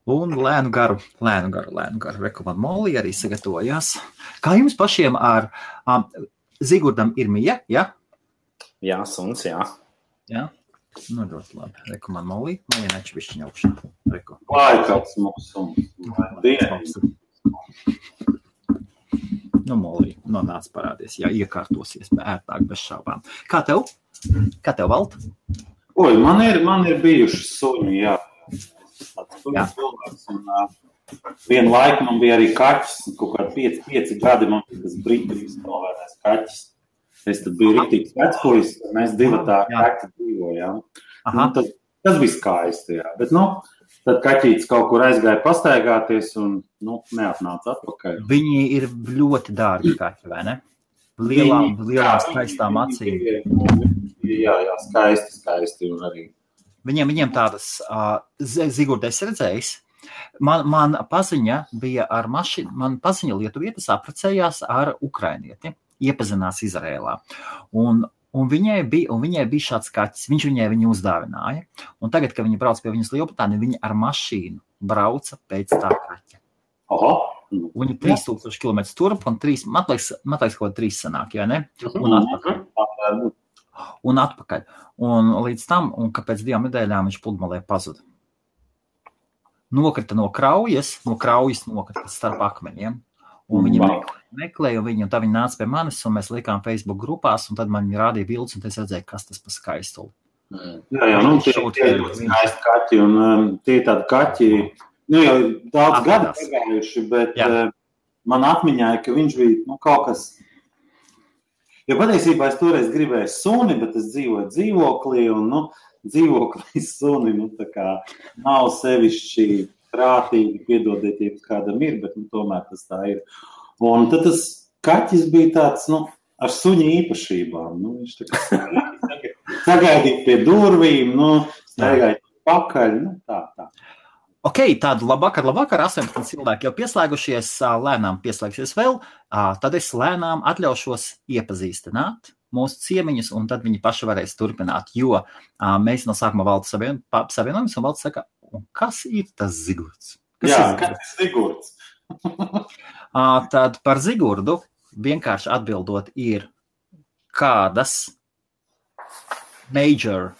Un lēnu garu. Reku man Molly arī sagatavojās. Kā jums pašiem ar Zigurdam ir mija, ja? Jā, suns, jā. Jā? Nu, ļoti labi. Reku man Molly nečvišķiņa augšā. Reku. Vai kāds mums suns? Nu, Molly, nonāc parādies. Jā, iekārtosies ērtāk bez šaubām. Kā tev? Valt? Oi, man ir bijuši suņi, jā. Tāds suņi cilvēks. Un vienu laiku man bija arī kaķis. Kaut kā 5 gadi man bija tas brīdis novērnēs kaķis. Es tad biju rītīgs vecpuļs, mēs divatā kaķi dzīvojām. Tas bija skaisti, jā. Bet, tad kaķītis kaut kur aizgāja pastaigāties un, neatnāca atpakaļ. Viņi ir ļoti dārgi kaķi, vai ne? Lielām skaistām acīm. Jā, skaisti un arī. Viņiem tādas, Zigurda, es redzējis, man paziņa bija ar mašīnu, man paziņa lietuvietis apprecējās ar ukrainieti, iepazinās Izrēlā. Un viņai bija šāds kaķis, viņš viņu uzdāvināja. Un tagad, kad viņi brauc pie viņas Lielbritāniju, viņi ar mašīnu brauca pēc tā kaķa. Viņi 3000 km turp un 3, man liekas, kaut 3 sanāk, jā, ne? Un atpakaļ. Un līdz tam, un ka pēc 2 nedēļām viņš pludmalē pazuda. Nokrita no kraujas nokrita starp akmeņiem. Un viņi meklēja viņu, un tā viņi nāca pie manis, un mēs likām Facebook grupās, un tad man viņi rādīja bildes, un es redzēju, kas tas pa skaistuli. Jā, tie ir skaisti kaķi, un tie tādi kaķi, jau daudz gadu pagājuši, bet man atmiņāja, ka viņš bija, kaut kas, jo patiesībā es toreiz gribēju suni, bet es dzīvoju dzīvoklī, un, dzīvoklī suni, tā kā nav sevišķi prātīgi, piedodiet, ja kādam ir, bet tomēr tas tā ir. Un tad tas kaķis bija tāds, ar suņa īpašībām. Viņš tā kā sagaidīja pie durvīm, staigāja pakaļ, tā. Ok, tādu labvakar, 18 cilvēki jau pieslēgušies, lēnām pieslēgsies vēl, tad es lēnām atļaušos iepazīstināt mūsu ciemiņus, un tad viņi paši varēs turpināt, jo mēs no sākuma Valdu savienojamies, un Valds saka, un kas ir tas Zigurds? Kas ir Zigurds? Tad par Zigurdu vienkārši atbildot ir kādas major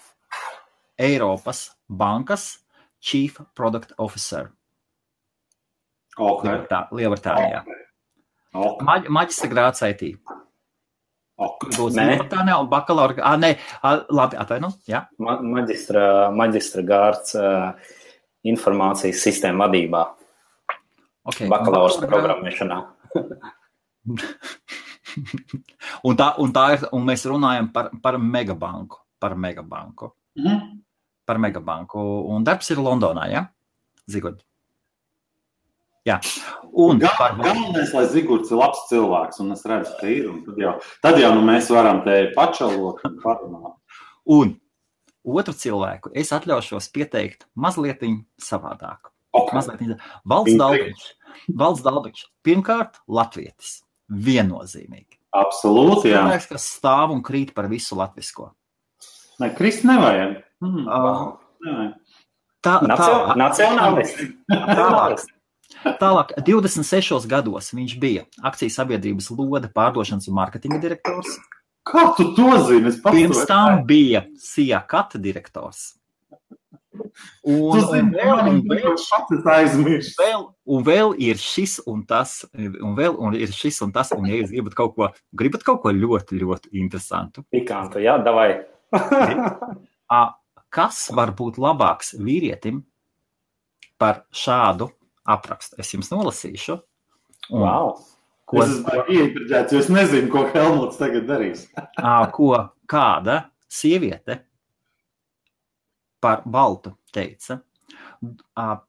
Eiropas bankas Chief Product Officer. Lielbritānijā. Maģistra grāds IT. Lielbritānijā un bakalaura... labi, atvainu, jā. Maģistra gārds informācijas sistēma vadībā. Okay. Bakalaura programmēšanā. un mēs runājam par megabanku. Par megabanku. Un darbs ir Londonā, ja? Zigurd. Jā. Galvenais, lai Zigurds ir labs cilvēks, un es redzu, ka ir, un tad jau mēs varam te pačalot un parunāt. Un otru cilvēku es atļaušos pieteikt mazlietiņ savādāk. Valds Dalbiņš. Pirmkārt, latvietis. Viennozīmīgi. Absolūti, jā. Cilvēks, kas stāv un krīt par visu latvisko. Nē, krist nevajag. Nacionālisti. Tālāk, 26 gados viņš bija akcijas sabiedrības Lode pārdošanas un mārketinga direktors. Kā tu to zini? Pirms tam bija Sija Kata direktors. Un vēl ir šis un tas, un ja jūs gribat kaut ko ļoti, ļoti interesantu. Pikantu, jā, davai. Kas var būt labāks vīrietim par šādu aprakstu? Es jums nolasīšu. Wow. Es esmu iepriģēts, jo es nezinu, ko Helmuts tagad darīs. Kāda sieviete par Baltu teica,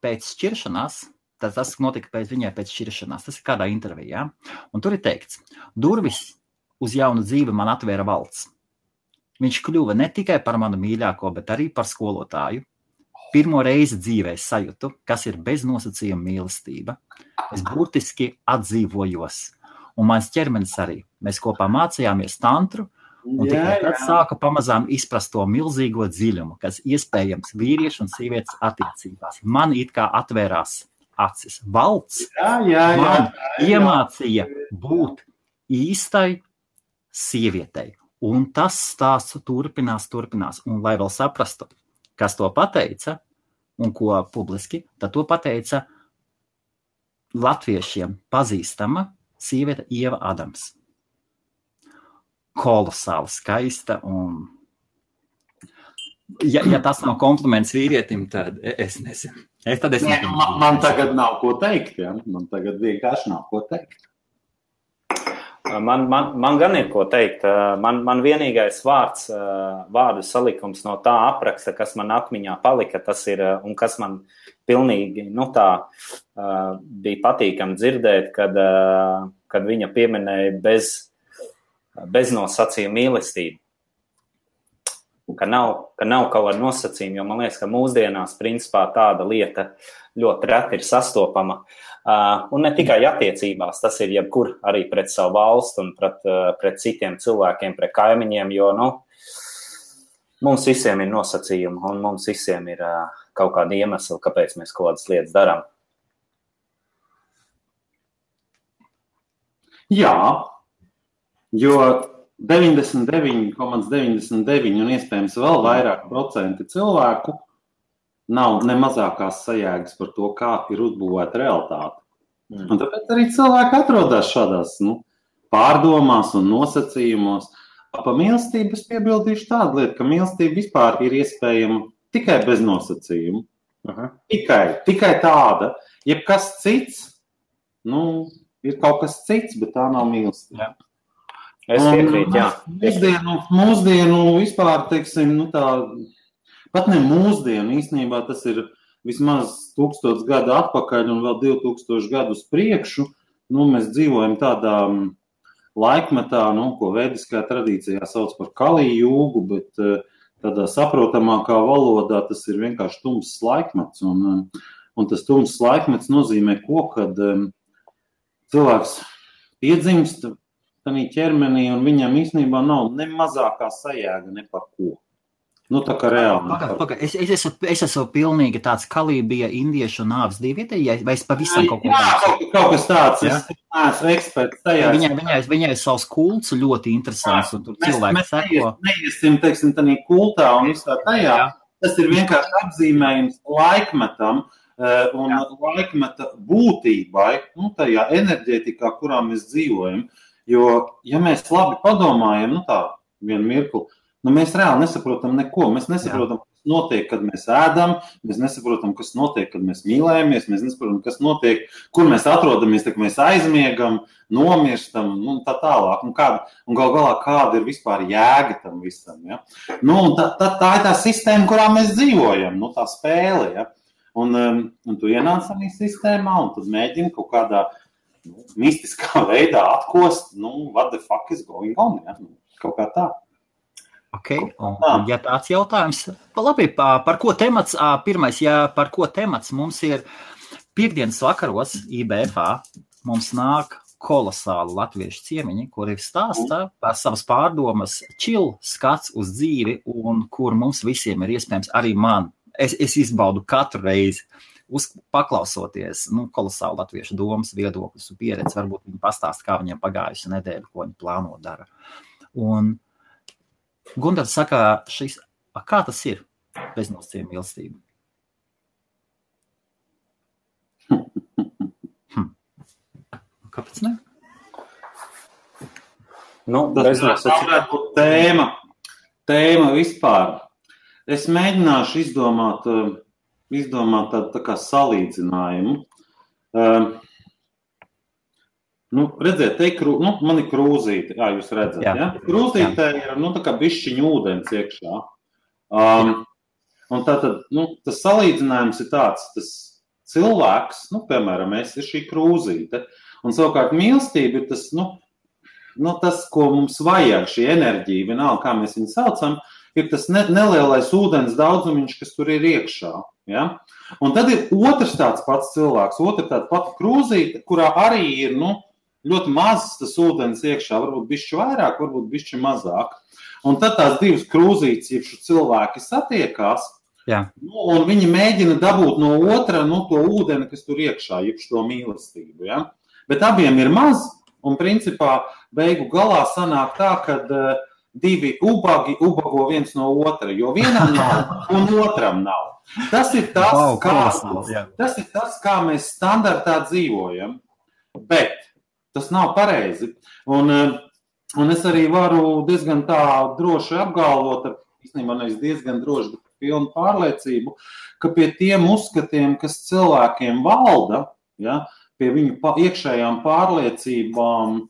pēc šķiršanās, tas notika viņai pēc šķiršanās, tas ir kādā intervijā, un tur ir teikts, durvis uz jaunu dzīvi man atvēra Valds. Viņš kļuva ne tikai par manu mīļāko, bet arī par skolotāju. Pirmo reizi dzīvē sajūtu, kas ir bez nosacījuma mīlestība. Es burtiski atdzīvojos, un mans ķermenis arī. Mēs kopā mācījāmies tantru, Un tikai tad sāku pamazām izprast to milzīgo dziļumu, kas iespējams vīriešu un sievietes attiecībās. Man it kā atvērās acis. Valds man iemācīja būt īstai sievietei. Un tas stāsts turpinās. Un lai vēl saprastu, kas to pateica un ko publiski, tad to pateica latviešiem pazīstama sieviete Ieva Adams. Kolosāli skaista un ja tas nav kompliments vīrietim, tad es nezinu. Man tagad nav ko teikt, ja? Man tagad vienkārši nav ko teikt. Man gan ir ko teikt. Man vienīgais vārdu salikums no tā apraksta, kas man atmiņā palika, tas ir, un kas man pilnīgi, bija patīkami dzirdēt, kad viņa pieminēja beznosacījuma mīlestību. Ka nav kaut kāda nosacījuma, jo man liekas, ka mūsdienās principā tāda lieta ļoti reti ir sastopama. Un ne tikai attiecībās, tas ir jebkur arī pret savu valstu un pret citiem cilvēkiem, pret kaimiņiem, jo mums visiem ir nosacījumi un mums visiem ir kaut kādi iemesli, kāpēc mēs kaut kādas lietas darām. Jā. Jo 99,99 un iespējams vēl vairāk procenti cilvēku nav ne mazākās sajēgas par to, kā ir uzbūvēta realitāte. Un tāpēc arī cilvēki atrodas šādās pārdomās un nosacījumos. Pa mīlestību es piebildīšu tādu lietu, ka mīlestība vispār ir iespējama tikai bez nosacījumu. Tikai tāda. Jebkas cits, ir kaut kas cits, bet tā nav mīlestība. Es piekrītu, jā. Mūsdienu vispār, teiksim, pat ne mūsdienu, īstenībā tas ir vismaz 1000 gadu atpakaļ un vēl 2000 gadu uz priekšu. Mēs dzīvojam tādā laikmetā, ko vediskā tradīcijā sauc par Kali jūgu, bet tādā saprotamākā valodā tas ir vienkārši tumss laikmets. Un tas tumss laikmets nozīmē ko, kad cilvēks piedzimst ķermenī, un viņam īstenībā nav ne mazākā sajēga ne par ko. Tā kā reāli. Es esmu pilnīgi tāds Kalī bija indiešu nāves dievīte, vai es pavisam kaut ko kaut kas tāds, es neesmu eksperts tajā. Viņai ir savs kults ļoti interesants, un tur cilvēki seko. Neiesim, teiksim, tādā kultā un visā tajā. Tas ir vienkārši apzīmējums laikmetam un laikmeta būtībai, tajā enerģētikā, kurā mēs dzīvojam. Jo, ja mēs labi padomājam, vienu mirkli, mēs reāli nesaprotam neko. Mēs nesaprotam, kas notiek, kad mēs ēdam, mēs nesaprotam, kas notiek, kad mēs mīlējamies, mēs nesaprotam, kas notiek, kur mēs atrodamies, kad mēs aizmiegam, nomirstam, tā tālāk. Un gal galā, kāda ir vispār jēga tam visam, ja? Tā ir tā sistēma, kurā mēs dzīvojam, tā spēle, ja? Un tu ienāc arī sistēmā, un tad mēģini kaut kādā mistiskā veidā atkost, what the fuck is going on, ja? Kaut kā tā. Un ja tāds jautājums, labi, par ko temats, pirmais, par ko temats mums ir piekdienas vakaros IBFā, mums nāk kolosāli latviešu ciemiņi, kuri stāsta par savas pārdomas, skats uz dzīvi, un kur mums visiem ir iespējams, arī man, es izbaudu katru reizi, paklausoties, kolosāli latviešu domas, viedokļus un pieredzi, varbūt viņi pastāst, kā viņiem pagājusi nedēļa, ko viņi plāno dara. Un Gundars saka, kā tas ir beznosacījuma mīlestība? Kāpēc ne? Tēma vispār. Es mēģināšu izdomāt tādu tā kā salīdzinājumu. Redziet, man ir krūzīte, jūs redzat, ja? Krūzītē ir, tā kā bišķiņa ūdens iekšā. Un tātad, tas salīdzinājums ir tāds, tas cilvēks, piemēram, es ir šī krūzīte, un savukārt mīlestība ir tas, tas, ko mums vajag, šī enerģija, vienalga, kā mēs viņu saucam, ir tas nelielais ūdens daudzumiņš, kas tur ir iekšā, ja? Un tad ir otrs tāds pats cilvēks, otra tāda pati krūzīte, kurā arī ir, ļoti mazs tas ūdens iekšā, varbūt bišķi vairāk, varbūt bišķi mazāk. un tad tās divas krūzītes, ja cilvēki satiekās, un viņi mēģina dabūt no otra, to ūdeni, kas tur iekšā, jeb šo mīlestību, ja? Bet abiem ir maz, un principā beigu galā sanāk tā, kad divi ubagi ubago viens no otra, jo vienam nav un otram nav. Tas ir tas, kā mēs standartā dzīvojam, bet tas nav pareizi. Un es arī varu diezgan tā droši apgalvot, īstenībā nevis diezgan droši, bet pilnu pārliecību, ka pie tiem uzskatiem, kas cilvēkiem valda, ja, pie viņu iekšējām pārliecībām,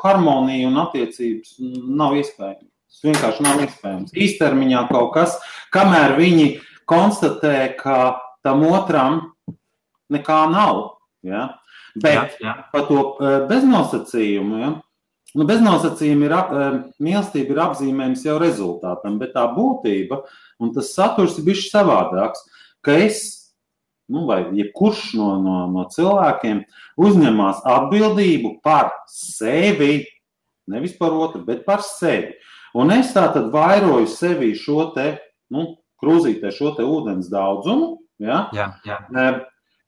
harmonija un attiecības nav iespējams. Tas vienkārši nav iespējams. Īstermiņā kaut kas, kamēr viņi konstatē, ka tam otram nekā nav. Ja? Bet par to beznosacījumu, ja? Beznosacījumi mīlestība ir apzīmējums jau rezultātam, bet tā būtība un tas saturs ir bišķi savādāks, ka es, vai jebkurš no cilvēkiem uzņemās atbildību par sevi, nevis par otru, bet par sevi. Un es tātad vairoju sevi šo te, krūzītē šo te ūdens daudzumu, ja?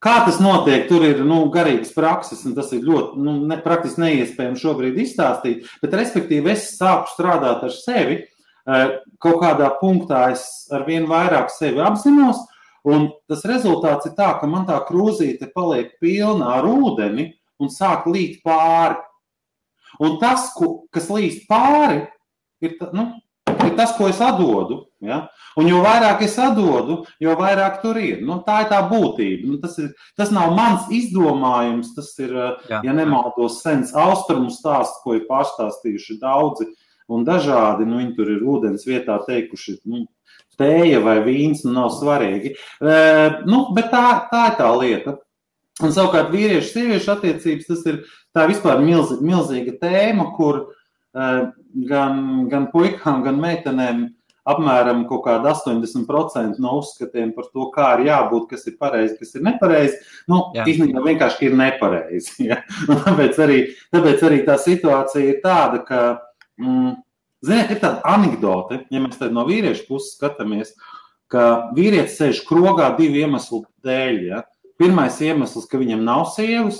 Kā tas notiek, tur ir garīgas prakses, un tas ir ļoti praktiski neiespējami šobrīd izstāstīt, bet respektīvi es sāku strādāt ar sevi, kaut kādā punktā es ar vien vairāk sevi apzinos, un tas rezultāts ir tā, ka man tā krūzīte paliek pilna ar ūdeni un sāk līt pāri. Un tas, kas līst pāri, ir tas, ko es atdodu. Ja? Un jo vairāk es atdodu, jo vairāk tur ir. Tā ir tā būtība. Tas nav mans izdomājums, tas ir, ja nemaldos, sens austrumu stāsts, ko ir pārstāstījuši daudzi un dažādi. Viņi tur ir ūdens vietā teikuši, tēja vai vīns, nav svarīgi. Bet tā ir tā lieta. Un savukārt vīriešu-sieviešu attiecības, tā ir vispār milzīga tēma, kur gan puikām, gan meitenēm apmēram kaut kāda 80% no uzskatiem par to, kā ir jābūt, kas ir pareizi, kas ir nepareizi, īstenībā vienkārši ir nepareizi. Ja? Tāpēc arī tā situācija ir tāda, ka, ziniet, ir tāda anekdote, ja mēs tad no vīriešu puses skatāmies, ka vīrietis sēž krogā divu iemeslu dēļ. Ja? Pirmais iemesls, ka viņam nav sievas,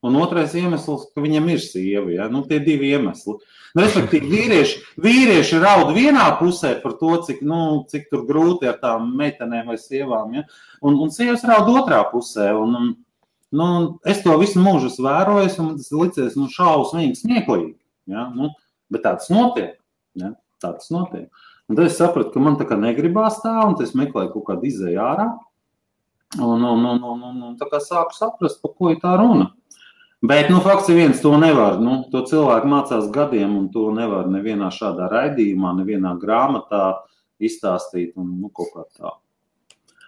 un otrais iemesls, ka viņam ir sieva. Ja? Tie divi iemesli. Respektīvi, vīrieši raud vienā pusē par to, cik tur grūti ar tām meitenēm vai sievām. Ja? Un sievas raud otrā pusē. Es to visu mūžu esmu vērojis, un tas licies šausmīgi smieklīgi. Ja? Bet tā tas notiek. Ja? Tā tas notiek. Un tad es sapratu, ka man tā kā negribās tā, un es meklēju kaut kādu izēju ārā. Un tā kā sāku saprast, par ko ir tā runa. Bet, fakts ir viens, to nevar. To cilvēku mācās gadiem, un to nevar nevienā šādā raidījumā, nevienā grāmatā izstāstīt, un kaut kā tā.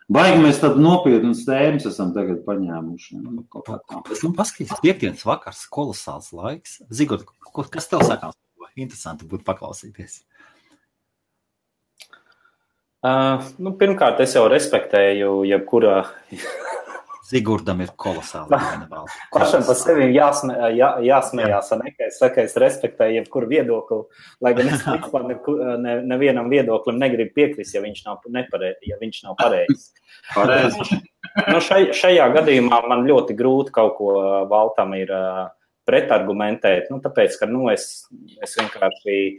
Baigi mēs tad nopietnas tēmas esam tagad paņēmuši. Paskaties, piekdienas vakars, kolosāls laiks. Zigort, kas tev sakās? Interesanti būtu paklausīties. Pirmkārt, es jau respektēju jebkurā... Zigurdam ir kolosāli. Pašam par sevi jāsmējās, ka es respektēju jebkuru viedokli, lai gan es nevienam viedoklim negribu piekrist, ja viņš nav pareizs. Šajā gadījumā man ļoti grūti kaut ko Valtam ir pretargumentēt, tāpēc, ka es vienkārši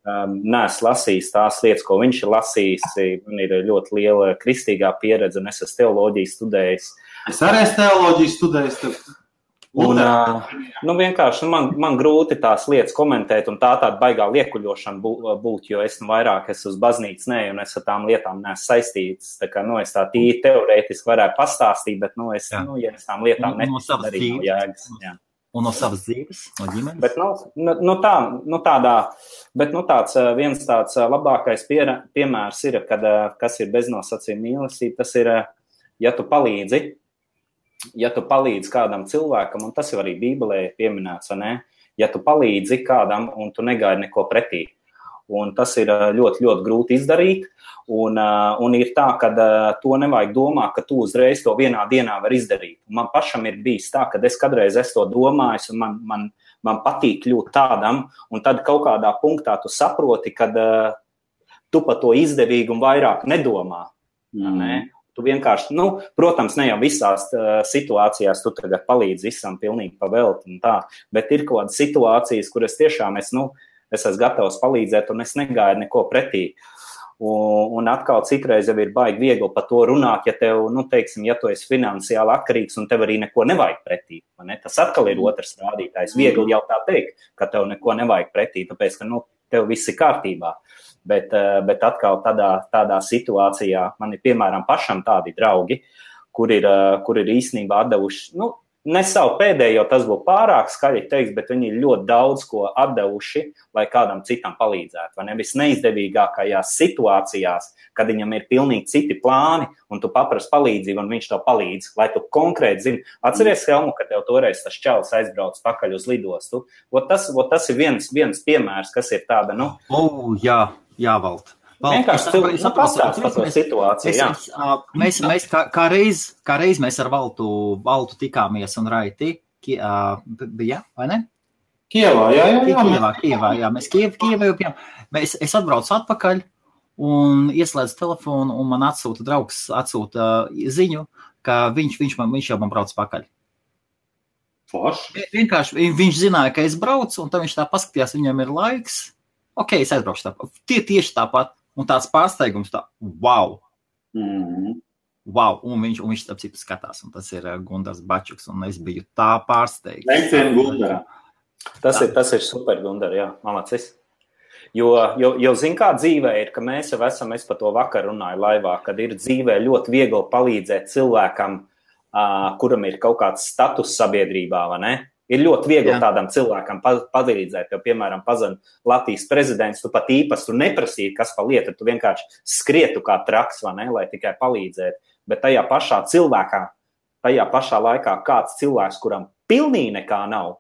neesmu lasījis tās lietas, ko viņš ir lasījis. Man ir ļoti liela kristīgā pieredze, un es esmu teoloģiju studējis. Es arī esmu teoloģiju studējis. Vienkārši man grūti tās lietas komentēt, un tāda baigā liekuļošana būt, jo es vairāk esmu uz baznīcas, un es ar tām lietām neesmu saistīts. Tā kā, es tā tīri teorētiski varētu pastāstīt, bet, ja es tām lietām neticu, arī nav jēgas. Jā. Un no savas dzīves, no ģimenes? Bet viens tāds labākais piemērs ir, kas ir beznosacījuma mīlestība, tas ir, ja tu palīdzi kādam cilvēkam, un tas jau arī Bībelē pieminēts, ja tu palīdzi kādam un tu negaidi neko pretī. Un tas ir ļoti, ļoti grūti izdarīt, un ir tā, ka to nevajag domāt, ka tu uzreiz to vienā dienā var izdarīt. Man pašam ir bijis tā, ka es kādreiz esmu to domājis, un man patīk kļūt tādam, un tad kaut kādā punktā tu saproti, kad tu par to izdevīgumu vairāk nedomā. Ne? Tu vienkārši, protams, ne jau visās situācijās tu tagad palīdzi visam pilnīgi pavelti un tā, bet ir kaut kādas situācijas, kuras tiešām es esmu gatavs palīdzēt un es negaidu neko pretī. Un atkal citreiz jau ir baigi viegli par to runāt, ja tev, teiksim, ja tu esi finansiāli atkarīgs un tev arī neko nevajag pretī. Ne? Tas atkal ir otrs rādītājs. Viegli jau tā teikt, ka tev neko nevajag pretī, tāpēc, ka tev viss ir kārtībā. Bet atkal tādā situācijā man ir, piemēram, pašam tādi draugi, kur ir īstenībā atdevuši, ne savu pēdējo, tas būtu pārāk skaļi teiks, bet viņi ir ļoti daudz ko atdevuši, lai kādam citam palīdzētu. Vai ne? Visneizdevīgākajās situācijās, kad viņam ir pilnīgi citi plāni, un tu paprasti palīdzību, un viņš tev palīdz, lai tu konkrēti zini. Atceries, Helmu, ka tev toreiz tas čalis aizbrauc pakaļ uz lidostu. Tas ir viens piemērs, kas ir tāda, Jā, Valt. Vienkārši cilvēki pastāst par to situāciju. Mēs kā reiz mēs ar Valtu tikāmies un Raiti bija, vai ne? Kievā, jā. Mēs Kievā jau bijām. Es atbraucu atpakaļ un ieslēdzu telefonu un man draugs atsūta ziņu, ka viņš jau man brauc pakaļ. Forši. Vienkārši viņš zināja, ka es braucu un tad viņš tā paskatījās, viņam ir laiks. Ok, es aizbraukšu tāpat. Tieši tāpat. Un tāds pārsteigums wow. Wow. Un viņš tāp citu skatās. Un tas ir Gundars Bačuks. Un es biju tā pārsteigts. Leicien Gundara. Tas ir super, Gundar, jā. Malacis. Jo zin kā dzīvē ir, ka mēs jau esam, es par to vakar runāju laivā, kad ir dzīvē ļoti viegli palīdzēt cilvēkam, kuram ir kaut kāds status sabiedrībā, vai ne? Ir ļoti viegli tādam cilvēkam palīdzēt, jo, piemēram, pazina Latvijas prezidents, tu pat īpaši tu neprasīji, kas pa lieta, tu vienkārši skrietu kā traks, vai ne, lai tikai palīdzētu. Bet tajā pašā laikā kāds cilvēks, kuram pilnīgi nekā nav,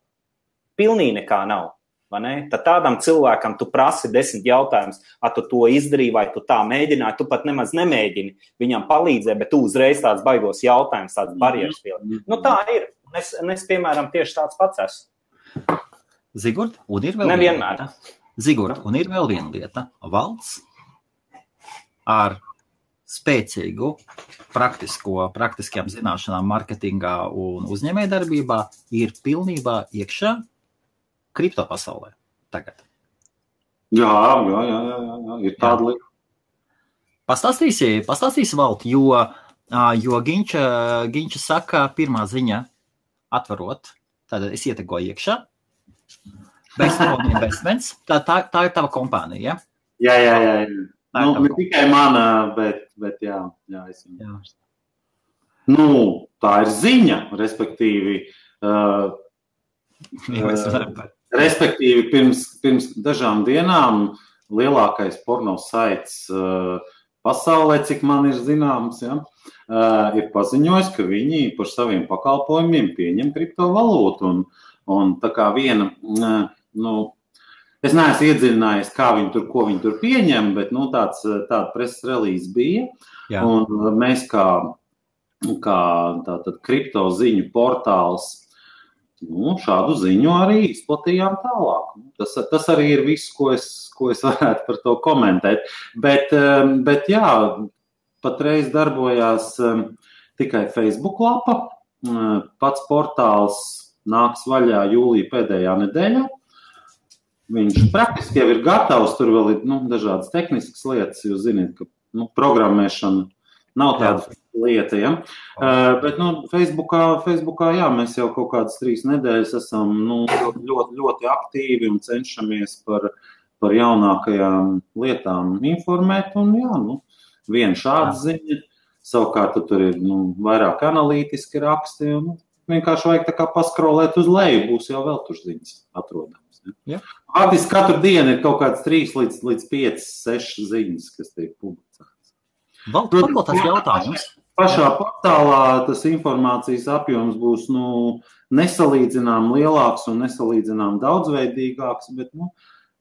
vai ne, tad tādam cilvēkam tu prasi 10 jautājumus, tu to izdarīji, vai tu tā mēģināji, tu pat nemaz nemēģini viņam palīdzēt, bet tu uzreiz tāds baigos jautājums, tāds barjeras pilni. Tā ir. Es, piemēram, tieši tāds pats esmu. Zigurd, un ir vēl nevienmēr. Zigurd, un ir vēl viena lieta. Valds ar spēcīgu praktiskajām zināšanām marketingā un uzņēmējdarbībā ir pilnībā iekšā kripto pasaulē tagad. Jā, ir tāda lieta. Pastāstīsi Vald, jo Ginča saka pirmā ziņa, atvarot, tad es ietegoju iekšā. Bestone Investments, tā ir tava kompānija, ja? Jā. Ne tikai mana, bet jā. Tā ir ziņa, respektīvi, pirms dažām dienām lielākais porno saits pasaulē, cik man ir zināms, ir paziņojis, ka viņi par saviem pakalpojumiem pieņem kriptovalūtu. Un tā kā viena, es neesmu iedziļinājies, ko viņi tur pieņem, bet tāda preses relīze bija. Jā. Un mēs kā tātad kripto ziņu portāls šādu ziņu arī izplatījām tālāk. Tas arī ir viss, ko es varētu par to komentēt. Bet jā, patreiz darbojās tikai Facebook lapa. Pats portāls nāks vaļā jūlija pēdējā nedēļā. Viņš praktiski jau ir gatavs, tur vēl ir dažādas tehniskas lietas, jūs zināt, ka programmēšana nav tāda lieta, ja? Bet Facebookā, jā, mēs jau kaut kādas 3 nedēļas esam ļoti, ļoti aktīvi un cenšamies par jaunākajām lietām informēt. Un jā, viena šāda ziņa, savukārt tur ir vairāk analītiski raksti. Vienkārši vajag tā kā paskrolēt uz leju, būs jau vēl tur ziņas atrodams. Ja? Faktiski katru dienu ir kaut kāds 3 līdz 5, 6 ziņas, kas tiek publicētas. Vēl tas jautājums. Pašā portālā tas informācijas apjoms būs nesalīdzinām lielāks un nesalīdzinām daudzveidīgāks, bet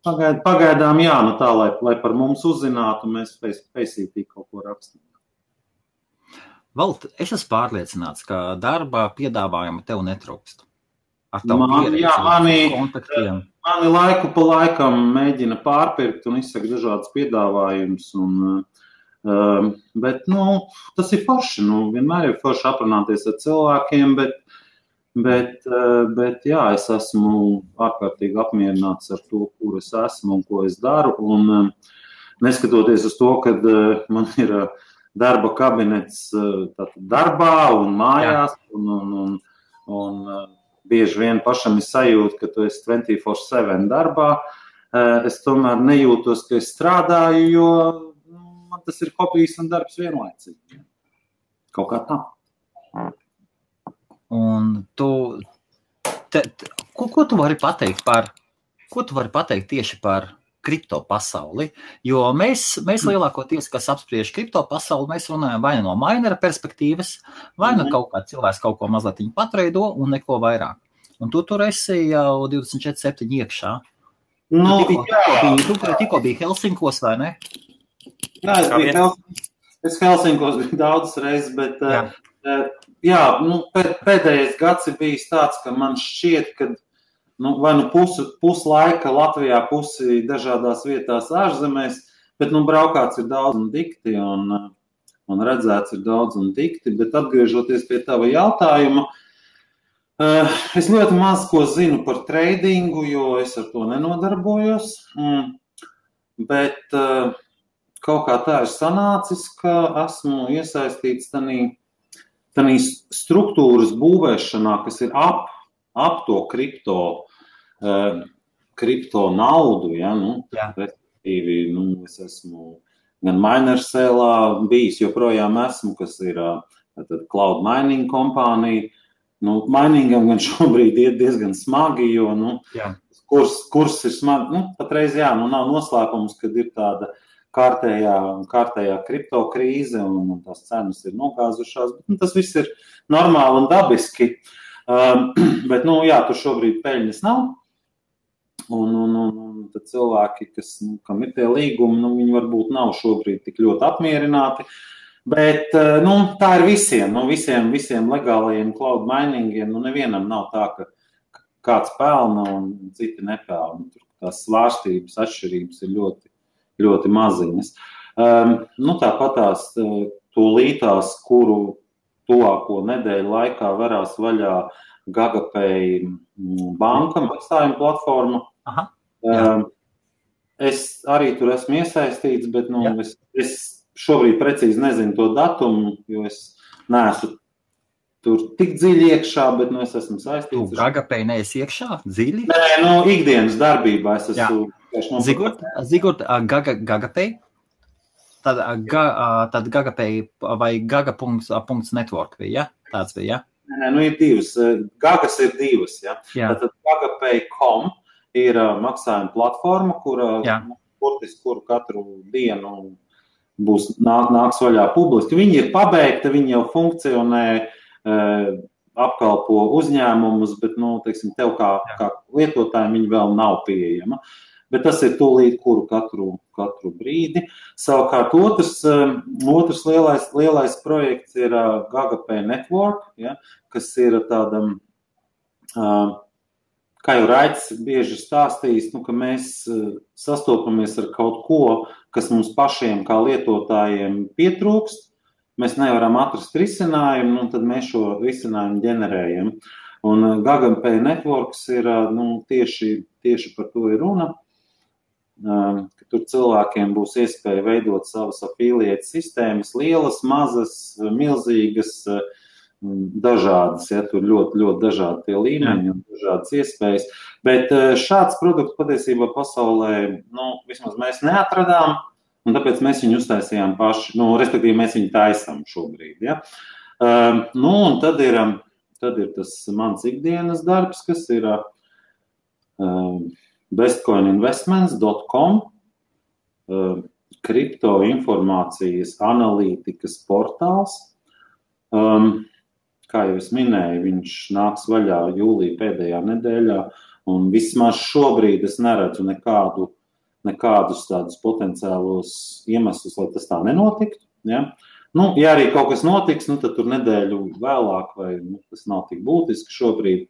pagaidām jā, tā, lai par mums uzzinātu, mēs spēsītīgi kaut ko rakstīt. Vald, es esmu pārliecināts, ka darba piedāvājuma tev netrūkst. ar tavu pieredzi, kontaktiem? Mani laiku pa laikam mēģina pārpirkt un izsaka dažādas piedāvājumus. Bet, tas ir forši. Vienmēr ir forši aprunāties ar cilvēkiem, bet jā, es esmu ārkārtīgi apmierināts ar to, kur es esmu un ko es daru. Un neskatoties uz to, kad man ir darba kabinets darbā un mājās, un bieži vien pašam ir sajūta, ka tu esi 24/7 darbā, es tomēr nejūtos, ka es strādāju, jo man tas ir hobijs un darbs vienlaicīgi. Kaut kā tā. Un ko tu vari pateikt tieši par kripto pasauli? Jo mēs lielākoties, kas apspriež kripto pasauli, mēs runājam vai no minera perspektīvas, vai no kaut kā cilvēks kaut ko mazliet patreido un neko vairāk. Un tu tur esi jau 24/7 iekšā. Tikko bija Helsinkos, vai ne? Jā, es Helsinkos biju daudzas reizes, bet pēdējais gads ir bijis tāds, ka man šķiet, ka vai pusi laika Latvijā, pusi dažādās vietās ārzemēs, bet braukāts ir daudz un dikti, un redzēts ir daudz un dikti, bet atgriežoties pie tava jautājuma, es ļoti maz ko zinu par tradingu, jo es ar to nenodarbojos, bet kaut kā tā ir sanācis, ka esmu iesaistīts tanī struktūras būvēšanā, kas ir ap to kripto naudu, respektīvi, es esmu gan Minersēlā bijis, joprojām esmu, kas ir cloud mining kompānija. Miningam gan šobrīd iet diezgan smagi, jo, kurs ir smagi, patreiz, nav noslēpums, kad ir tāda kārtējā kripto krīze un tās cenas ir nogāzušās, bet tas viss ir normāli un dabiski. Bet, tur šobrīd peļņas nav, un tad cilvēki, kam ir tie līgumi, viņi varbūt nav šobrīd tik ļoti apmierināti, bet, tā ir visiem legālajiem cloud miningiem, nevienam nav tā, ka kāds pelna un citi nepelna. Tur tās svārstības, atšķirības ir ļoti, ļoti maziņas. Tāpat tās tūlītās, kuru tuvāko nedēļu laikā varās vaļā GagaPay banka maksājuma platforma. Es arī tur esmu iesaistīts, bet es šobrīd precīzi nezinu to datumu, jo es neesmu tur tik dziļi iekšā, bet es esmu saistīts. Tu GagaPay neesi iekšā dziļi? Nē, ikdienas darbībā es esmu. Zigurt, GagaPay? Tad GagaPay vai gaga.network bija, tāds bija, Nē, ir divas. Gagas ir divas, Tātad GagaPay.com ir maksājuma platforma, kuru katru dienu nāks vaļā publiski. Viņi ir pabeigta, viņi jau funkcionē, apkalpo uzņēmumus, bet, tev kā lietotājiem viņi vēl nav pieejama. Bet tas ir tūlīt, kuru katru brīdi. Savukārt otrs lielais projekts ir GagaPay Network, kas ir tādam, kā jau Raids bieži stāstījis, ka mēs sastopamies ar kaut ko, kas mums pašiem kā lietotājiem pietrūkst. Mēs nevaram atrast risinājumu, tad mēs šo risinājumu ģenerējam. Un GagaPay Networks ir, tieši par to ir runa. Ka tur cilvēkiem būs iespēja veidot savas affiliate sistēmas, lielas, mazas, milzīgas, dažādas, tur ļoti, ļoti dažādi tie līmeņi un dažādas iespējas. Bet šāds produkts patiesībā pasaulē, vismaz mēs neatradām, un tāpēc mēs viņu uztaisījām paši, respektīvi mēs viņu taisam šobrīd, un tad ir tas mans ikdienas darbs, kas ir bestcoininvestments.com, kripto informācijas analītikas portāls. Kā jau es minēju, viņš nāks vaļā jūlija pēdējā nedēļā, un vismaz šobrīd es neredzu nekādus tādus potenciālos iemeslus, lai tas tā nenotiktu. Nu, ja arī kaut kas notiks, nu, tad tur nedēļu vēlāk, vai tas nav tik būtiski šobrīd.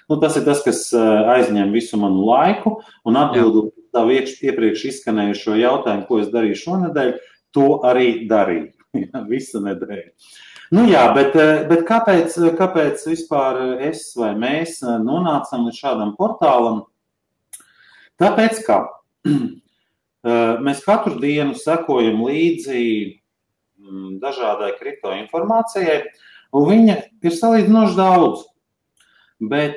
Nu, tas ir tas, kas aizņem visu manu laiku, un atbildot tavu iepriekš izskanējušo jautājumu, ko es darīju šonedēļ, to arī darīju. Visa nedēļa. Nu jā, bet kāpēc vispār es vai mēs nonācam līdz šādam portālam? Tāpēc, ka mēs katru dienu sekojam līdzi dažādai kriptoinformācijai, un viņa ir salīdzinoši daudz. Bet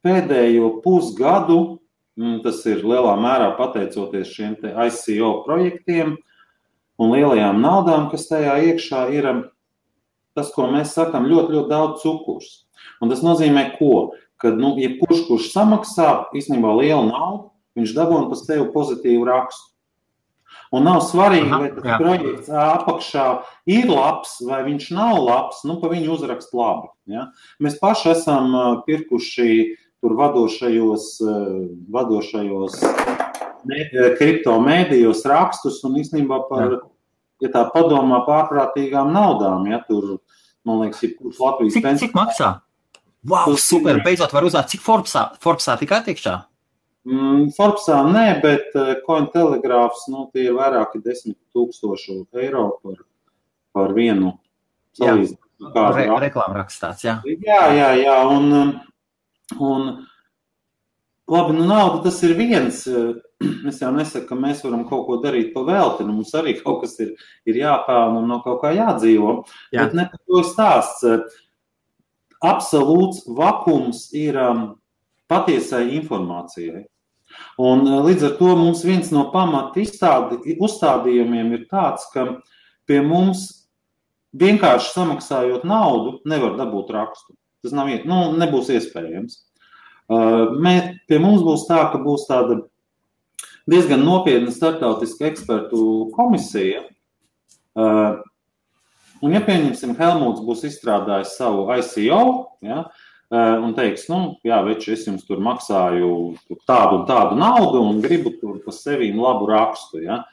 pēdējo pusgadu, tas ir lielā mērā pateicoties šiem te ICO projektiem un lielajām naudām, kas tajā iekšā ir, tas, ko mēs sakam, ļoti, ļoti daudz cukurs. Un tas nozīmē ko? Kad, kurš samaksā īstenībā lielu naudu, viņš dabūna pa sevi pozitīvu rakstu. Un nav svarīgi, vai tas projekts apakšā ir labs, vai viņš nav labs, pa viņu uzrakst labi. Ja? Mēs paši esam pirkuši tur vadošajos kripto mēdījos rakstus un īstenībā par, ja tā padomā, pārprātīgām naudām. Ja? Tur, man liekas, ir Latvijas Cik maksā? Wow, super, beidzot var uzzināt, cik Forbesā tikai tiekšā? Forbesā nē, bet Cointelegraph, tie ir vairāki 10,000 eiro par vienu salīdzinājumu. Reklāma rakstāts, jā. Jā, un labi, nauda tas ir viens. Es jau nesaku, ka mēs varam kaut ko darīt pa velti, mums arī kaut kas ir jāpelna un no kaut kā jādzīvo, bet ne par to stāsts. Absolūts vakums ir patiesai informācijai. Un līdz ar to mums viens no pamata uzstādījumiem ir tāds, ka pie mums vienkārši samaksājot naudu nevar dabūt rakstu. Tas nebūs iespējams. Pie mums būs tā, ka būs tāda diezgan nopietna starptautiska ekspertu komisija. Un ja pieņemsim, Helmuts būs izstrādājis savu ICO, un teiks, veči, es jums tur maksāju tādu un tādu naudu un gribu tur pa sevīm labu rakstu. Ja?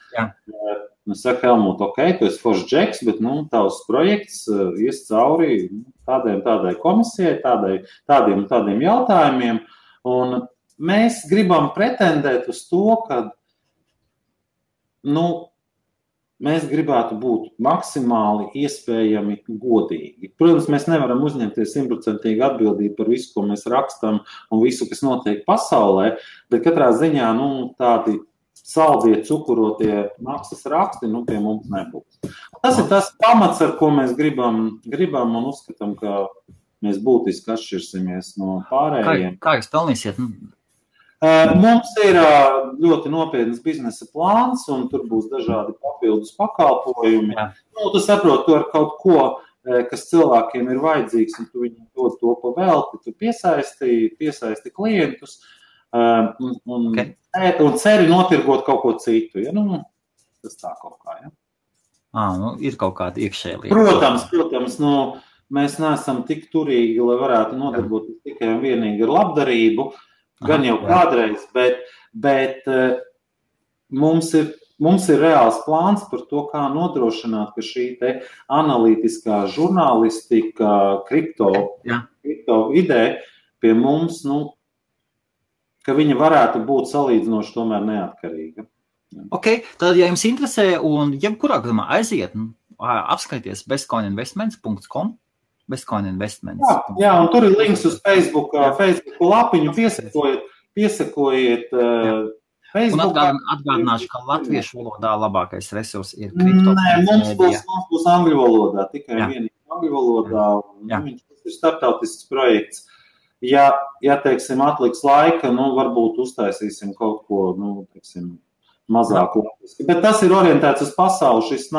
Es saku, Helmut, tu esi foršs džeks, bet tavs projekts ies cauri tādai komisijai, tādiem un tādiem jautājumiem. Un mēs gribam pretendēt uz to, ka mēs gribētu būt maksimāli iespējami godīgi. Protams, mēs nevaram uzņemties 100% atbildību par visu, ko mēs rakstam un visu, kas notiek pasaulē, bet katrā ziņā tādi saldie, cukurotie maksas raksti pie mums nebūs. Tas ir tas pamats, ar ko mēs gribam un uzskatām, ka mēs būtiski atšķirsimies no pārējiem. Kā jūs pelnīsiet? Mums ir ļoti nopietnas biznesa plāns, un tur būs dažādi papildus pakalpojumi. Tu saproti, tu ar kaut ko, kas cilvēkiem ir vajadzīgs, un tu viņiem dod to pa velti, tu piesaisti klientus un ceri notirgot kaut ko citu. Ja? Tas tā kaut kā, ja? Ir kaut kāda iekšēja lieta. Protams, mēs neesam tik turīgi, lai varētu nodarboties tikai un vienīgi ar labdarību, gan jau kādreiz, bet mums ir reāls plāns par to, kā nodrošināt, ka šī te analītiskā žurnālistika, kripto vidē pie mums, ka viņa varētu būt salīdzinoši tomēr neatkarīga. Ok, tad, ja jums interesē, un jebkurā gadījumā aiziet, apskaities bestcoininvestments.com, bestcoininvestments. Jā, un tur ir links uz Facebook lapiņu, piesakojiet Facebookā. Un atgādināšu, ka latviešu valodā labākais resurs ir kripto. Nē, mums būs angļu valodā, tikai vienīgi angļu valodā. Viņš ir starptautisks projekts. Ja teiksim, atliks laika, varbūt uztaisīsim kaut ko, mazāk latviski. Bet tas ir orientēts uz pasauli, šis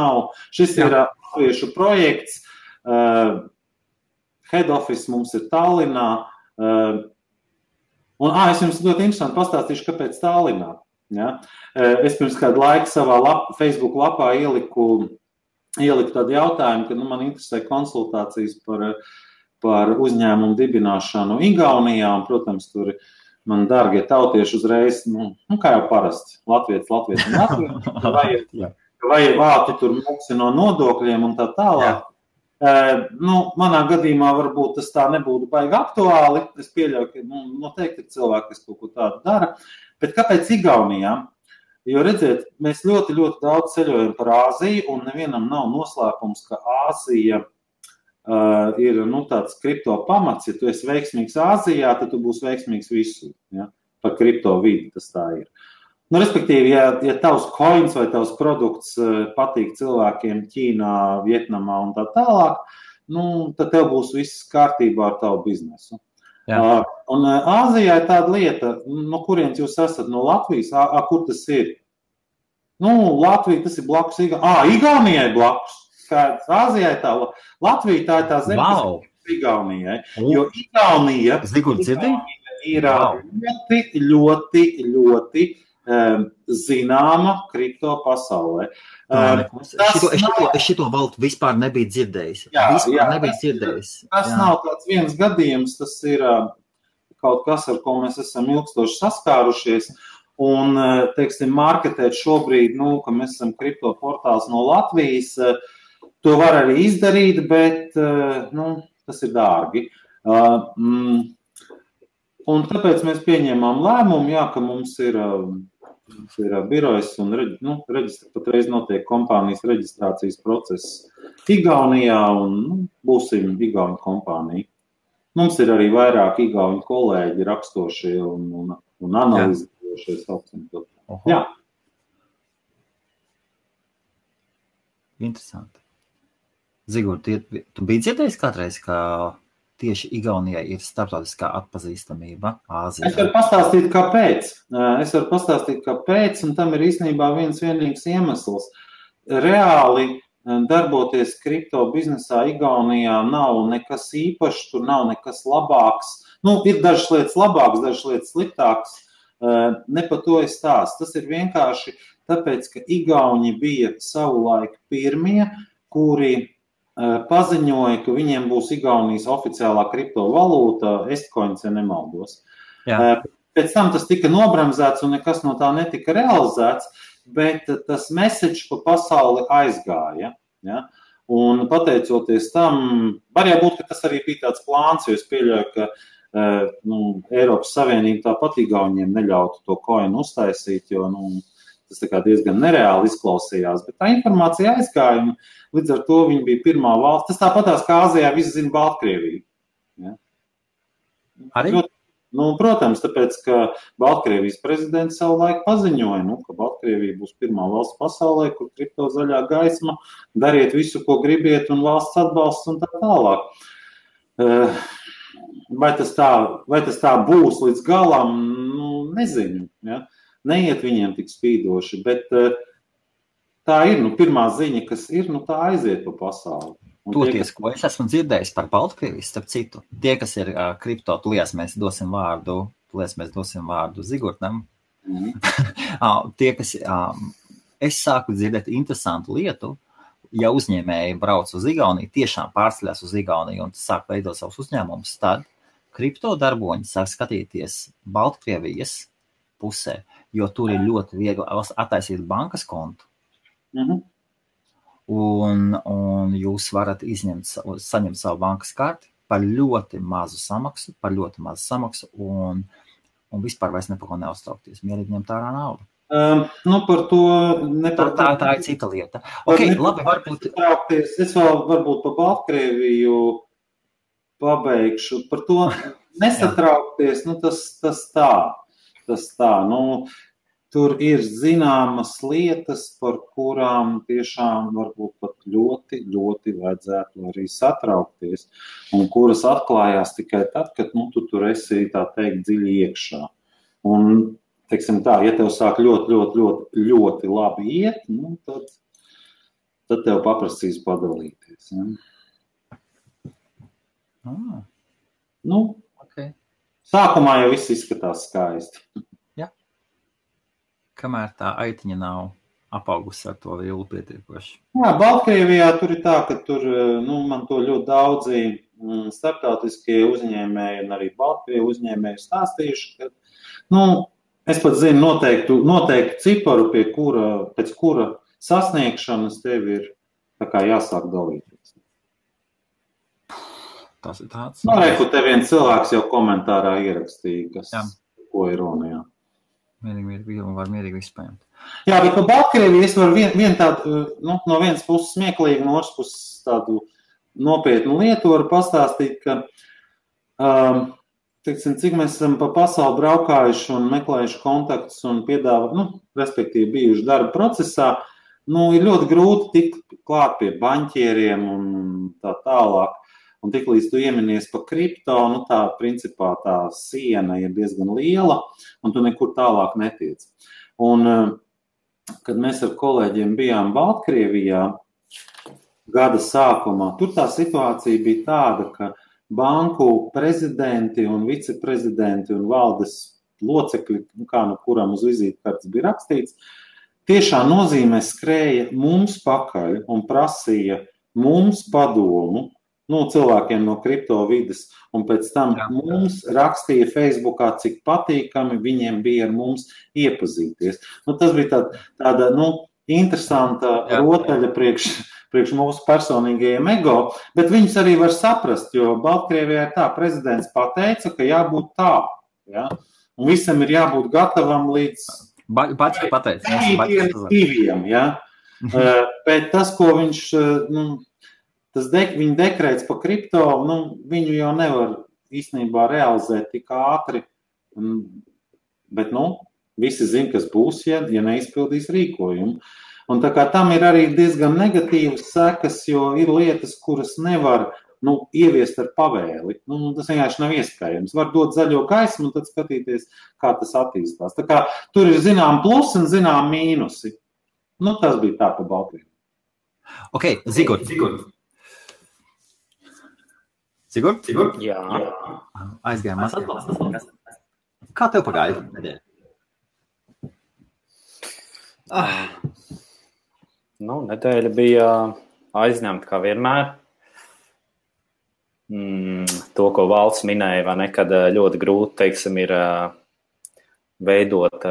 ir latviešu projekts. Head office mums ir Tallinā. Es jums ļoti interesanti pastāstīšu, kāpēc Tallinā. Ja? Es pirms kādu laiku savā Facebook lapā ieliku tādu jautājumu, ka man interesē konsultācijas par uzņēmumu dibināšanu Igaunijā, un, protams, tur man dārgie tautieši uzreiz, kā jau parasti, latvietis un latvietis. vai tu tur maksā no nodokļiem un tā tālāk. Manā gadījumā varbūt tas tā nebūtu baigi aktuāli. Es pieļauju, ka noteikti ir cilvēki, kas kaut ko tādu dara. Bet kāpēc Igaunijā? Jo, redziet, mēs ļoti, ļoti daudz ceļojam par Āziju, un nevienam nav noslēpums, ka Āzija ir tāds kripto pamats. Ja tu esi veiksmīgs Āzijā, tad tu būsi veiksmīgs visur. Ja? Par kripto vidi tas tā ir. Respektīvi, ja tavs coins vai tavs produkts patīk cilvēkiem Ķīnā, Vietnamā un tā tālāk, tad tev būs viss kārtībā ar tavu biznesu. Jā. Un Āzijā ir tāda lieta, no kurienes jūs esat, no Latvijas, kur tas ir? Latvija, tas ir blakus Igaunijai blakus. Āzijai tā, Latvija tā ir tā zeme, kas ir Igaunijai. Jo Igaunija ir ļoti, ļoti zināma kripto pasaulē. Es šito valdu vispār nebiju dzirdējis. Tas nav tāds viens gadījums, tas ir kaut kas, ar ko mēs esam ilgstoši saskārušies. Un, teiksim, marketēt šobrīd, ka mēs esam kripto portāls no Latvijas, to var arī izdarīt, bet tas ir dārgi. Un tāpēc mēs pieņēmām lēmumu, ka mums ir birojas un patreiz notiek kompānijas reģistrācijas process Igaunijā un būsim Igauņu kompānija. Mums ir arī vairāk Igauņu kolēģi rakstošie un analizējošie saucam. Jā. Interesanti. Zigur, tu biji dzirdējis kādreiz, ka tieši Igaunijai ir starptautiskā atpazīstamība Āzijā? Es varu pastāstīt, kāpēc, un tam ir īstenībā viens vienīgs iemesls. Reāli darboties kripto biznesā Igaunijā nav nekas īpašs, tur nav nekas labāks. Ir dažas lietas labākas, dažas lietas sliktākas. Ne par to es stāstu. Tas ir vienkārši tāpēc, ka Igauņi bija savulaik pirmie, kuri paziņoja, ka viņiem būs Igaunijas oficiālā kriptovalūta, Estcoins, ja nemaldos. Pēc tam tas tika nobremzēts un nekas no tā netika realizēts, bet tas message pa pasauli aizgāja. Ja? Un pateicoties tam, var jābūt, ka tas arī bija tāds plāns, jo es pieļauju, ka Eiropas Savienība tāpat Igauniem neļautu to coinu uztaisīt, jo tas tā kā diezgan nereāli izklausījās, bet tā informācija aizgāja, un līdz ar to viņi bija pirmā valsts. Tas tāpatās, kā Āzijā visi zina Baltkrieviju. Ja? Arī? Protams, tāpēc, ka Baltkrievijas prezidents savu laiku paziņoja, ka Baltkrievija būs pirmā valsts pasaulē, kur kripto zaļā gaisma, dariet visu, ko gribiet, un valsts atbalsts un tā tālāk. Vai tas tā būs līdz galam, nezinu, ja? Neiet viņiem tik spīdoši, bet tā ir, pirmā ziņa, kas ir, tā aiziet pa pasauli. Toties, ko es esmu dzirdējis par Baltkrieviju, starp citu, tie, kas ir kripto, tulies mēs dosim vārdu Zigurtam. Tie, kas, es sāku dzirdēt interesantu lietu, ja uzņēmēji brauc uz Igauniju, tiešām pārceļās uz Igauniju un sāk veidot savus uzņēmumus, tad kripto darboņi sāk skatīties Baltkrievijas pusē, jo tur ir ļoti viegli attaisīt bankas kontu. Un jūs varat saņemt savu bankas karti par ļoti mazu samaksu, un vispār vairs nepako neuztraukties. Mierīgi ņemt ārā naudu. Par to tā ir cita lieta. Labi, varbūt. Es vēl varbūt par Baltkrieviju pabeigšu. Par to nesatraukties, tas tā. Tur ir zināmas lietas, par kurām tiešām varbūt pat ļoti, ļoti vajadzētu arī satraukties, un kuras atklājās tikai tad, kad tu tur esi, tā teikt, dziļi iekšā. Un, teiksim tā, ja tev sāk ļoti, ļoti, ļoti, ļoti labi iet, tad tev paprasīs padalīties. Ja? Okay. Sākumā jau viss izskatās skaisti. Kamēr tā aitiņa nav apaugusi ar to vielu pietiekoši. Jā, Baltkrievijā tur ir tā, ka tur, man to ļoti daudzi starptautiskie uzņēmēji un arī Baltkrievu uzņēmēji stāstījuši, ka, es pat zinu noteiktu ciparu, pēc kura sasniegšanas, tev ir tā kā jāsāk dalīties. Tas ir tāds. Reku, te viens cilvēks jau komentārā ierakstīja, ko ir runa, jā. Mierīgi vispējām. Jā, bet par Baltkrieviju es varu vien tādu, no vienas puses smieklīgi, no otras puses tādu nopietnu lietu varu pastāstīt, ka, teiksim, cik mēs esam pa pasauli braukājuši un meklējuši kontaktus un respektīvi bijuši darba procesā, ir ļoti grūti tikt klāt pie baņķieriem un tā tālāk. Un tik līdz tu ieminies pa kripto, tā principā tā siena ir diezgan liela, un tu nekur tālāk netiec. Un, kad mēs ar kolēģiem bijām Baltkrievijā gada sākumā, tur tā situācija bija tāda, ka banku prezidenti un viceprezidenti un valdes locekļi, kā no kuram uz vizītkartes bija rakstīts, tiešā nozīmē skrēja mums pakaļ un prasīja mums padomu, cilvēkiem no kripto vides, un pēc tam mums rakstīja Facebookā, cik patīkami viņiem bija ar mums iepazīties. Tas bija tāda interesanta rotaļa priekš mūsu personīgajiem ego, bet viņus arī var saprast, jo Baltkrievijā ir tā, prezidents pateica, ka jābūt tā, ja? Un visam ir jābūt gatavam līdz diviem, ja? Bet tas, ko viņš... Viņa dekrēts pa kripto, viņu jau nevar īstenībā realizēt tik ātri, bet, visi zina, kas būs, ja neizpildīs rīkojumu. Un tā kā tam ir arī diezgan negatīvas sekas, jo ir lietas, kuras nevar, ieviest ar pavēli. Tas vienkārši nav iespējams. Var dot zaļo gaismu un tad skatīties, kā tas attīstās. Tā kā tur ir zinām plusi un zinām mīnusi. Tas bija tā pa Baltkrieviju. Ok, Zigort. Sigurd? Jā. Aizgājām mazliet. Kā tev pagāja nedēļa? Nedēļa bija aizņemta kā vienmēr. To, ko Valds minēja, vai ne, kad ļoti grūti, teiksim, ir veidot,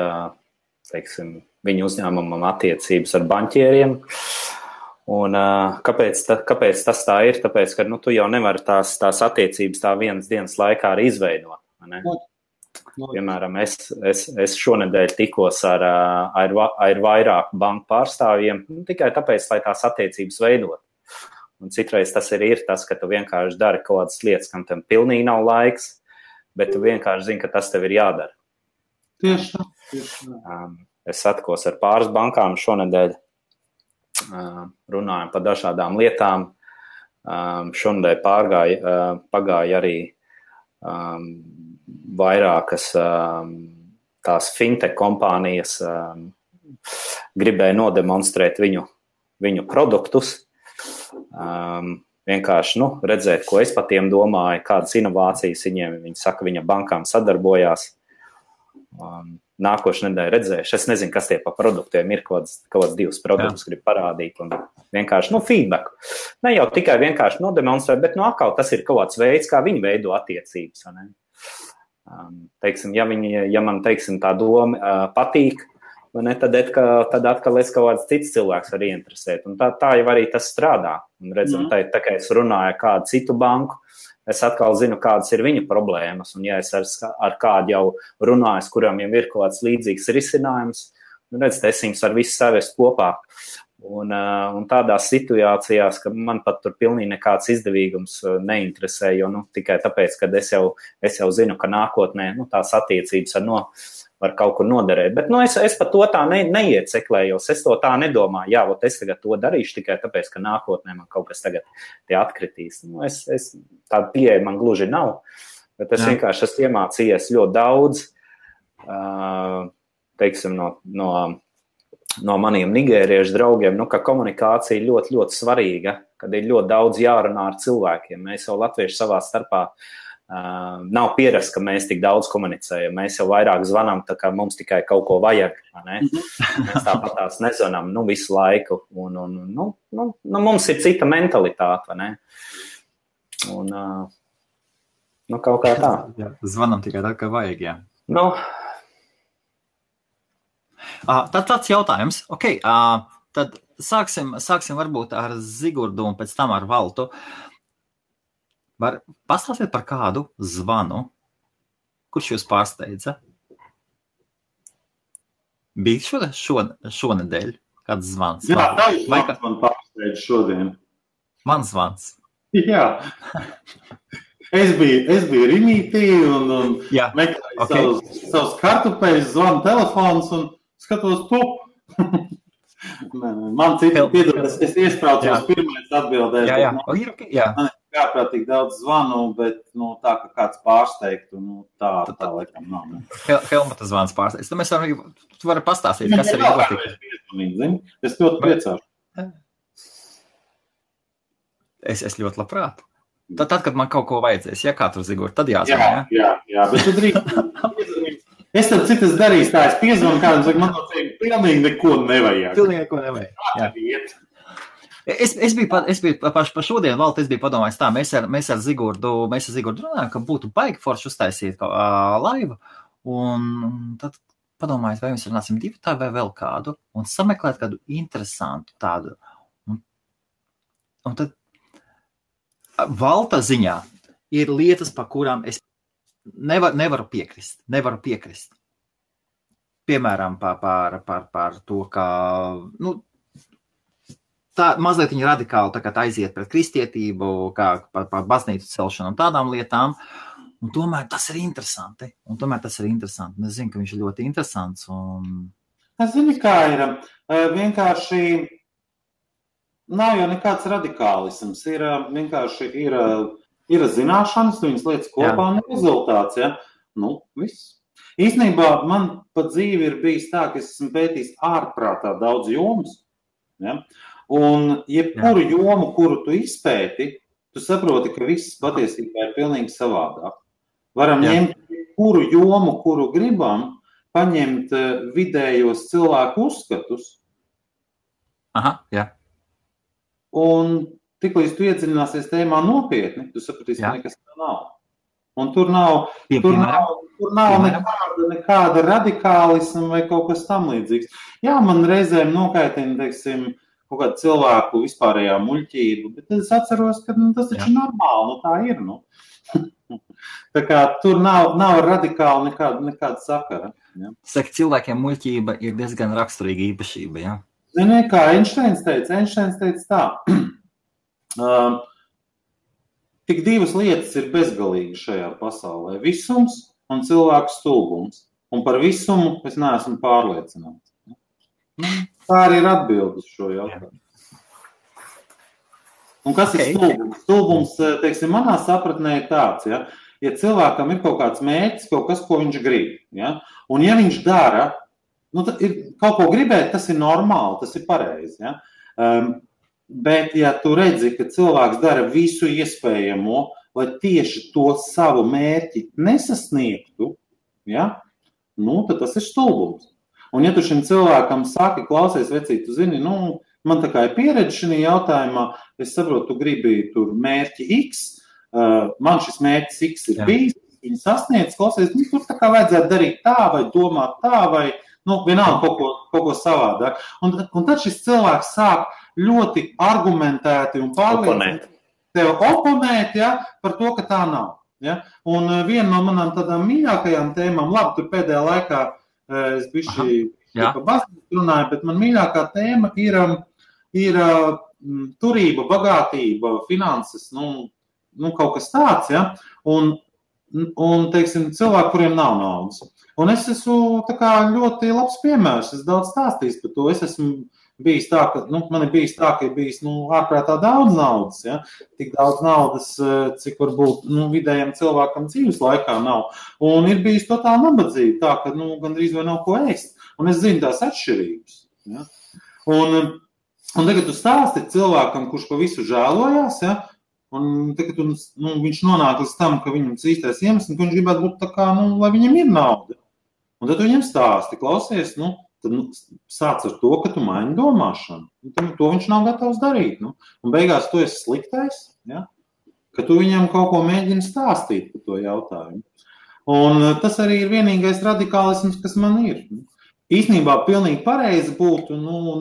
teiksim, viņu uzņēmumam attiecības ar baņķieriem. Un kāpēc tas tā ir? Tāpēc, ka tu jau nevari tās attiecības tā vienas dienas laikā arī izveidot. Ne? Piemēram, es šonedēļ tikos ar vairāku banku pārstāvjiem tikai tāpēc, lai tās attiecības veidot. Un citreiz tas arī ir tas, ka tu vienkārši dari kaut kādas lietas, kam tam pilnīgi nav laiks, bet tu vienkārši zini, ka tas tev ir jādara. Tieši tā. Es satikos ar pāris bankām šonedēļ. Runājam par dažādām lietām. Šonedēļ pagāja arī vairākas tās fintech kompānijas gribēja nodemonstrēt viņu produktus. Vienkārši redzēt, ko es par tiem domāju, kādas inovācijas viņi saka, viņa bankām sadarbojās. Nākošu nedēļu redzējuši. Es nezinu, kas tie pa produktiem ir, kaut kāds divus produktus grib parādīt un vienkārši, feedback. Ne jau tikai vienkārši nodemonstrēt, bet atkal tas ir kaut kāds veids, kā viņi veido attiecības. Teiksim, ja man, teiksim, tā doma patīk, ne, tad atkal es kaut kāds cits cilvēks var ieinteresēt. Un tā jau arī tas strādā. Un redzam, tā kā es runāju ar kādu citu banku, es atkal zinu, kādas ir viņa problēmas, un ja es ar kādu jau runāju, kuram jau ir kaut kāds līdzīgs risinājums, es viņus ar visu savest kopā. Un tādās situācijās, ka man pat tur pilnīgi nekāds izdevīgums neinteresē, jo tikai tāpēc, ka es jau zinu, ka nākotnē tās attiecības var kaut kur noderēt. Bet es pat to tā neieceklējos, es to tā nedomāju, es tagad to darīšu tikai tāpēc, ka nākotnē man kaut kas tagad tie atkritīs. Tāda pieeja man gluži nav, bet es vienkārši esmu iemācījies ļoti daudz, teiksim, no maniem nigēriešu draugiem, ka komunikācija ļoti, ļoti svarīga, kad ir ļoti daudz jārunā ar cilvēkiem. Mēs jau latvieši savā starpā nav pierasts, ka mēs tik daudz komunicējam. Mēs jau vairāk zvanām, tā kā mums tikai kaut ko vajag. Ne? Mēs tāpat tās nezvanām visu laiku. Un, mums ir cita mentalitāte. Ne? Un, kaut kā tā. Jā, zvanām tikai tā, kā vajag, jā. Tad tāds jautājums. Okay, tad sāksim varbūt ar Zigurdu un pēc tam ar Valtu. Var pastāstīt par kādu zvanu, kurš jūs pārsteidza? Bija šonedēļ kāds zvans? Jā, tavs zvans man pārsteidza šodien. Mans zvans? Jā. Es biju Rimītī un meklēju savus kartupeļus, zvanu telefons un skatos pup. Man citi piedod, es iespraucos pirmais atbildēs. Jā. Man ir kārprātīgi daudz zvanu, bet tā, ka kāds pārsteigtu, tā laikam nav. Helmuta zvans pārsteigts. Tu vari pastāstīt, kas ir notika. Es ļoti priecāšu. Es ļoti labprāt. Tad, kad man kaut ko vajadzēs, ja kā tur Zigurd, tad jāzvan, jā, bet tu drīkst. Es tad citas darīšu tā, es piezvanu kādam, saku, man no tevi pilnīgi neko nevajag. Pilnīgi neko nevajag, jā. Es biju pa šodien, Valta, es biju padomājis tā, mēs ar Zigurdu runājam, ka būtu baigi forši uztaisīt laivu, un tad padomājis, vai mēs runāsim divu tā vai vēl kādu, un sameklēt kādu interesantu tādu. Un tad Valta ziņā ir lietas, par kurām es nevaru piekrist. Piemēram, par to, ka tā mazliet viņa radikāli tā aiziet pret kristietību, kā par baznīcu celšanu un tādām lietām. Un tomēr tas ir interesanti. Es zinu, ka viņš ir ļoti interesants. Es zinu, kā ir. Vienkārši nav jau nekāds radikālisms. Vienkārši ir zināšanas, viņas lietas kopā un rezultāts. Ja? Viss. Īstenībā man pa dzīvi ir bijis tā, ka es esmu pētījis ārprātā daudz jomas. Ja? Un jebkuru jomu, kuru tu izpēti, tu saproti, ka viss patiesībā ir pilnīgi savādāk. Varam ņemt kuru jomu, kuru gribam, paņemt vidējos cilvēku uzskatus. Aha, jā. Un tiklīdz tu iedziļināsies tēmā nopietni, tu sapratīsi, ka nekas tā nav. Un tur nav nekāda radikālisma vai kaut kas tam līdzīgs. Jā, man reizēm nokaitina, teiksim, kaut kādu cilvēku vispārējā muļķību, bet es atceros, ka tas taču normāli, tā ir, Tā kā tur nav radikāli nekāda sakara. Ja? Saka, cilvēkiem muļķība ir diezgan raksturīga īpašība, jā? Zini, kā Einsteins teica tā. Tik divas lietas ir bezgalīgi šajā pasaulē. Visums un cilvēku stulbums. Un par visumu es neesmu pārliecināts. Tā arī ir atbilde uz šo jautājumu. Un kas ir stulbums? Stulbums, teiksim, manā sapratnē ir tāds, ja cilvēkam ir kaut kāds mērķis, kaut kas, ko viņš grib, un ja viņš dara, kaut ko gribēt, tas ir normāli, tas ir pareizi, bet ja tu redzi, ka cilvēks dara visu iespējamo, lai tieši to savu mērķi nesasniegtu, tad tas ir stulbums. Un ja tu šim cilvēkam saki, klausies, vecīt, tu zini, man tā kā ir pieredze šajā jautājumā, es saprotu, tu gribi tur mērķi X, man šis mērķis X ir bijis, viņi sasniedz, klausies, tur tā kā vajadzētu darīt tā, vai domāt tā, vai, vienalga kaut ko savādāk. Un tad šis cilvēks sāk ļoti argumentēti un pārliecināti tev oponēt, par to, ka tā nav. Un viena no manām tādām mīļākajām tēmām, labi, tur pēdējā laikā es bišķi par baznīcu runāju, bet man mīļākā tēma ir turība, bagātība, finanses, kaut kas tāds, un teiksim, cilvēki, kuriem nav naudas. Un es esmu tā kā ļoti labs piemērs, es daudz stāstījis par to, es esmu bijis tā, ka, man ir bijis tā, ka ir bijis, ārprātā daudz naudas, tik daudz naudas, cik varbūt, vidējiem cilvēkam dzīves laikā nav, un ir bijis totāli nabadzība, tā, ka, gandrīz vai nav ko ēst, un es zinu tās atšķirības, un tagad tu stāsti cilvēkam, kurš pa visu žēlojās, un tagad viņš nonāk līdz tam, ka viņam īstais iemesls, ka viņš gribētu būt tā kā, lai viņam ir nauda, un tad tu viņam stāsti, klausies, tad sāc ar to, ka tu maini domāšanu. To viņš nav gatavs darīt. Un beigās tu esi sliktais, ka tu viņam kaut ko mēģini stāstīt par to jautājumu. Un tas arī ir vienīgais radikālisms, kas man ir. īstenībā pilnīgi pareizi būtu,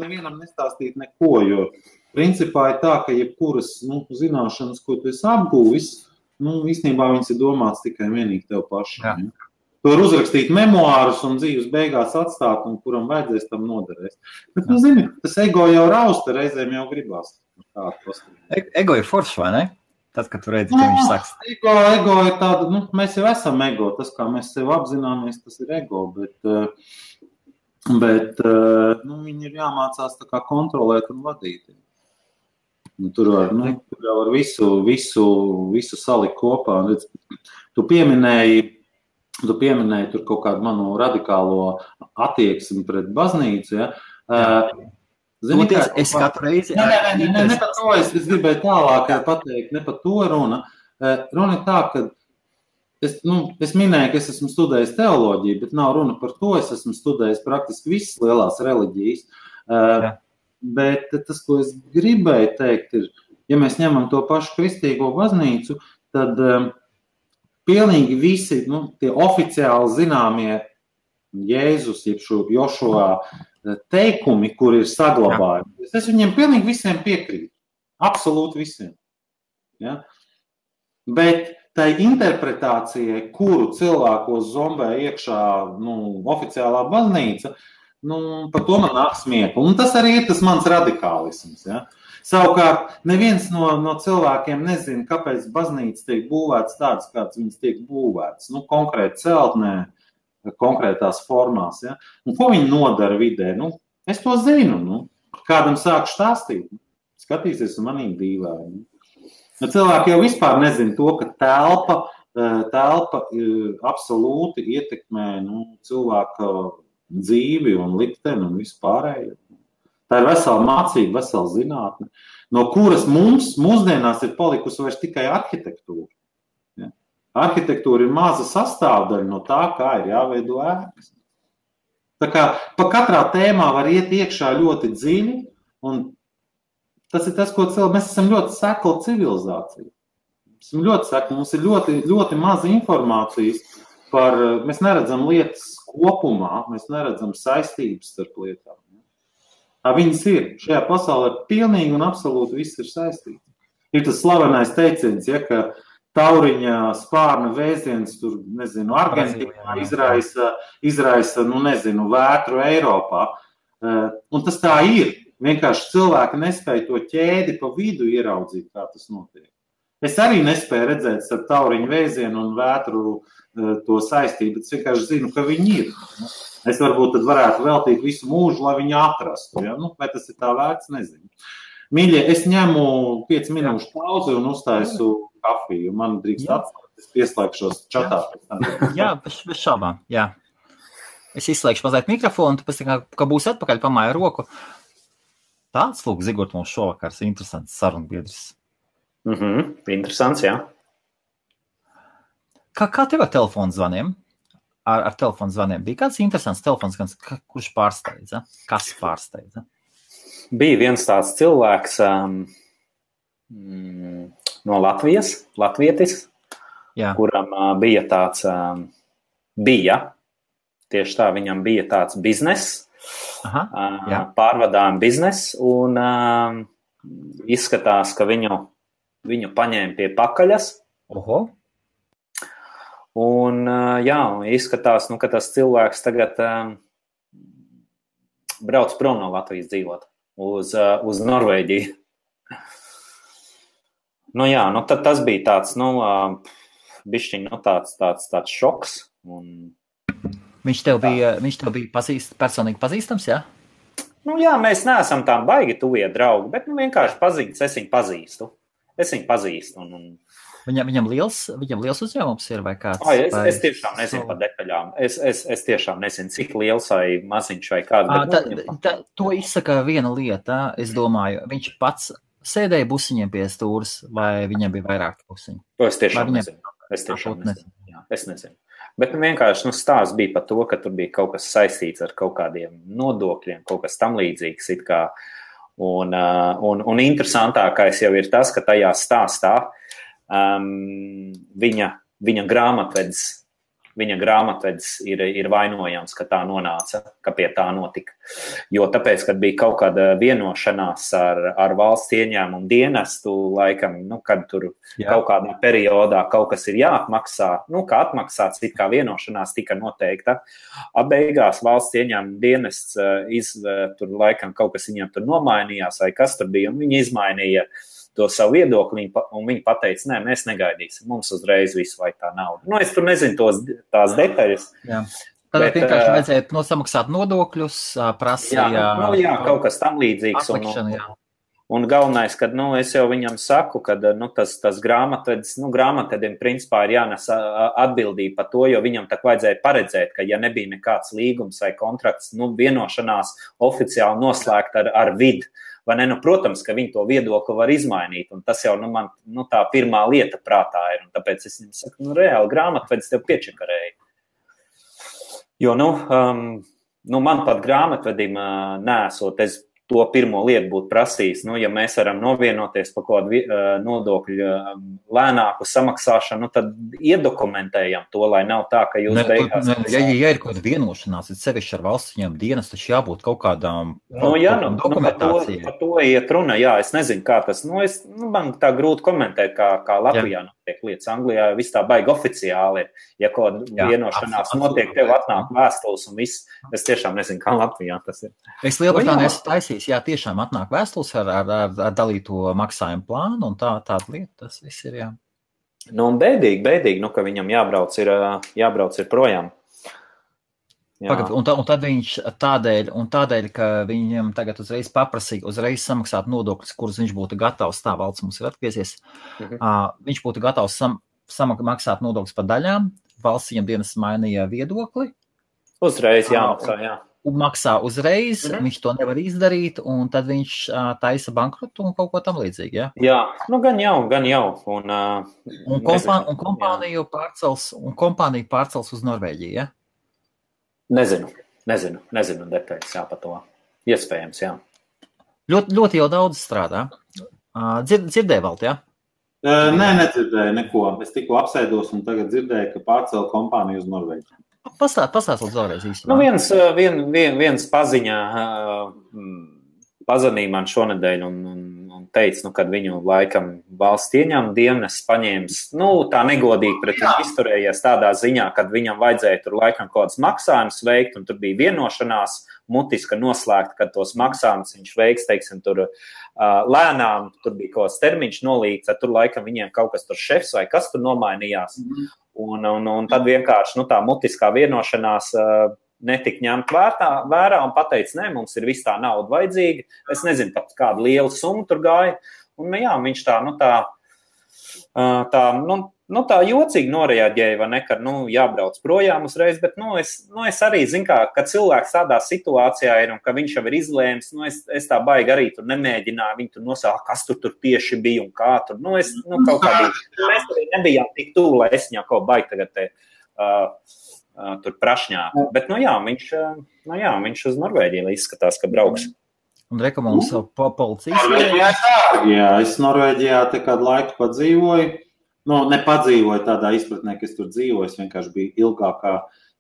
nevienam nestāstīt neko, jo principā ir tā, ka jebkuras, zināšanas, ko tu esi apgūvis, īstenībā viņas ir domāts tikai vienīgi tev pašam. Ja? Tu var uzrakstīt memoārus un dzīves beigās atstāt, un kuram vajadzēs tam noderēs. Bet, zini, tas ego jau rausta, reizēm jau gribās. Ego ir foršs, vai ne? Tad, kad tu redzi, ka viņš saks. Ego ir tāda, mēs jau esam ego, tas, kā mēs sev apzināmies, tas ir ego, bet viņi ir jāmācās tā kā kontrolēt un vadīt. Tur var visu salikt kopā. Tu pieminēji tur kaut kādu manu radikālo attieksmi pret baznīcu, ja? Es katru reizi... Ne par to, es gribēju tālāk pateikt, ne par to runa. Runa ir tā, ka es minēju, ka es esmu studējis teoloģiju, bet nav runa par to, es esmu studējis praktiski visas lielās reliģijas. Bet tas, ko es gribēju teikt, ir, ja mēs ņemam to pašu kristīgo baznīcu, tad pilnīgi visi tie oficiāli zināmie Jēzus, jeb Jošua teikumi, kur ir saglabājumi. Es viņiem pilnīgi visiem piekrītu. Absolūti visiem. Ja? Bet tai interpretācijai, kuru cilvēkos zombē iekšā oficiālā baznīca, par to man nāk smiekli. Un tas arī ir tas mans radikālisms. Ja? Savukārt, neviens no cilvēkiem nezina, kāpēc baznīca tiek būvēts tāds, kāds viņas tiek būvēts. Konkrēti celtnē, konkrētās formās. Ja? Un ko viņi nodara vidē? Es to zinu. Kādam sāku stāstīt. Skatīsies un manīm dīvaini. Cilvēki jau vispār nezina to, ka telpa absolūti ietekmē cilvēka dzīvi un likteni un vispārējo. Tā ir vesela mācība, vesela zinātne, no kuras mums mūsdienās ir palikusi vairs tikai arhitektūra. Ja? Arhitektūra ir maza sastāvdaļa no tā, kā ir jāveido ēkas. Tā kā pa katrā tēmā var iet iekšā ļoti dziļi, un tas ir tas, ko mēs esam ļoti sekla civilizācija. Mums ir ļoti, ļoti maz informācijas mēs neredzam lietas kopumā, mēs neredzam saistības starp lietām. Viņas ir. Šajā pasaulē pilnīgi un absolūti viss ir saistīts. Ir tas slavenais teiciens, ja, ka tauriņa spārna vēziens tur, Argentīnā izraisa, vētru Eiropā. Un tas tā ir. Vienkārši cilvēki nespēja to ķēdi pa vidu ieraudzīt, kā tas notiek. Es arī nespēju redzēt starp tauriņu vēzienu un vētru to saistību, bet es vienkārši zinu, ka viņi ir. Es varbūt tad varētu veltīt visu mūžu, lai viņi atrastu. Ja? Vai tas ir tā vērts, nezinu. Mīļie, es ņemu 5 minūšu pauzi un uztaisu kafiju. Man drīkst atstāt, es pieslēgšos čatā. Jā, bez šaubām, jā. Es izslēgšu mazliet mikrofonu, tu pēc tā, ka būs atpakaļ, pamāja roku. Tāds, lūk, Zigort, mums šovakars interesants sarunbiedrs. Interesants, jā. Kā tev ar telefonu zvaniem? Ar telefonu zvaniem bija kāds interesants telefons, kurš pārsteidza? Kas pārsteidza? Bija viens tāds cilvēks no Latvijas, latvietis, kuram bija tāds, tieši tā, viņam bija tāds bizness, pārvadājuma bizness, un izskatās, ka viņu paņēma pie pakaļas. Oho. Un, izskatās, ka tas cilvēks tagad brauc prom no Latvijas dzīvot uz Norvēģiju. Tad tas bija tāds, bišķiņ, tāds šoks. Un... Viņš tev bija personīgi pazīstams, jā? Mēs neesam tā baigi tuvie draugi, bet vienkārši pazīstas, es viņu pazīstu. Viņam liels uzņēmums ir vai kāds? Es tiešām nezinu par detaļām. Es tiešām nezinu, cik liels vai maziņš vai kāds. To izsaka viena lieta, es domāju. Viņš pats sēdēja busiņiem pie stūras vai viņam bija vairāk busiņu? Es tiešām nezinu. Es nezinu. Bet vienkārši stāsts bija par to, ka tur bija kaut kas saistīts ar kaut kādiem nodokļiem, kaut kas tam līdzīgs it kā. Un interesantākais jau ir tas, ka tajā stāstā viņa grāmatvedis viņa grāmatvedis ir vainojams, ka tā nonāca, ka pie tā notika. Jo tāpēc, kad bija kaut kāda vienošanās ar valsts ieņēmumu dienestu, laikam, kad tur kaut kādā periodā kaut kas ir jāatmaksā, kā atmaksāts, it kā vienošanās tika noteikta. Beigās valsts ieņēmumu dienests tur laikam kaut kas viņam tur nomainījās, vai kas tur bija, un viņi izmainīja to savu viedokli, un viņi pateica, nē, mēs negaidīsim, mums uzreiz visu vai tā nauda. Es tur nezinu tās detaļas. Jā. Tad vienkārši vajadzēja nosamaksāt nodokļus, prasīja... Jā, kaut kas tam līdzīgs. Un galvenais, kad, es jau viņam saku, kad, tas grāmatvedim principā ir jānes atbildība par to, jo viņam tak vajadzēja paredzēt, ka ja nebija nekāds līgums vai kontrakts, vienošanās oficiāli noslēgt ar vidu, vai ne, protams, ka viņi to viedokli var izmainīt, un tas jau, man, tā pirmā lieta prātā ir, un tāpēc es viņam saku, reāli grāmatvedis tev piečakarēja. Jo, man pat grāmatvedim nesot, es to pirmo lietu būtu prasījis, ja mēs varam novienoties par kādu nodokļu lēnāku samaksāšanu, tad iedokumentējam to, lai nav tā, ka jūs beigās... Ja ir kaut kāda vienošanās, tad sevišķi ar valsts ieņēmumu dienestu, taču jābūt kaut kādām dokumentācijai. Par to iet runa, jā, es nezinu, kā tas, man tā grūti komentēt, kā Latvijā notiek lietas. Anglijā viss tā baigi oficiāli ir. Ja kaut vienošanās notiek, tev atnāk vēstules un viss, es tiešām nezinu, kā Latvijā tas ir. Es Lielbritānijā esmu taisījis, jā, tiešām atnāk vēstules ar dalīto maksājumu plānu un tāda lieta, tas viss ir, jā. Un bēdīgi, ka viņam jābrauc ir projām. Pagad, un tad viņš tādēļ, ka viņam tagad uzreiz paprasīja, samaksāt nodokļus, kurus viņš būtu gatavs, tā valsts mums ir atgriezies, viņš būtu gatavs maksāt nodokļus par daļām, valsts viņam dienas mainīja viedokli. Uzreiz jāmaksā, jā. Un maksā uzreiz, viņš to nevar izdarīt, un tad viņš taisa bankrotu un kaut ko tam līdzīgi, jā? Jā, gan jau. Un kompāniju pārcels uz Norvēģiju, jā? Nezinu detaļas, jā, par to. Iespējams, jā. Ļoti jau daudz strādā. Dzirdēji, Valt, jā? Nē, nedzirdēju neko. Es tikko apsēdos un tagad dzirdēju, ka pārcēla kompāniju uz Norvēģiju. Pastāst vēlreiz īstenībā. Viens paziņā pazvanīja man šonedēļ un teica, kad viņu laikam valsts ieņēmuma dienests paņēmis, tā negodīgi pret viņu izturējies tādā ziņā, kad viņam vajadzēja tur laikam kaut kāds maksājums veikt, un tur bija vienošanās mutiska noslēgta, kad tos maksājumus viņš veiks, teiksim, tur lēnām, tur bija kaut kāds termiņš nolīgts, tur laikam viņiem kaut kas tur šefs vai kas tur nomainījās. Un tad vienkārši tā mutiskā vienošanās netika ņemt vērā un pateica, nē, mums ir viss tā nauda vajadzīga. Es nezinu, pat kādu lielu summu tur gāja. Un jā, viņš tā jocīgi noreaģēja, vai ne, kad jābrauc projām uzreiz, bet es arī zinu, kad cilvēks tādā situācijā ir un ka viņš jau ir izlēmis, es tā baigi arī tur nemēģināju, viņi tur nosāka, kas tur tieši bija un kā tur, kaut kādī, mēs arī nebijām tik tuvu, lai es viņā kaut baigi tagad tur prašņāk, bet viņš uz Norvēģiju izskatās, ka brauks. Un rekomendācijas policijas? Jā, es Norvēģijā te kādu laiku padzīvoju. Nepadzīvoju tādā izpratnē, ka es tur dzīvoju, es vienkārši biju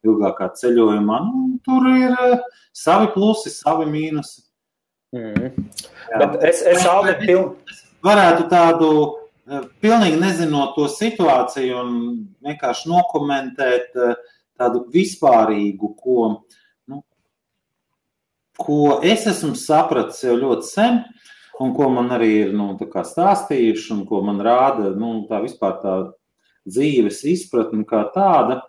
ilgākā ceļojumā. Tur ir savi plusi, savi mīnusi. Bet es varētu tādu, pilnīgi nezinot to situāciju un vienkārši nokomentēt tādu vispārīgu, ko es esmu sapratis jau ļoti sen, un ko man arī ir stāstījuši, un ko man rāda tā vispār tā dzīves izpratne kā tāda.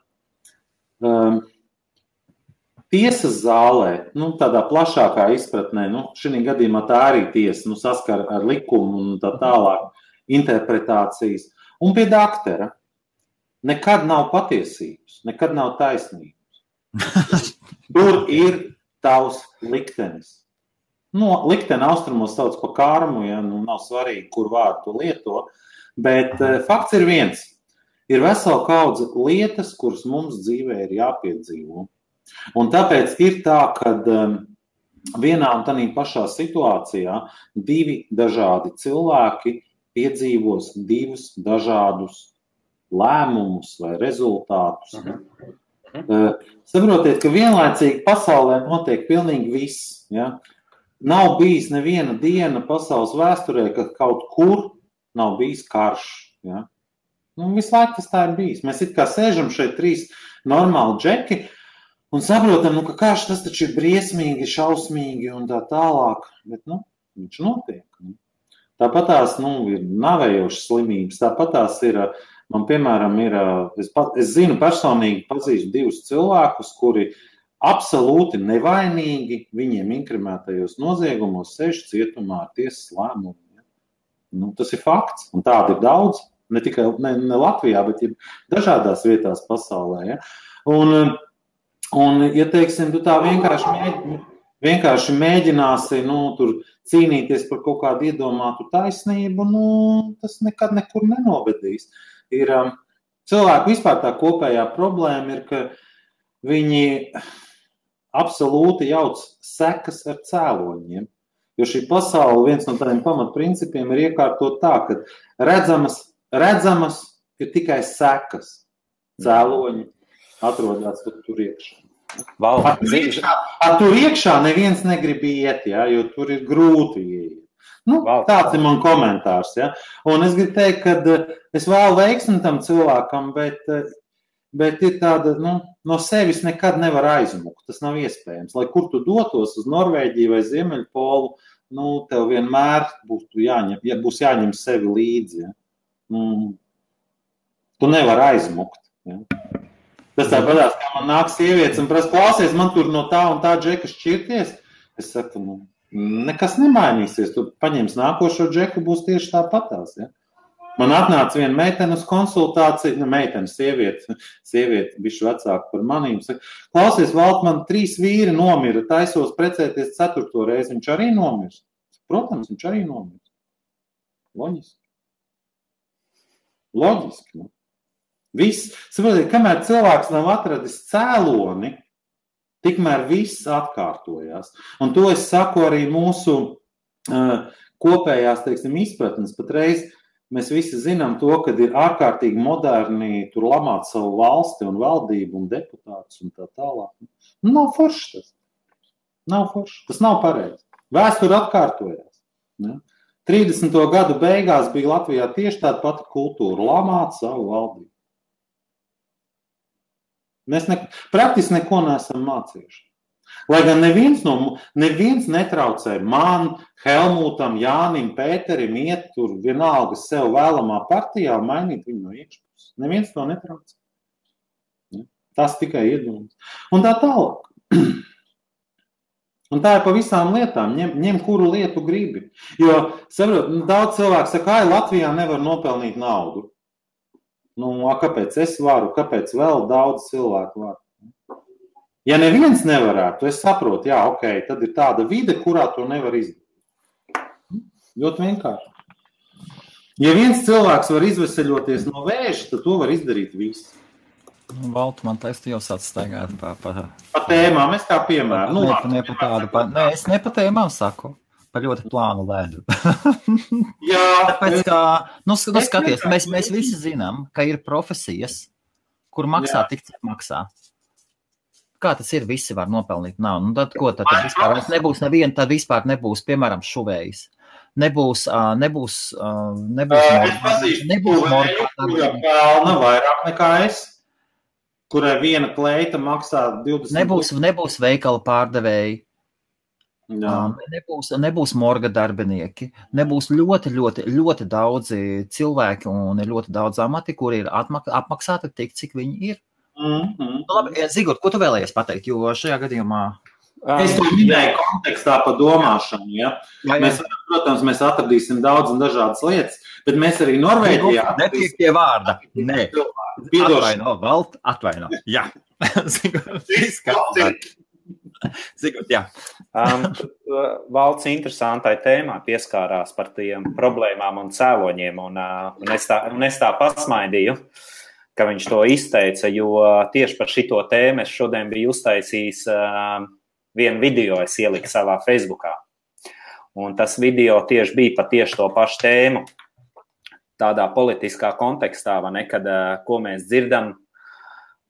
Tiesas zālē, tādā plašākā izpratnē, šī gadījumā tā arī tiesa, saskar ar likumu un tā tālāk interpretācijas. Un pie daktera nekad nav patiesības, nekad nav taisnības. Tur ir tavs liktenis. Likteni austrumos sauc par karmu, ja, nav svarīgi, kur vārdu to lieto, bet fakts ir viens. Ir vesela kaudze lietas, kuras mums dzīvē ir jāpiedzīvo. Un tāpēc ir tā, ka vienā un tādā pašā situācijā divi dažādi cilvēki piedzīvos divus dažādus lēmumus vai rezultātus. Saprotiet, ka vienlaicīgi pasaulē notiek pilnīgi viss. Ja? Nav bijis neviena diena pasaules vēsturē, ka kaut kur nav bijis karš. Ja? Visu laiku tas tā ir bijis. Mēs it kā sēžam šeit 3 normāli džeki un saprotam, ka karš tas taču ir briesmīgi, šausmīgi un tā tālāk. Bet, viņš notiek. Tāpatās, ir navējošas slimības. Tāpatās ir, man piemēram, es zinu personīgi pazīstu 2 cilvēkus, kuri absolūti nevainīgi viņiem inkrimētajos noziegumos sēž cietumā ar tiesas lēmumu. Tas ir fakts, un tādi ir daudz, ne tikai ne Latvijā, bet dažādās vietās pasaulē. Ja? Un ja teiksim, tu tā vienkārši mēģināsi, tur cīnīties par kaut kādu iedomātu taisnību, tas nekad nekur nenovedīs. Ir cilvēku vispār tā kopējā problēma ir, ka viņi absolūti jauc sekas ar cēloņiem. Jo šī pasaule, viens no tādiem pamatprincipiem ir iekārtot tā, ka redzamas ir tikai sekas. Cēloņi atrodas tur iekšā. Tur iekšā neviens negrib iet, ja, jo tur ir grūti iet. Tāds ir man komentārs. Ja. Un es gribu teikt, ka es vēlu veiksmi tam cilvēkam, bet ir tāda, no sevis nekad nevar aizmukt. Tas nav iespējams. Lai kur tu dotos uz Norvēģiju vai Ziemeļpolu, tev vienmēr būs jāņem sevi līdzi. Ja. Tu nevar aizmukt. Ja. Tas tāpatās, kā man nāk sievietes un prasa, klausies, man tur no tā un tā džeka šķirties. Es saku, nekas nemainīsies. Tu paņems nākošo džeku, būs tieši tāpatās. Ja? Man atnāca viena meitene uz konsultāciju, sieviete bišķi vecāka par manīm. Saka, klausies, Valt, man 3 vīri nomira, taisos precēties 4. reizi. Viņš arī nomirs. Protams, viņš arī nomirs. Loģiski. Viss, saprotiet, kamēr cilvēks nav atradis cēloni, tikmēr viss atkārtojās. Un to es saku arī mūsu kopējās, izpratnes. Patreiz mēs visi zinām to, ka ir ārkārtīgi moderni tur lamāt savu valsti un valdību un deputātus un tā tālāk. Nav forši tas. Nav forši. Tas nav pareizi. Vēsture atkārtojās. Ne? 30. gadu beigās bija Latvijā tieši tāda pati kultūra – lamāt savu valdību. Mēs praktiski neko neesam mācījuši. Lai gan neviens netraucē man, Helmutam, Jānim, Pēterim iet tur vienalga sev vēlamā partijā un mainīt viņu no iekšpuses. Neviens to netraucē. Tas tikai iedomās. Un tā tālāk. Un tā ir pa visām lietām. Ņem kuru lietu gribi. Jo, saprot, daudz cilvēku saka, Latvijā nevar nopelnīt naudu. Kāpēc es varu, kāpēc vēl daudz cilvēku var? Ja neviens nevarētu, es saprotu, tad ir tāda vide, kurā to nevar izdarīt. Ļoti vienkārši. Ja viens cilvēks var izveseļoties no vēža, tad to var izdarīt visi. Valtu, man liekas, tu jau sāc staigāt pa tēmām, es kā piemēru. Es ne pa tēmām saku. Par ļoti plānu ledu. Jā. Tāpēc, kā, skaties, mēs visi zinām, ka ir profesijas, kur maksā tik, cik maksā. Kā tas ir, visi var nopelnīt naudu. Tad ko tad vispār nebūs neviena, tad vispār nebūs, piemēram, šuvējs. Nebūs pelna vairāk nekā es, kurai viena kleita maksā 20. Nebūs veikala pārdevēji. Nebūs morga darbinieki, nebūs ļoti daudzi cilvēki un ļoti daudz amati, kuri ir apmaksāti tik, cik viņi ir. Labi, Zigurt, ko tu vēlējies pateikt, jo šajā gadījumā... Es to minēju kontekstā par domāšanu, ja? Protams, mēs atradīsim daudz un dažādas lietas, bet mēs arī Norvēģijā... Netiek pie vārda, nē. Atvaino, Valt, atvaino, jā. Zigurt, Zigurt, jā. Valds interesantai tēmā pieskārās par tiem problēmām un cēloņiem, un es tā pasmaidīju, ka viņš to izteica, jo tieši par šito tēmu es šodien biju uztaisījis vienu video, es ieliku savā Facebookā. Un tas video tieši bija par tieši to pašu tēmu. tādā politiskā kontekstā, vai ne, kad ko mēs dzirdam,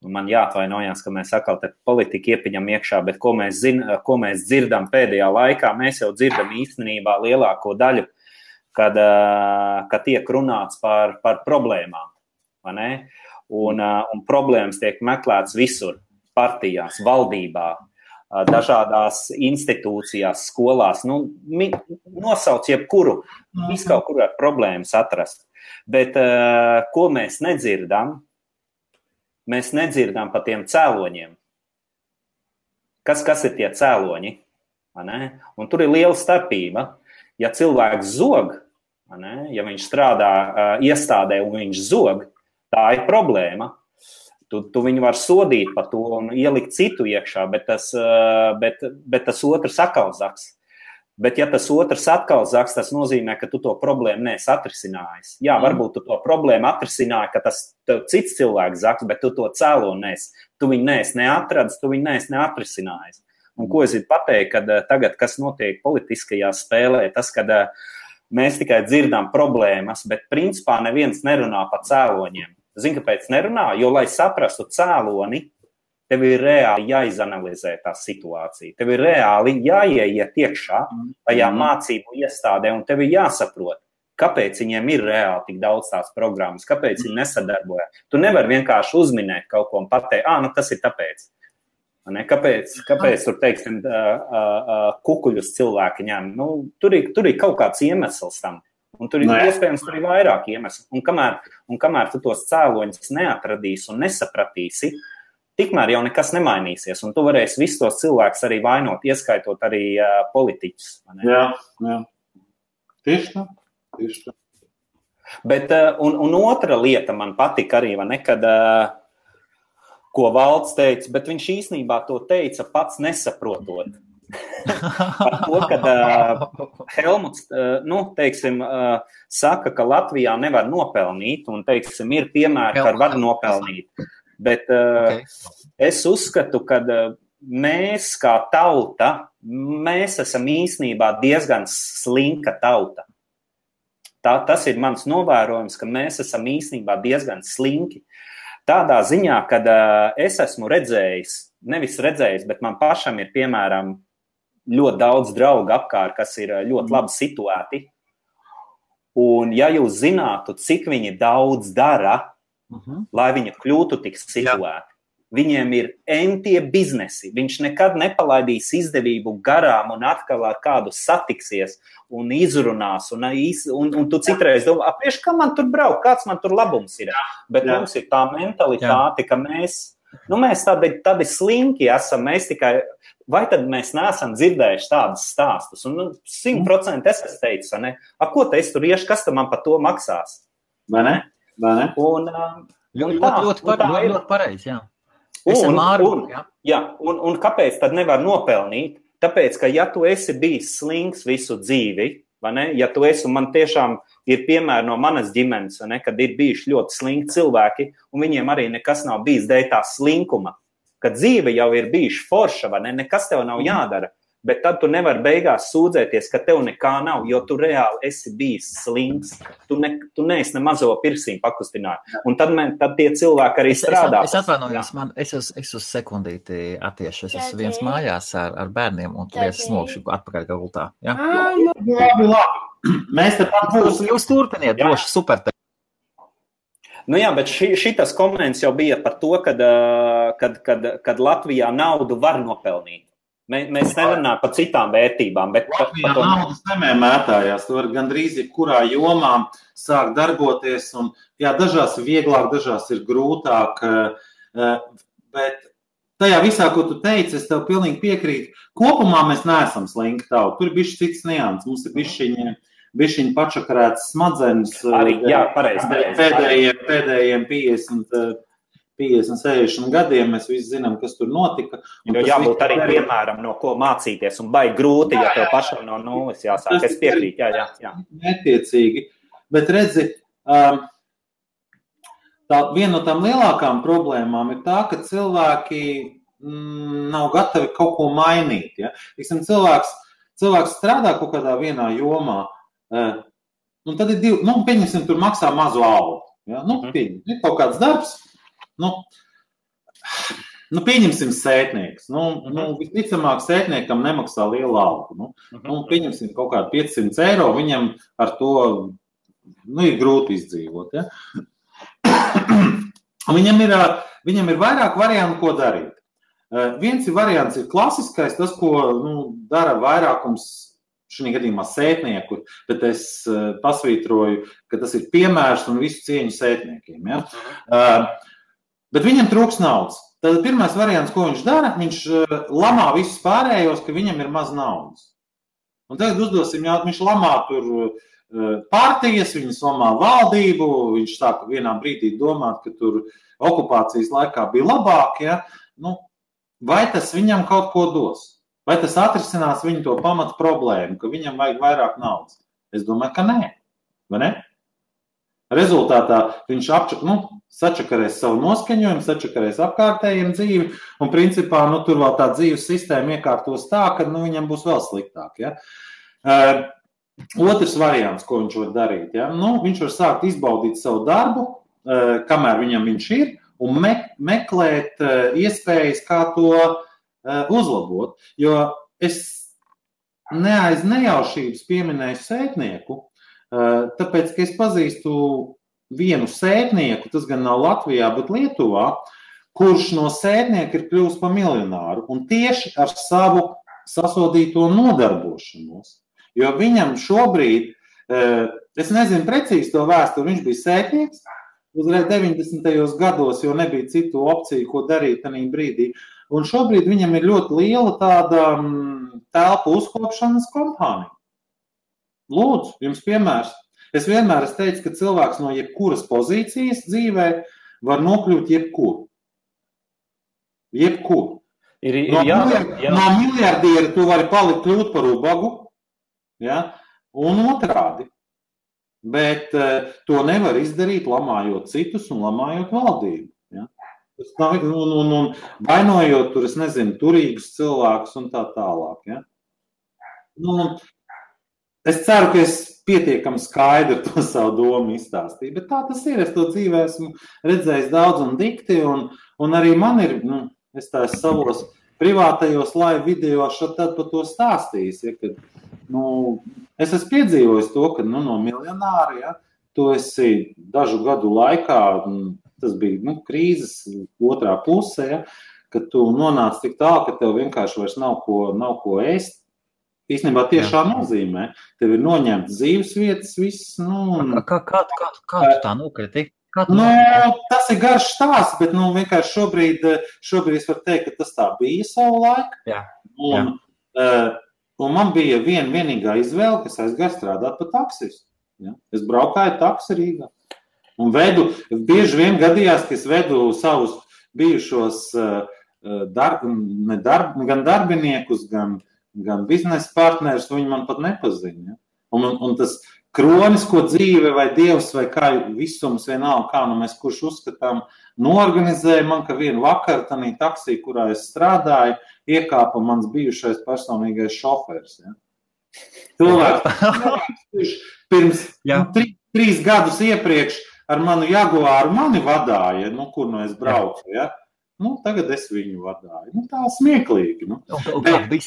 man jāatvainojās, ka mēs atkal te politiku iepiņam iekšā, bet ko mēs dzirdam pēdējā laikā, mēs jau dzirdam īstenībā lielāko daļu, kad tiek runāts par problēmām, vai ne? Un problēmas tiek meklētas visur, partijās, valdībā, dažādās institūcijās, skolās, nosauc jebkuru, viskaut kur ar problēmas atrast. Bet ko mēs nedzirdam? Mēs nedzirdam par tiem cēloņiem. Kas ir tie cēloņi? Un tur ir liela starpība. Ja cilvēks zog, ja viņš strādā iestādē un viņš zog, tā ir problēma. Tu viņu var sodīt par to un ielikt citu iekšā, bet tas otrs atkal zaks. Bet ja tas otrs atkal zaks, tas nozīmē, ka tu to problēmu neesi atrisinājis. Jā, varbūt tu to problēmu atrisināji, ka tas cits cilvēks zaks, bet tu to cēloni neesi. Tu viņu neesi neatradis, tu viņu neesi neatrisinājis. Un ko es gribu pateikt, kad tagad, kas notiek politiskajā spēlē, tas, kad mēs tikai dzirdam problēmas, bet principā neviens nerunā par cēloņiem. Zini, kāpēc nerunā? Jo, lai saprastu cēloni, tev ir reāli jāizanalizē tā situācija. Tev ir reāli jāieiet iekšā tajā mācību iestādē, un tev ir jāsaprot, kāpēc viņiem ir reāli tik daudz tās programmas, kāpēc viņi nesadarbojas. Tu nevari vienkārši uzminēt kaut ko un pateikt, tas ir tāpēc. Kāpēc tur, teiksim, kukuļus cilvēki ņem? Tur ir kaut kāds iemesls tam. Un tur ir iespējams tur ir vairāk iemeslu. Un kamēr tu tos cēloņus neatradīsi un nesapratīsi, tikmēr jau nekas nemainīsies. Un tu varēsi visus tos cilvēkus arī vainot, ieskaitot arī politiķus. Jā. Tieši tā. Bet, un otra lieta man patika arī, kad, ko Valds teica, bet viņš īstenībā to teica pats nesaprotot. Par to, kad Helmuts, teiksim, saka, ka Latvijā nevar nopelnīt, un, teiksim, ir piemēri, ka var nopelnīt. Bet es uzskatu, ka mēs kā tauta, mēs esam īstenībā diezgan slinka tauta. Tas ir mans novērojums, ka mēs esam īstenībā diezgan slinki. Tādā ziņā, kad es esmu nevis redzējis, bet man pašam ir, piemēram, ļoti daudz draugu apkārt, kas ir ļoti labi situēti. Un ja jūs zinātu, cik viņi daudz dara, lai viņi kļūtu tik situēti, viņiem ir entie biznesi. Viņš nekad nepalaidīs izdevību garām un atkal ar kādu satiksies un izrunās. Un tu citreiz domā, priekš, kā man tur braukt, kāds man tur labums ir. Bet mums ir tā mentalitāte, ka mēs tādi slinki esam, mēs tikai... Vai tad mēs neesam dzirdējuši tādus stāstus? Un 100% es teicu, ne? Ko te es tur iešu, kas tam man par to maksās? Vai ne? Un ļoti pareizi, jā. Un kāpēc tad nevar nopelnīt? Tāpēc, ka ja tu esi bijis slinks visu dzīvi, vai ne? Ja tu esi, un man tiešām ir piemēri no manas ģimenes, vai ne? Kad ir bijuši ļoti slinki cilvēki, un viņiem arī nekas nav bijis dēļ tā slinkuma. Kad dzīve jau ir bijuši forša, vai ne? Nekas tev nav jādara, bet tad tu nevari beigās sūdzēties, ka tev nekā nav, jo tu reāli esi bijis slinks. Tu neesi ne mazo pirsīm pakustināt. Un tad tie cilvēki arī strādā. Es atvainojos, es uz sekundīti attiešu. Es esmu viens mājās ar bērniem, un tur es smogšu atpakaļ gultā. Ja? Labi. Mēs te pat būsim. Jūs turpiniet, droši, super. Bet šitas komments jau bija par to, kad Latvijā naudu var nopelnīt. Mēs nerunājam par citām vērtībām. Bet Latvijā naudas nemētājās. Tu vari gandrīz jebkurā jomā sākt darboties. Un, dažās ir vieglāk, dažās ir grūtāk. Bet tajā visā, ko tu teici, es tev pilnīgi piekrītu. Kopumā mēs neesam slinki tauta. Tur ir bišķi cits nians. Mums ir bišķiņi pačakarētas smadzenes. Arī, pareizi. Pēdējiem 50, 60 gadiem mēs visi zinām, kas tur notika. Jo jābūt arī piemēram, no ko mācīties, un baigi grūti, ja tev pašam no nulles jāsāk. Es piekrītu, jā. Netiecīgi. Bet redzi, viena no tām lielākām problēmām ir tā, ka cilvēki nav gatavi kaut ko mainīt. Ja? Cilvēks strādā kaut kādā vienā jomā, Un tad ir divi, pieņemsim, tur maksā mazu algu. Ja? Ir kaut kāds darbs, pieņemsim sētnieks. Visticamāk, sētniekam nemaksā lielu algu. Pieņemsim kaut kādu 500 eiro, viņam ar to ir grūti izdzīvot. Ja? Viņam ir vairāk variantu, ko darīt. Viens variants ir klasiskais, tas, ko dara vairākums šī gadījumā sētnieku, bet es pasvītroju, ka tas ir piemērs un visu cieņu sētniekiem. Ja? Bet viņam trūks naudas. Tad pirmais variants, ko viņš dara, viņš lamā visus pārējos, ka viņam ir maz naudas. Un tagad uzdosim jautājumu, viņš lamā tur partijas, viņas lamā valdību, viņš sāka vienā brīdī domāt, ka tur okupācijas laikā bija labāk, ja? Vai tas viņam kaut ko dos? Vai tas atrisinās viņu to pamatu problēmu, ka viņam vajag vairāk naudas? Es domāju, ka nē. Vai ne? Rezultātā viņš sačakarēs savu noskaņojumu, sačakarēs apkārtējiem dzīvi, un principā tur vēl tā dzīves sistēma iekārtos tā, ka viņam būs vēl sliktāk. Ja? Otrs variants, ko viņš var darīt, ja? Viņš var sākt izbaudīt savu darbu, kamēr viņš ir, un meklēt iespējas, kā to uzlabot. Jo es aiz nejaušības pieminēju sētnieku, tāpēc, ka es pazīstu vienu sētnieku, tas gan nav Latvijā, bet Lietuvā, kurš no sētnieka ir kļuvis par miljonāru, un tieši ar savu sasodīto nodarbošanos. Jo viņam šobrīd, es nezinu precīzi to vēsturi, viņš bija sētnieks, uzreiz 90. gados, jo nebija citu opciju, ko darīt tajā brīdī. Un šobrīd viņam ir ļoti liela tāda telpu uzkopšanas kompānija. Lūdzu, jums piemērs. Es vienmēr teicu, ka cilvēks no jebkuras pozīcijas dzīvē var nokļūt jebkur. Jebkur. No miljardiera tu vari kļūt par ubagu, ja? Un otrādi. Bet to nevar izdarīt, lamājot citus un lamājot valdību. Ja? Un vainojot tur, es nezinu, turīgus cilvēkus un tā tālāk. Ja? Es ceru, ka es pietiekami skaidri to savu domu izstāstīju, bet tā tas ir. Es to dzīvē esmu redzējis daudz un dikti, un arī man ir, es tā savos privātajos live video tad par to stāstījis, ja, kad, es esmu piedzīvojis to, ka no miljonāra, ja, tu esi dažu gadu laikā, tas bija krīzes otrā puse, ja, kad tu nonāc tik tālu, ka tev vienkārši vairs nav ko ēst. Īstenībā tiešā nozīmē. Tev ir noņemts dzīves vietas, viss. Kā tu tā nokriti? Tas ir garš stāsts, bet vienkārši šobrīd es varu teikt, ka tas tā bija savu laiku. Jā. Un man bija vienīgā izvēle, kas aizgāja strādāt par taksistu. Ja? Es braukāju taksi Rīgā. Un bieži vien gadījās, ka es vedu savus bijušos gan darbiniekus, gan biznesa partnerus, viņi man pat nepazina. Ja? Un tas kronisko dzīve vai dievs vai kā visums vienalga, kā mēs kurš uzskatām, noorganizēja man, ka vienu vakaru tanī taksī, kurā es strādāju, iekāpa mans bijušais personīgais šofers. Ja? Cilvēks pirms 3 gadus iepriekš ar manu Jaguāru mani vadāja, kur es braucu. Ja? Tagad es viņu vadāju. Tā smieklīgi. Kāda bija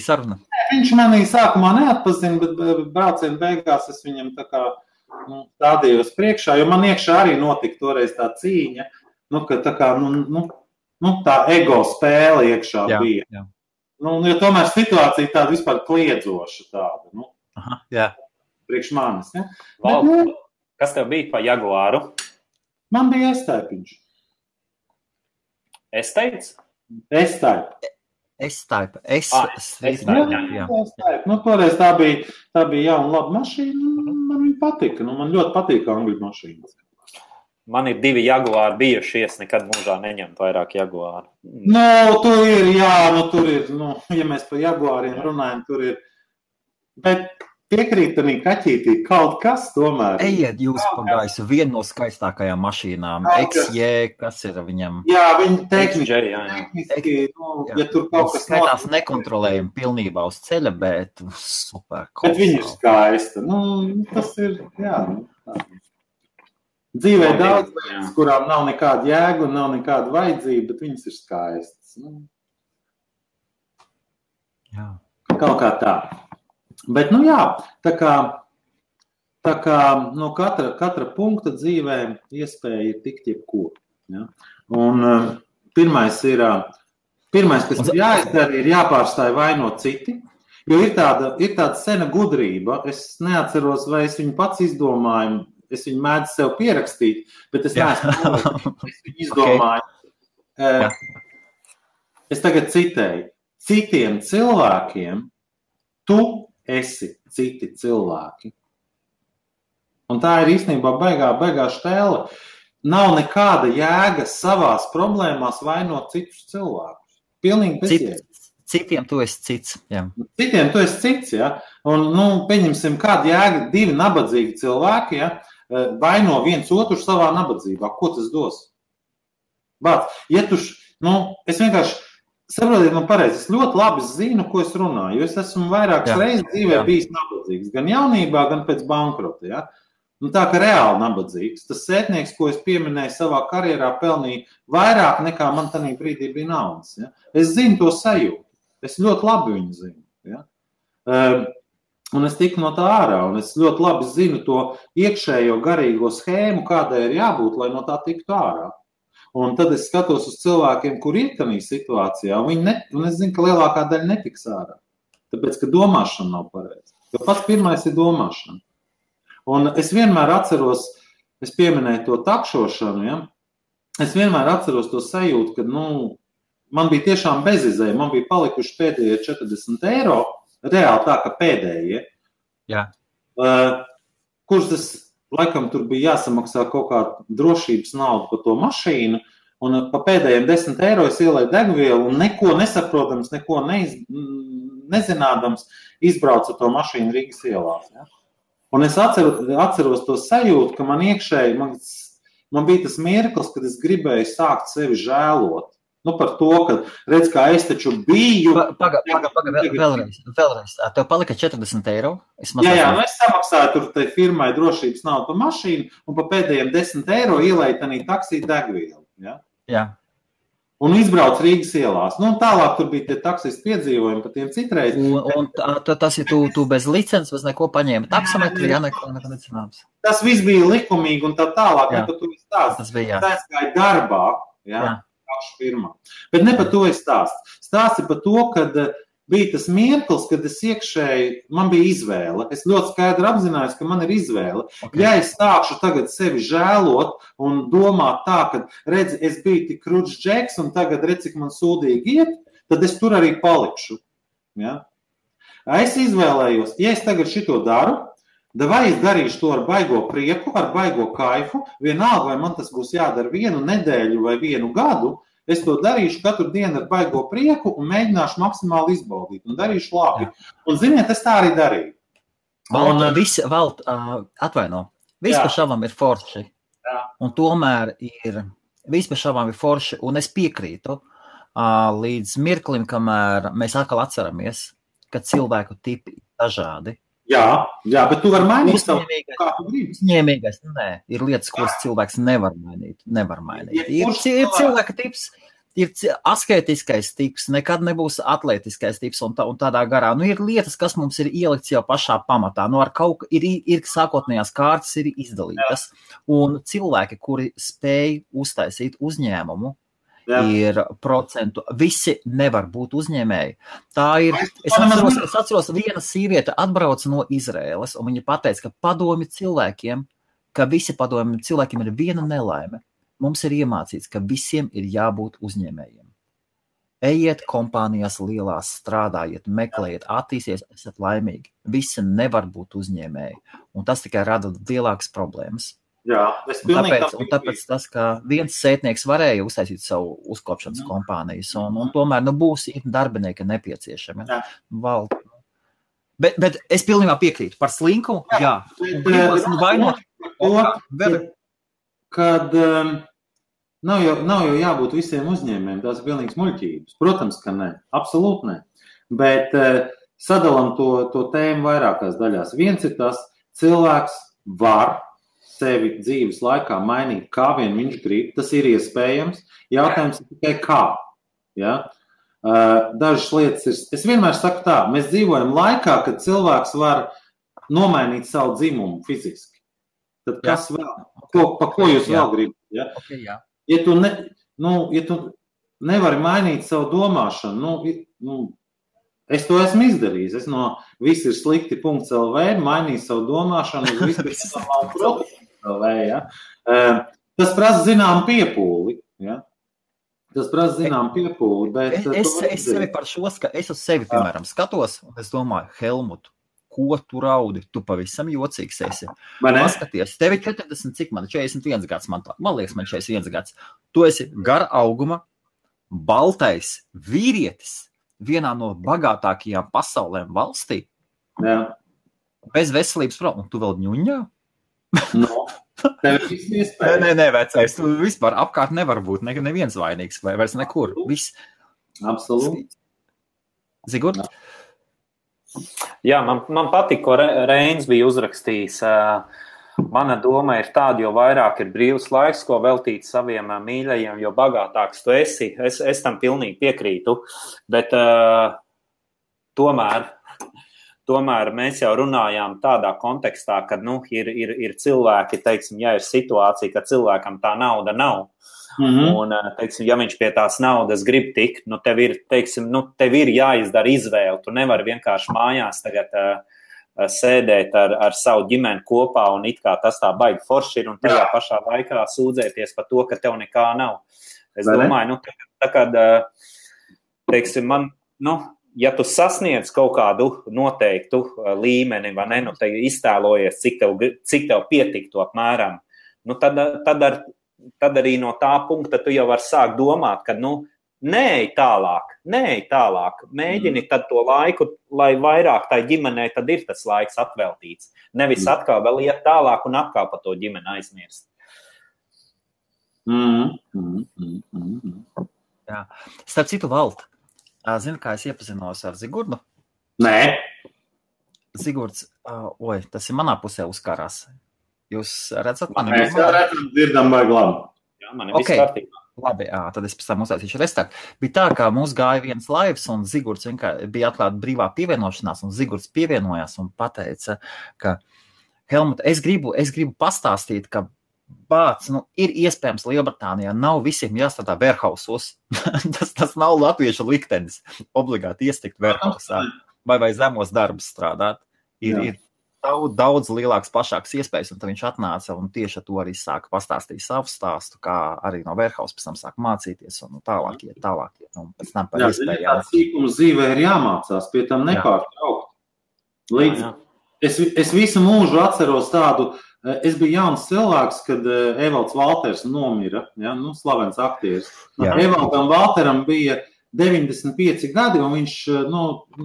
saruna? Viņš manī sākumā neatpazina, bet brauciena beigās es viņam tā kā stādījos priekšā, jo man iekšā arī notika toreiz tā cīņa, ka tā kā, tā ego spēle iekšā bija. Jā. Jo tomēr situācija tāda vispār kliedzoša tāda. Jā. Priekš manis. Ja? Kas tev bija pa Jaguāru? Man bija S-Type. S-Type? S-Type. S-Type. Jā. Toreiz tā bija jauna laba mašīna. Man viņa patika. Man ļoti patīk angļu mašīnas. Man ir 2 Jaguāri bijušies, nekad mūžā neņemt vairāk Jaguāru. Tur ir, ja mēs par Jaguāriem runājam, tur ir. Bet piekrīt, ka kaķītī kaut kas tomēr. Ejiet jūs pa gaisu, viena no skaistākajām mašīnām, XJ, kas ir viņam? Jā, viņi tehniski, ja tur kaut kas skaitās nekontrolējami pilnībā uz ceļa, bet super. Bet viņi ir skaisti. Tas ir, jā. Dzīvē daudz, kurām nav nekāda jēga un nav nekāda vajadzība, bet viņas ir skaistas. Jā. Kaut kā tā. Bet, jā, tā kā no katra punkta dzīvē iespēja ir tikt jebko. Ja? Un pirmais, kas ir jāizdara, ir jāpārstāj vainot citi, jo ir tāda sena gudrība, es neatceros, vai es viņu pats izdomāju, es viņu mēdzu sev pierakstīt, bet es neesmu viņu izdomāju. Okay. Es tagad citēju, citiem cilvēkiem tu esi citi cilvēki. Un tā ir īstenībā baigā štēle. Nav nekāda jēga savās problēmās vainot citus cilvēkus. Pilnīgi bezjēga. Citiem tu esi cits. Jā. Citiem tu esi cits, ja. Un, pieņemsim, kāda jēga divi nabadzīgi cilvēki, ja, vaino viens otru savā nabadzībā. Ko tas dos? Bāc, ja es vienkārši saprotiet man pareizi, es ļoti labi zinu, ko es runāju, jo es esmu vairākas reizes dzīvē bijis nabadzīgs, gan jaunībā, gan pēc bankrota, ja. Tā kā reāli nabadzīgs. Tas sētnieks, ko es pieminēju savā karjerā, pelnīja vairāk nekā man tanī brīdī bija naudas, ja. Es zinu to sajūtu. Es ļoti labi viņu zinu, ja. Un es tiku no tā ārā, un es ļoti labi zinu to iekšējo garīgo schēmu, kādai ir jābūt, lai no tā tiktu ārā. Un tad es skatos uz cilvēkiem, kur ir tādā situācijā, un es zinu, ka lielākā daļa netiks ārā. Tāpēc, ka domāšana nav pareiza. Jo pats pirmais ir domāšana. Un es vienmēr atceros, es pieminēju to takšošanu, ja? Es vienmēr atceros to sajūtu, ka, man bija tiešām bezizēja, man bija palikuši pēdējie 40 eiro, reāli tā, ka pēdējie. Jā. Kurus es, laikam, tur bija jāsamaksā kaut kāda drošības nauda par to mašīnu, un pa pēdējiem 10 eiro es ielēju degvielu, un neko nesaprotams, neko nezinādams, izbraucu to mašīnu Rīgas ielās. Ja? Un es atceros to sajūtu, ka man iekšēji, man bija tas mirklis, kad es gribēju sākt sevi žēlot. Par to, ka redz, kā es taču biju. Vēlreiz. Tev palika 40 eiro? Es samaksāju tur tai firmai drošības naudu par mašīnu, un pa pēdējiem 10 eiro ielēju tanī taksī degvielu. Ja? Jā. Un izbrauc Rīgas ielās. Tālāk tur bija tie taksisti piedzīvojumi par tiem citreiz. Un tas ir tu bez licences, bez neko paņēma taksometri, neko necināms. Tas viss bija likumīgi un tā tālāk, ne par to stāst. Tas bija, jā. Tas gāja darbā, jā. Firmā. Bet ne par to es stāstu. Stāsti par to, kad bija tas mirklis, kad es iekšēji, man bija izvēle. Es ļoti skaidri apzinājos, ka man ir izvēle. Okay. Ja es sākšu tagad sevi žēlot un domāt tā, ka redzi, es biju tik kručs džeks un tagad redz, cik man sūdīgi iet, tad es tur arī palikšu. Ja? Es izvēlējos, ja es tagad šito daru, vai es darīšu to ar baigo prieku, ar baigo kaifu, vienalga, vai man tas būs jādara 1 nedēļu vai 1 gadu, es to darīšu katru dienu ar baigo prieku un mēģināšu maksimāli izbaudīt un darīšu labi. Un, ziniet, es tā arī darīju. Atvaino, viss pa šavam ir forši. Jā. Un tomēr viss pa šavam ir forši, un es piekrītu līdz mirklim, kamēr mēs atkal atceramies, ka cilvēku tipi ir dažādi. Jā, bet tu vari mainīt savu, kā tu gribi. Uzņēmīgais, nē, ir lietas, kuras cilvēks nevar mainīt. Ir cilvēka tips, ir asketiskais tips, nekad nebūs atletiskais tips un tādā garā. Ir lietas, kas mums ir ielikts jau pašā pamatā. Ar kaut ir sākotnējās kārtas ir izdalītas. Un cilvēki, kuri spēj uztaisīt uzņēmumu, ir procentu. Visi nevar būt uzņēmēji. Tā ir. Es atceros, viena sīviete atbrauca no Izraēlas, un viņa pateica, ka padomi cilvēkiem, ka visi padomi cilvēkiem ir viena nelaime. Mums ir iemācīts, ka visiem ir jābūt uzņēmējiem. Ejiet kompānijās lielās, strādājiet, meklējiet, attīsties, esat laimīgi. Visi nevar būt uzņēmēji, un tas tikai rada lielākas problēmas. Jā, tāpēc tas, ka viens sētnieks varēja uztaisīt savu uzkopšanas kompānijas, un tomēr būs darbinieki nepieciešami. Bet es pilnībā piekrītu par slinkumu. Jā. Kad nav jau jābūt visiem uzņēmējiem, tās ir pilnīgas muļķības. Protams, ka nē, absolūti nē. Bet sadalam to tēmu vairākās daļās. Viens ir tas, cilvēks var sevi dzīves laikā mainīt, kā vien viņš grib. Tas ir iespējams. Jautājums ir tikai kā. Ja? Dažas lietas ir. Es vienmēr saku tā, mēs dzīvojam laikā, kad cilvēks var nomainīt savu dzimumu fiziski. Tad kas vēl? Pa ko jūs vēl gribat? Ja? Okay, jā. Ja tu nevari mainīt savu domāšanu, es to esmu izdarījis. Es no viss ir slikti.lv mainīju savu domāšanu uz viss.lv. Ja? Tas prasa zinām piepūli. Ja? Tas prasa zinām piepūli. Bet es sevi par šo, es uz sevi, piemēram, skatos, un es domāju, Helmutu, ko tu raudi? Tu pavisam jocīgs esi. Paskaties, tev ir 40, cik man 41 gads, man liekas, man 41 gads. Tu esi gara auguma, baltais vīrietis vienā no bagātākajām pasaulēm valstī. Jā. Bez veselības problēmu. Un tu vēl ņuņā? No. Tev ir viss iespējas. Nē, vecais, tu vispār apkārt nevar būt neviens vainīgs vai vairs nekur. Viss. Absolūti. Zigurd? Jā, man patīk, ko Reins bija uzrakstījis. Mana doma ir tāda, jo vairāk ir brīvs laiks, ko veltīt saviem mīļajiem, jo bagātāks tu esi. Es tam pilnīgi piekrītu, bet tomēr mēs jau runājām tādā kontekstā, kad ir cilvēki, teiksim, ja ir situācija, ka cilvēkam tā nauda nav. Un, teiksim, ja viņš pie tās naudas grib tikt, tev ir jāizdara izvēle. Tu nevari vienkārši mājās tagad sēdēt ar savu ģimeni kopā un it kā tas tā baigi forši ir un tajā pašā laikā sūdzēties par to, ka tev nekā nav. Es domāju, teiksim, ja tu sasniedz kaut kādu noteiktu līmeni, vai ne, te iztēlojies, cik tev pietiktu apmēram, tad arī no tā punkta tu jau vari sākt domāt, ka, neej tālāk, mēģini tad to laiku, lai vairāk tai ģimenei tad ir tas laiks atveltīts. Nevis atkal vēl iet tālāk un atkal par to ģimeni aizmirst. Jā. Starp citu, Valt, zini, kā es iepazinos ar Zigurdu? Nē. Zigurds, tas ir manā pusē uzkarās. Jūs redzat mani? Mēs jau redzam, dzirdam vai labi. Jā, man ir viss kārtībā. Labi, tad es pēc tam uztaisīšu restart. Bija tā, ka mums gāja viens laivs un Zigurds bija atklāta brīvā pievienošanās un Zigurds pievienojās un pateica, ka Helmut, es gribu pastāstīt, ka ir iespējams Lielbritānijā nav visiem jāstrādā warehousos. tas nav latviešu liktenis obligāti iestikt warehousā vai zemos darbus strādāt. Ir daudz lielāks, plašāks iespējas, un tad viņš atnāca un tieši ar to arī sāka pastāstīt savu stāstu, kā arī no warehouse pēc tam sāka mācīties un tālāk iet, un pēc tam par iespējām. Jā, sīkums dzīvē ir jāmācās, pie tam nepārtraukt. Es visu mūžu atceros tādu, es biju jauns cilvēks, kad Evalds Valters nomira, slavens aktieris. Evaldam Valteram bija 95 gadi, un viņš,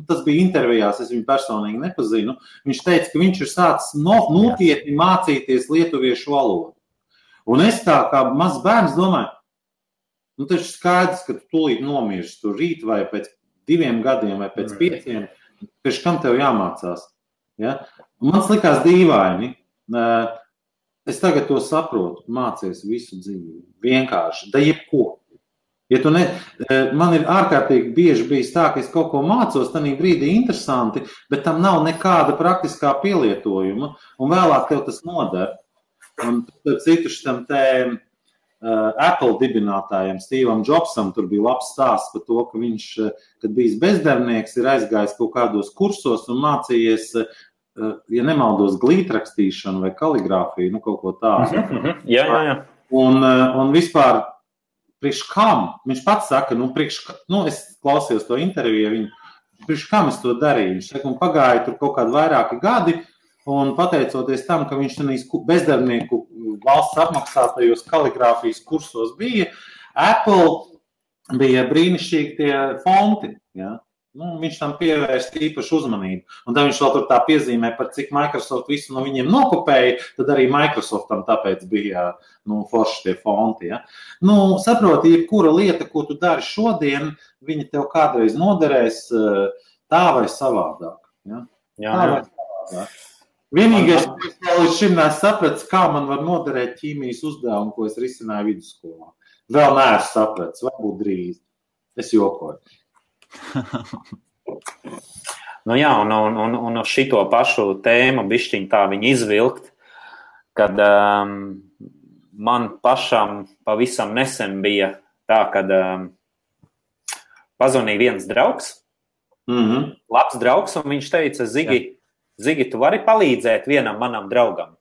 tas bija intervijās, es viņu personīgi nepazinu, viņš teica, ka viņš ir sācis nopietni mācīties lietuviešu valodu. Un es tā kā mazs bērns domāju, taču skaidrs, ka tu tūlīt nomirsti tur rīt vai pēc 2 gadiem vai pēc 5, pēc kam tev jāmācās. Ja? Man likās dīvaini. Es tagad to saprotu, mācies visu dzīvi. Vienkārši, da jebko. Ja man ir ārkārtīgi bieži bijis tā, ka es kaut ko mācos, tad brīdī interesanti, bet tam nav nekāda praktiskā pielietojuma, un vēlāk tev tas noder. Un citu šitam Apple dibinātājiem, Stevam Jobsam, tur bija labs stāsts par to, ka viņš, kad bijis bezdarbnieks, ir aizgājis kaut kādos kursos un mācījies, ja nemaldos, glītrakstīšanu vai kaligrāfiju, kaut ko tādu. Jā. Un vispār priekš kam? Viņš pats saka, es klausījos to interviju, priekš kam es to darīju? Viņš saka, un pagāja tur kaut kādi vairāki gadi, un pateicoties tam, ka viņš tenīs bezdarbnieku valsts apmaksātajos kaligrāfijas kursos bija, Apple bija brīnišķīgi tie fonti, ja? viņš tam pievērst īpašu uzmanību. Un tad viņš vēl tur tā piezīmē, par cik Microsoft visu no viņiem nokopēja, tad arī Microsoftam tāpēc bija forši tie fonti. Ja? Saproti, jebkura lieta, ko tu dari šodien, viņa tev kādreiz noderēs tā vai savādāk. Ja? Tā vai savādāk. Vienīgais, ko līdz šim nesapratis, kā man var noderēt ķīmijas uzdevumu, ko es risināju vidusskolā. Vēl neesmu sapratis, varbūt drīz. Es jokoju. Un uz šito pašu tēmu bišķiņ tā viņa izvilkt, kad man pašam pavisam nesen bija tā, kad pazvanīja viens draugs, labs draugs, un viņš teica, Zigi, tu vari palīdzēt vienam manam draugam.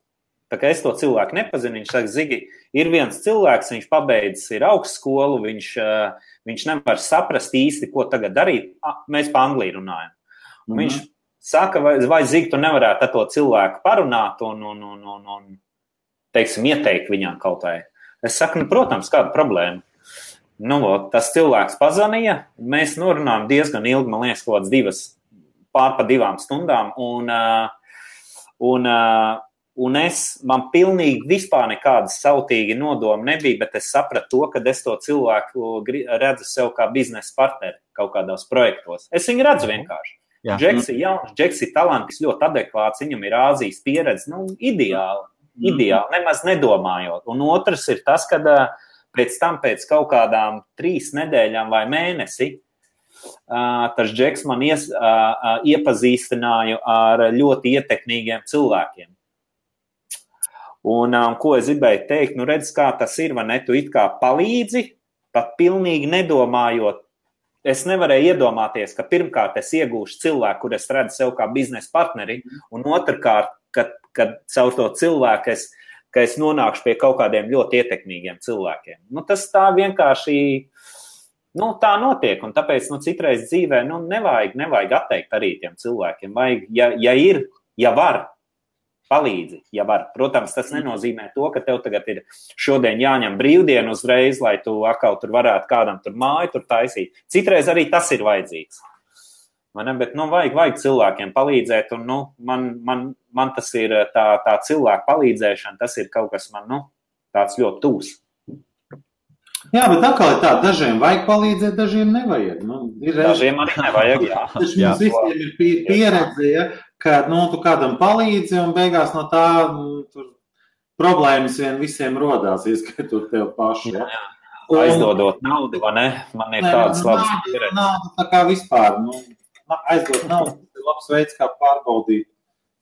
Tā kā es to cilvēku nepazinu, viņš saka, Zigi, ir viens cilvēks, viņš pabeidzis ir augstskolu, viņš nevar saprast īsti, ko tagad darīt. Mēs pa Angliju runājam. Viņš saka, vai Zigi, tu nevarētu ar to cilvēku parunāt un teiksim, ieteikt viņam kaut vai. Es saku, protams, kāda problēma. Tas cilvēks pazvanīja, mēs norunājam diezgan ilgi, man liekas, kaut kāds pār pa 2 stundām, man pilnīgi vispār nekādas sautīgi nodomi nebija, bet es sapratu to, ka es to cilvēku redzu sev kā biznesa partneri kaut kādos projektos. Es viņu redzu vienkārši. Džeks ir jauns, Džeks ir talantis, ļoti adekvāts, viņam ir Āzijas pieredze, ideāli, nemaz nedomājot. Un otrs ir tas, kad pēc kaut kādām 3 nedēļām vai mēnesi, tas Džeks man iepazīstināju ar ļoti ietekmīgiem cilvēkiem. Un ko es gribēju teikt, redz, kā tas ir, vai ne, tu it kā palīdzi, pat pilnīgi nedomājot. Es nevarēju iedomāties, ka pirmkārt es iegūšu cilvēku, kur es redzu sev kā biznesa partneri, un otrkārt, kad caur to cilvēku ka es nonākšu pie kaut kādiem ļoti ietekmīgiem cilvēkiem. Tas tā vienkārši... tā notiek, un tāpēc, citreiz dzīvē, nevajag atteikt arī tiem cilvēkiem. Vajag, ja var, palīdzi, ja var. Protams, tas nenozīmē to, ka tev tagad ir šodien jāņem brīvdienu uzreiz, lai tu atkal tur varētu kādam tur māju tur taisīt. Citreiz arī tas ir vajadzīgs. Bet, vajag cilvēkiem palīdzēt, un, man tas ir tā cilvēku palīdzēšana, tas ir kaut kas man, tāds ļoti tūs. Jā, bet atkal ir tā, dažiem vajag palīdzēt, dažiem nevajag. Dažiem arī nevajag, jā. Taču mums visiem ir pieredze, ja, ka tu kādam palīdzi un beigās no tā tur problēmas visiem rodās, ieskaitot tev pašu. Ja. Aizdodot naudu, vai ne? Man ir tādas labas pieredzes. Naudu tā kā vispār. Aizdot naudu, tas ir labs veids, kā pārbaudīt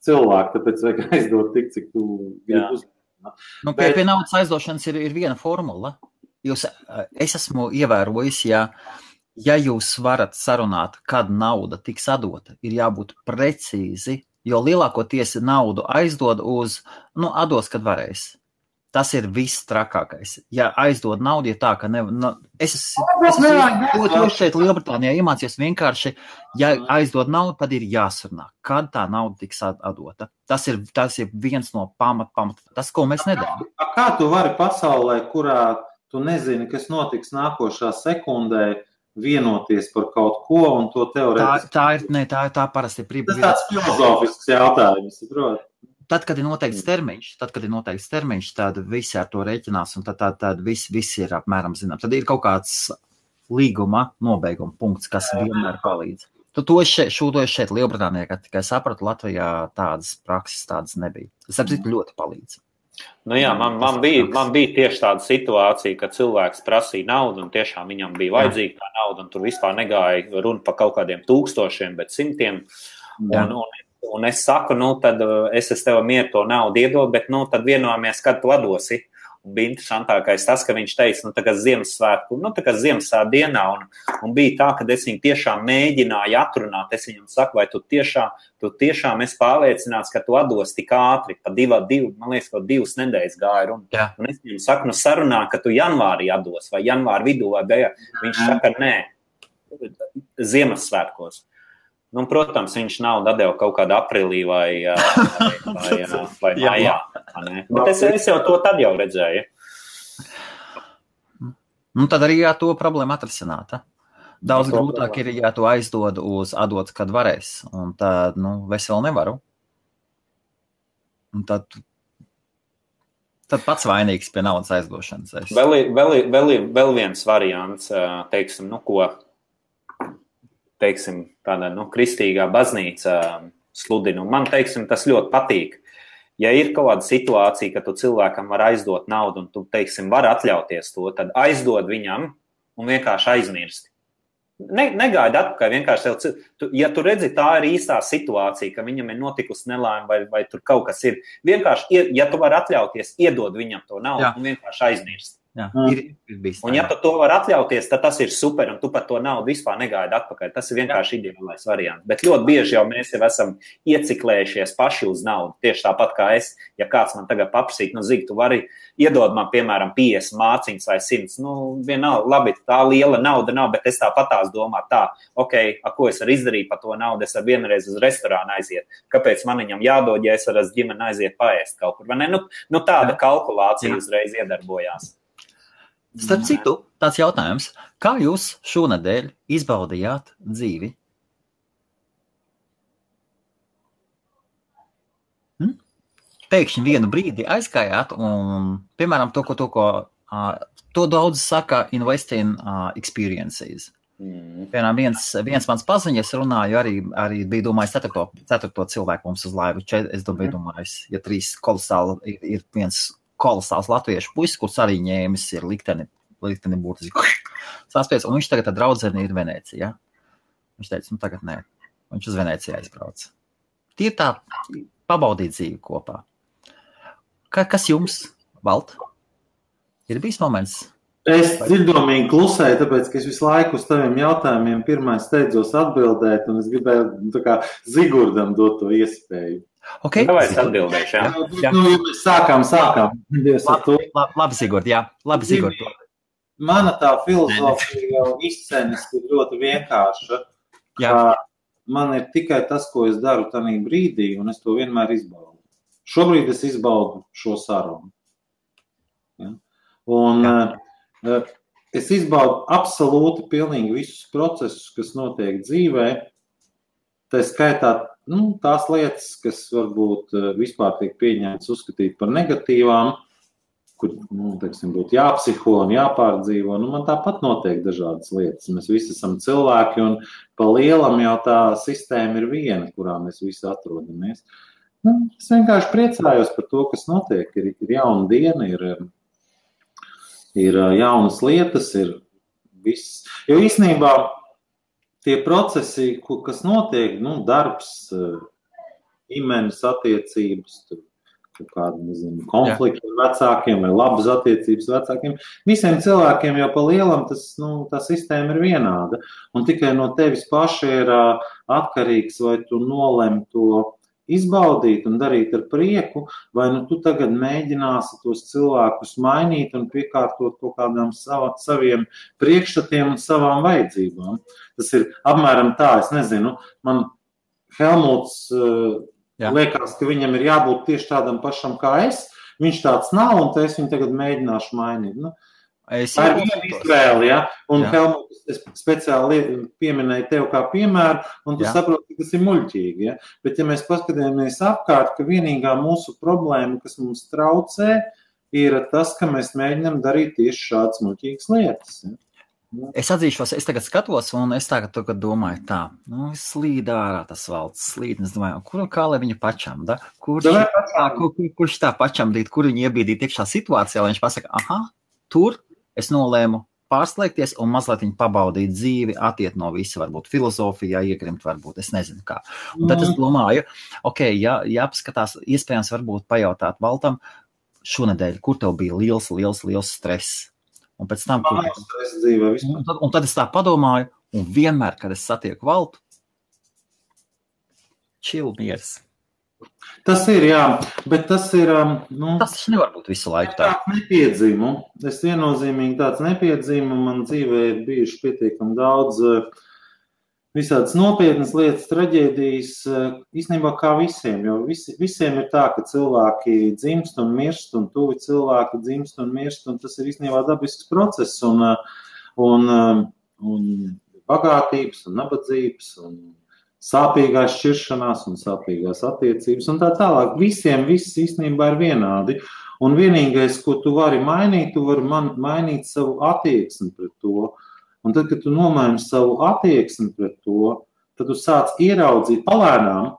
cilvēku, tāpēc vajag aizdot tik, cik tu gribi uzmanīt. Pie naudas aizdošanas ir viena formula. Es esmu ievērojis, ja jūs varat sarunāt, kad nauda tiks atdota, ir jābūt precīzi, jo lielākoties naudu aizdod atdos, kad varēs. Tas ir viss trakākais. Ja aizdod naudu, ja tā, ka es šeit Lielbritānijā iemācījos vienkārši, ja aizdod naudu, tad ir jāsarunā, kad tā nauda tiks atdota. Tas ir viens no pamat, tas, ko mēs nedarām. Kā tu vari pasaulē, kurā tu nezini, kas notiks nākošā sekundē, vienoties par kaut ko un to teorētiski? Tā parasti ir tas tāds filozofisks jautājums, saprot? Tad, kad ir noteikts termiņš, tad visi ar to rēķinās, un tad viss ir apmēram zināms. Tad ir kaut kāds līguma nobeiguma punkts, kas vienmēr palīdz. To šeit Lielbritānijā, kad tikai sapratu, Latvijā tādas prakses tādas nebija. Tas ļoti palīdz. Man bija tieši tāda situācija, ka cilvēks prasīja naudu, un tiešām viņam bija vajadzīga tā nauda, un tur vispār negāja runa par kaut kādiem 1000, bet 100. Un es saku, tad es tev mieru to naudu iedod, bet tad vienojāmies, kad tu atdosi. Un bija interesantākais tas, ka viņš teica, tagad Ziemassvētku, tagad Ziemassvētku dienā, un bija tā, ka es viņu tiešām mēģināju atrunāt. Es viņam saku, vai tu tiešām esi pārliecināts, ka tu atdos tik ātri, pa 2, man liekas, kaut 2 nedēļas gāja runa. Un es viņam saku, sarunā, ka tu janvārī atdos, vai janvāri vidū, vai beigā. Viņš saka, nē, Ziemassvētkos. Protams, viņš naudu atdeva kaut kādā aprīlī vai maijā. Bet es jau to tad jau redzēju. Tad arī to problēmu atrisināta. Daudz grūtāk ir, ja tu aizdod uz atdot, kad varēs. Un tad, es vēl nevaru. Un tad pats vainīgs pie naudas aizdošanas. Vēl viens variants, tāda, kristīgā baznīca sludina. Man, tas ļoti patīk. Ja ir kaut kāda situācija, ka tu cilvēkam var aizdot naudu un tu, var atļauties to, tad aizdod viņam un vienkārši aizmirsti. Negaidi atpakaļ, vienkārši ja tu redzi, tā ir īstā situācija, ka viņam ir notikusi nelaime vai tur kaut kas ir, vienkārši, ja tu vari atļauties, iedod viņam to naudu un vienkārši aizmirst. Jā, ir bijis. Un ja tu to var atļauties, tad tas ir super, un tu par to naudu vispār negaidi atpakaļ. Tas ir vienkārši ideālais variants. Bet ļoti bieži jau mēs jau esam ieciklējušies paši uz naudu. Tieši tāpat kā es, ja kāds man tagad paprasīt, Zig, tu vari iedod man, piemēram, 50 mārciņas vai 100. Vienalga, labi, tā liela nauda nav, bet es tāpatās domāju tā, ko es varu izdarīt par to naudu, es varu vienreiz uz restorānu aiziet. Kāpēc man viņam jādod, ja es varu ar ģimeni aiziet paēst kaut kur? Vai ne? Tāda kalkulācija uzreiz iedarbojās. Starp citu, tāds jautājums. Kā jūs šonedēļ izbaudījāt dzīvi? Pēkšņi vienu brīdi aizgājāt un, piemēram, to daudz saka invest in experiences. Piemēram, viens mans paziņas runāju, arī bija domājis ceturto cilvēku mums uz laivu. Es domājis, ja 3 kolosāli ir viens kolosāls latviešu puisis, kurš arī ņēmis ir likteni būtiski saspies, un viņš tagad ar draudzeni ir Venecija. Viņš teica, tagad nē. Viņš uz Veneciju aizbrauc. Tie ir tā pabaudīt dzīvi kopā. Kas jums, Valt? Ir bijis moments? Es dzirdomīgi klusēju, tāpēc, ka es visu laiku uz taviem jautājumiem pirmais steidzos atbildēt, un es gribēju Zigurdam dot to iespēju. Okay. Vai es atbildēšu, jā? Mēs sākām. Labi, Sigurd, jā. Labi, Sigurd. Mana tā filozofija jau izcenis ir ļoti vienkārša. Man ir tikai tas, ko es daru tanī brīdī, un es to vienmēr izbaudu. Šobrīd es izbaudu šo sarunu. Ja? Un es izbaudu absolūti pilnīgi visus procesus, kas notiek dzīvē. Tā skaitā tās lietas, kas varbūt vispār tiek pieņemtas uzskatīt par negatīvām, kur, būtu jāpsiho un jāpārdzīvo. Man tāpat notiek dažādas lietas. Mēs visi esam cilvēki, un pa lielam jau tā sistēma ir viena, kurā mēs visi atrodamies. Es vienkārši priecājos par to, kas notiek. Ir jauna diena, ir jaunas lietas, ir viss. Jo īstenībā tie procesi, kas notiek, darbs, ģimenes attiecības, konflikti ar vecākiem vai labas attiecības vecākiem, visiem cilvēkiem jau pa lielam tā sistēma ir vienāda. Un tikai no tevis paša ir atkarīgs, vai tu nolem to izbaudīt un darīt ar prieku, vai tu tagad mēģināsi tos cilvēkus mainīt un piekārtot kaut kādām saviem priekšstatiem un savām vajadzībām. Tas ir apmēram tā, es nezinu, man Helmuts liekas, ka viņam ir jābūt tieši tādam pašam kā es, viņš tāds nav, un es viņu tagad mēģināšu mainīt. Tā ir viena izvēle, ja? Un Helmuts, es speciāli pieminēju tev kā piemēru, un tu saproti, ka tas ir muļķīgi, ja? Bet ja mēs paskatāmies apkārt, ka vienīgā mūsu problēma, kas mums traucē, ir tas, ka mēs mēģinām darīt tieši šādas muļķīgas lietas. Ja? Es atzīšos, es tagad skatos, un es tagad domāju tā, slīd ārā tas Valds, slīd, un es domāju, kā lai viņu pačam, da? Kurš tā pačam dīt, kur viņu iebīdīt iekšā situācijā, lai viņš pasaka, tur es nolēmu pārslēgties un mazliet viņu pabaudīt dzīvi, atiet no visa, varbūt filozofijā, iegrimt, varbūt, es nezinu kā. Un tad es domāju, jāpaskatās, iespējams varbūt pajautāt Valtam šonedēļ, kur tev bija liels stress. Un pēc tam, un tad es tā padomāju, un vienmēr, kad es satieku Valtu, chill miers. Tas ir, jā, bet tas ir... tas nevar būt visu laiku tā. Tāds nepiedzīmu. Es viennozīmīgi tāds nepiedzīmu. Man dzīvē ir bijuši pietiekami daudz visādas nopietnas lietas, traģēdijas, īstenībā kā visiem, jo visiem ir tā, ka cilvēki dzimst un mirst, un tuvi cilvēki dzimst un mirst, un tas ir īstenībā dabisks process, un bagātības un nabadzības un sāpīgās šķiršanās un sāpīgās attiecības un tā tālāk. Visiem viss īstenībā ir vienādi. Un vienīgais, ko tu vari mainīt, tu vari mainīt savu attieksmi pret to. Un tad, kad tu nomaini savu attieksmi pret to, tad tu sāc ieraudzīt palēnām.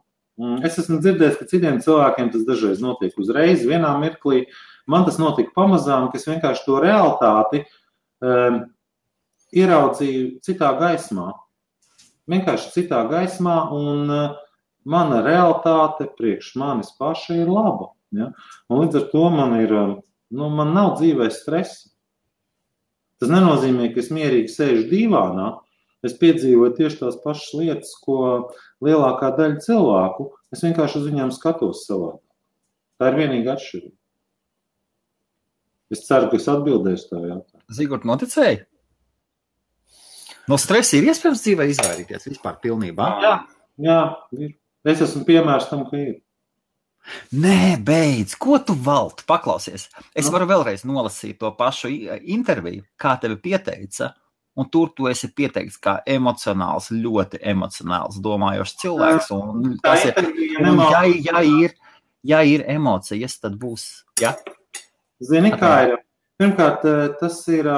Es esmu dzirdējis, ka citiem cilvēkiem tas dažreiz notiek uzreiz, vienā mirklī. Man tas notika pamazām, ka es vienkārši to realitāti ieraudzīju citā gaismā. Vienkārši citā gaismā, un mana realitāte priekš manis paša ir laba. Ja? Un līdz ar to man nav dzīvē stresa. Tas nenozīmē, ka es mierīgi sēžu dīvānā. Es piedzīvoju tieši tās pašas lietas, ko lielākā daļa cilvēku. Es vienkārši uz viņām skatos savādāk. Tā ir vienīga atšķirība. Es ceru, ka es atbildēšu tā jautājumu. Zigort, noticēji? No stresa ir iespējams dzīvē izvairīties vispār pilnībā? Jā, ir. Es esmu piemērs tam, ka ir. Nē, beidz, ko tu valti? Paklausies. Es varu vēlreiz nolasīt to pašu interviju, kā tevi pieteica, un tur tu esi pieteikts kā emocionāls, ļoti emocionāls, domājošs cilvēks. Un tas ja ir emocijas, tad būs, ja? Zini, kā ir? Pirmkārt, tas ir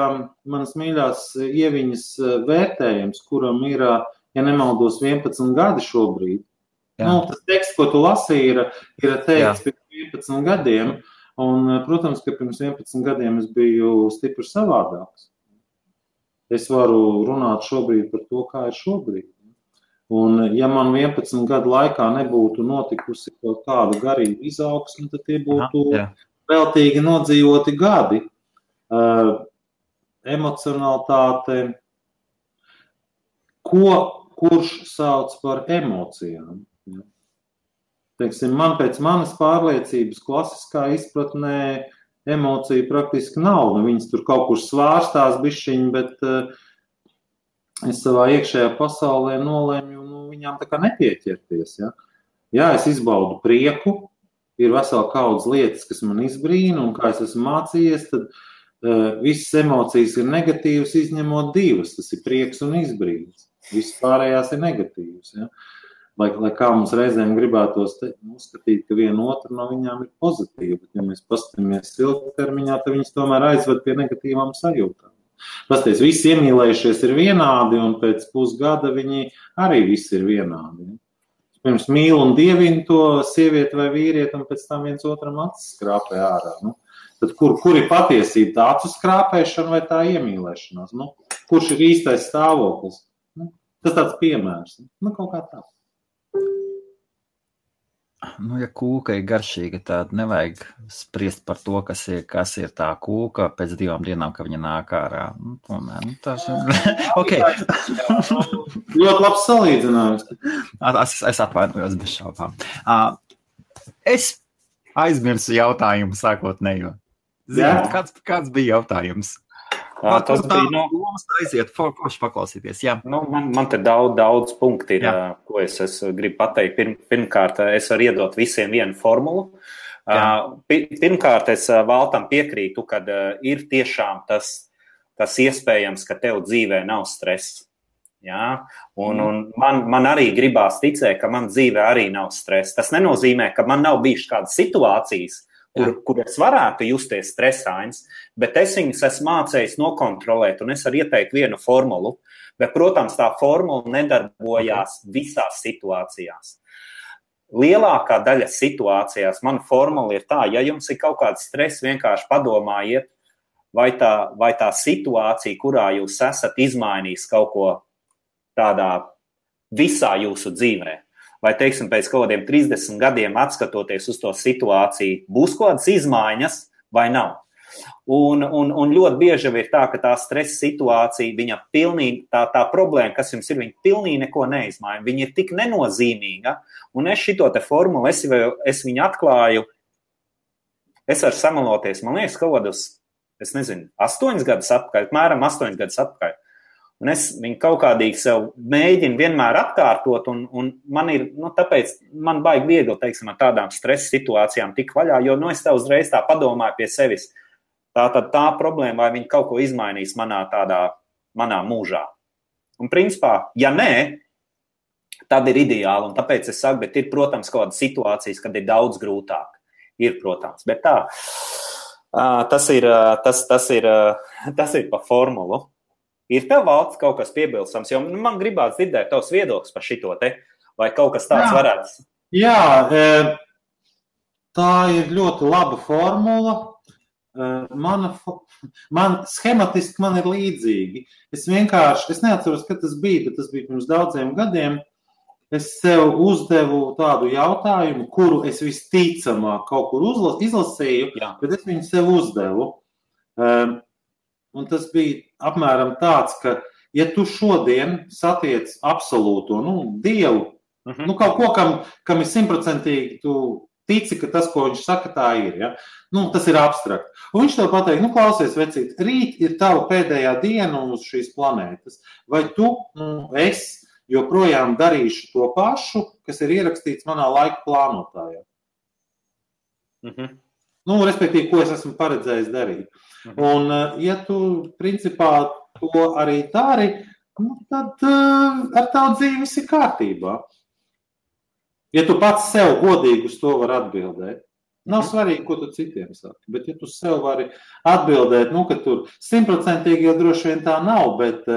manas mīļās Ieviņas vērtējums, kuram ir, ja nemaldos, 11 gadi šobrīd. Tas teksts, ko tu lasīji, ir teikts pirms 11 gadiem, un, protams, ka pirms 11 gadiem es biju stipri savādāks. Es varu runāt šobrīd par to, kā ir šobrīd. Un, ja man 11 gadu laikā nebūtu notikusi kaut kāda garīga izaugsme, tad tie būtu veltīgi nodzīvoti gadi. Emocionalitāte, kurš sauc par emocijām. Ja? Teiksim, man pēc manas pārliecības klasiskā izpratnē emocija praktiski nav. Viņas tur kaut kur svārstās bišķiņi, bet es savā iekšējā pasaulē nolēmu viņām tā kā nepieķerties. Ja? Jā, es izbaudu prieku, ir vesela kaudz lietas, kas man izbrīna, un kā es esmu mācījies, tad visas emocijas ir negatīvas, izņemot divas. Tas ir prieks un izbrīns. Visas pārējās ir negatīvas. Ja? Lai kā mums reizēm gribētos uzskatīt, ka viena otra no viņām ir pozitīva, bet ja mēs paskatāmies ilgtermiņā, tad viņas tomēr aizved pie negatīvām sajūtām. Pasties, visi iemīlējušies ir vienādi, un pēc pusgada viņi arī visi ir vienādi. Ja? Pirms mīl un dievina to sievieti vai vīrieti, un pēc tam viens otram acis skrāpē ārā. Tad kur ir patiesība, tā acu skrāpēšana vai tā iemīlēšanās? Kurš ir īstais stāvoklis? Tas tāds piemērs. Kaut kā tā. Ja kūka ir garšīga, tad nevajag spriest par to, kas ir tā kūka pēc 2 dienām, ka viņa nāk ārā. Tomēr, tas ir... Okay. Ļoti labs salīdzinājums. Es atvainojos bez šaubām. Es aizmirsu jautājumu sākotnējo. Kāds bija jautājums? Tas bija aiziet, forši paklausīties. Jā. Man te daudz punkti ir, ko es gribu pateikt. Pirmkārt, es varu iedot visiem vienu formulu. Pirmkārt, es Valtam piekrītu, kad ir tiešām tas iespējams, ka tev dzīvē nav stress. Ja? Un man arī gribās ticēt, ka man dzīvē arī nav stress. Tas nenozīmē, ka man nav bijušas kādas situācijas, kur es varētu justies stresains, bet es viņus esmu mācējis nokontrolēt, un es varu ieteikt vienu formulu, bet, protams, tā formula nedarbojās visās situācijās. Lielākā daļa situācijās mana formula ir tā, ja jums ir kaut kāds stress, vienkārši padomājiet, vai tā situācija, kurā jūs esat izmainījis kaut ko tādā visā jūsu dzīvē, vai, teiksim, pēc kaut kādiem 30 gadiem atskatoties uz to situāciju, būs kaut kādas izmaiņas vai nav. Un ļoti bieži ir tā, ka tā stresa situācija, viņa pilnīgi, tā problēma, kas jums ir, viņa pilnīgi neko neizmaiņa. Viņa ir tik nenozīmīga, un es šito te formulu, es viņu atklāju, es varu samaloties, man liekas, kaut kādus, 8 gadus atpakaļ, apmēram 8 gadus atpakaļ. Un es viņu kaut kādīgi sev mēģinu vienmēr atkārtot, un man ir, tāpēc man baigi viegli, teiksim, ar tādām stresa situācijām tik vaļā, jo, es tev uzreiz tā padomāju pie sevis, tā problēma, vai viņa kaut ko izmainīs manā mūžā. Un principā, ja nē, tad ir ideāli. Un tāpēc es saku, bet ir, protams, kaut kādas situācijas, kad ir daudz grūtāk. Ir, protams, bet tā. Tas ir pa formulu. Ir tev, Valds, kaut kas piebilstams, jo man gribās dzirdēt tavs viedoklis par šito te, vai kaut kas tāds varētu. Jā, tā ir ļoti laba formula. Man schematiski man ir līdzīgi. Es neatceros, kad tas bija, bet tas bija pirms daudziem gadiem. Es sev uzdevu tādu jautājumu, kuru es visticamāk kaut kur izlasīju, bet es viņu sev uzdevu. Un tas bija apmēram tāds, ka, ja tu šodien satiec absolūto, Dievu, kaut ko, kam ir 100% tu tici, ka tas, ko viņš saka, tā ir, ja? Tas ir abstrakt. Un viņš tev pateikt, klausies, vecīt, rīt ir tava pēdējā diena uz šīs planētas. Vai tu, es joprojām darīšu to pašu, kas ir ierakstīts manā laika plānotājā? Respektīvi, ko es esmu paredzējis darīt. Un, ja tu, principā, to arī dari, tad ar tavu dzīvi viss ir kārtībā. Ja tu pats sev godīgi uz to var atbildēt, nav svarīgi, ko tu citiem saki, bet ja tu sev vari atbildēt, ka tur 100% jau droši vien tā nav, bet,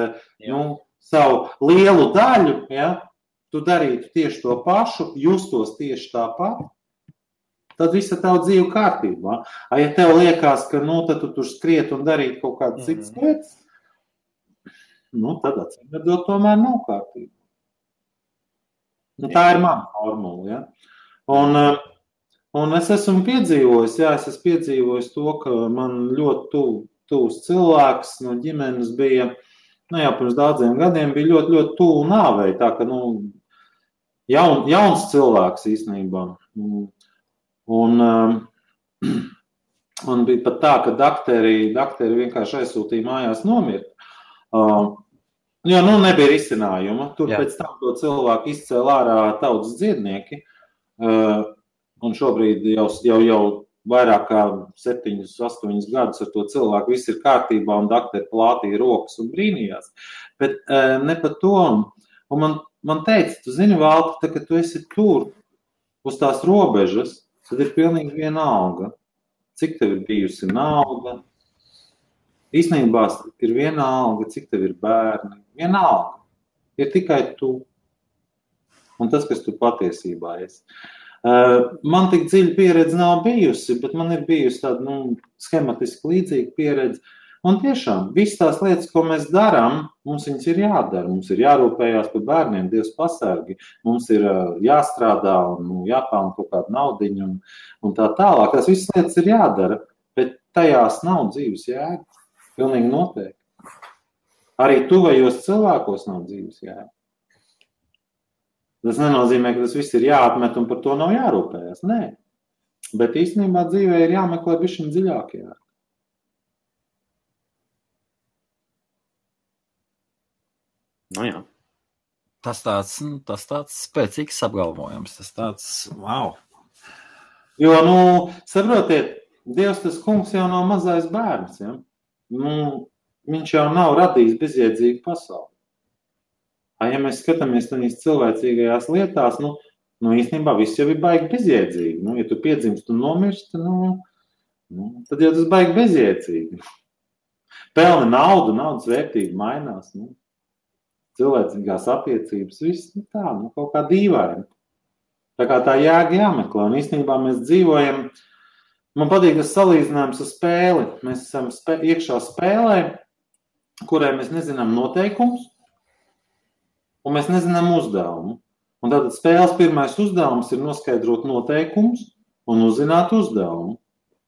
savu lielu daļu, tu darītu tieši to pašu, justos tieši tāpat, tad visa tava dzīve kārtībā. Ja tev liekas, ka tad tu tur skriet un darīt kaut kādas citas lietas, tad atcīmredzot tomēr nav kārtībā. Tā ir mana formula. Ja? Un es esmu piedzīvojis to, ka man ļoti tuvs cilvēks no ģimenes bija, jau pirms daudziem gadiem bija ļoti, ļoti tuvu nāvei. Tā ka, jauns cilvēks īstenībā. Un bija pat tā, ka dakteri vienkārši aizsūtīja mājās nomirt. Nebija risinājuma. Tur pēc tam to cilvēku izcēla ārā tautas dziednieki. Un šobrīd jau vairāk kā 7-8 gadus ar to cilvēku viss ir kārtībā un dakteri plātīja rokas un brīnījās. Bet ne par to. Un man teica, tu zini, Valti, ka tu esi tur uz tās robežas, tad ir pilnīgi vienalga, cik tev ir bijusi nauda. Īstenībā ir vienalga, cik tev ir bērni. Vienalga. Ir tikai tu. Un tas, kas tu patiesībā esi. Man tik dziļa pieredze nav bijusi, bet man ir bijusi tāda schematiski līdzīga pieredze. Un tiešām, visas tās lietas, ko mēs darām, mums viņas ir jādara. Mums ir jārūpējās par bērniem, Dievs pasargi. Mums ir jāstrādā un jāpelna kaut kāda naudiņa un tā tālāk. Tās visas lietas ir jādara, bet tajās nav dzīves jēga. Pilnīgi noteikti. Arī tuvējos cilvēkos nav dzīves jēga. Tas nenozīmē, ka tas viss ir jāatmet un par to nav jārūpējās. Nē. Bet īstenībā dzīvē ir jāmeklē bišķiņ dziļāk jēga. Jā. Tas tāds spēcīgs apgalvojums. Tas tāds, wow. Jo, saprotiet, Dievs tas kungs jau nav mazais bērns, ja? Viņš jau nav radījis bezjēdzīgu pasauli. Ja mēs skatāmies tādīs cilvēcīgajās lietās, īstenībā viss jau ir baigi bezjēdzīgi. Ja tu piedzimst un nomirsti, tad jau tas baigi bezjēdzīgi. Pelni naudu, naudas vērtība mainās. Cilvēcīgās attiecības, viss tā, kaut kā dīvaini. Tā kā tā jēga jāmeklē. Un īstenībā mēs dzīvojam, man patīk tas salīdzinājums ar spēli. Mēs esam iekšā spēlē, kurai mēs nezinām noteikumus, un mēs nezinām uzdevumu. Un tātad spēles pirmais uzdevums ir noskaidrot noteikumus un uzzināt uzdevumu.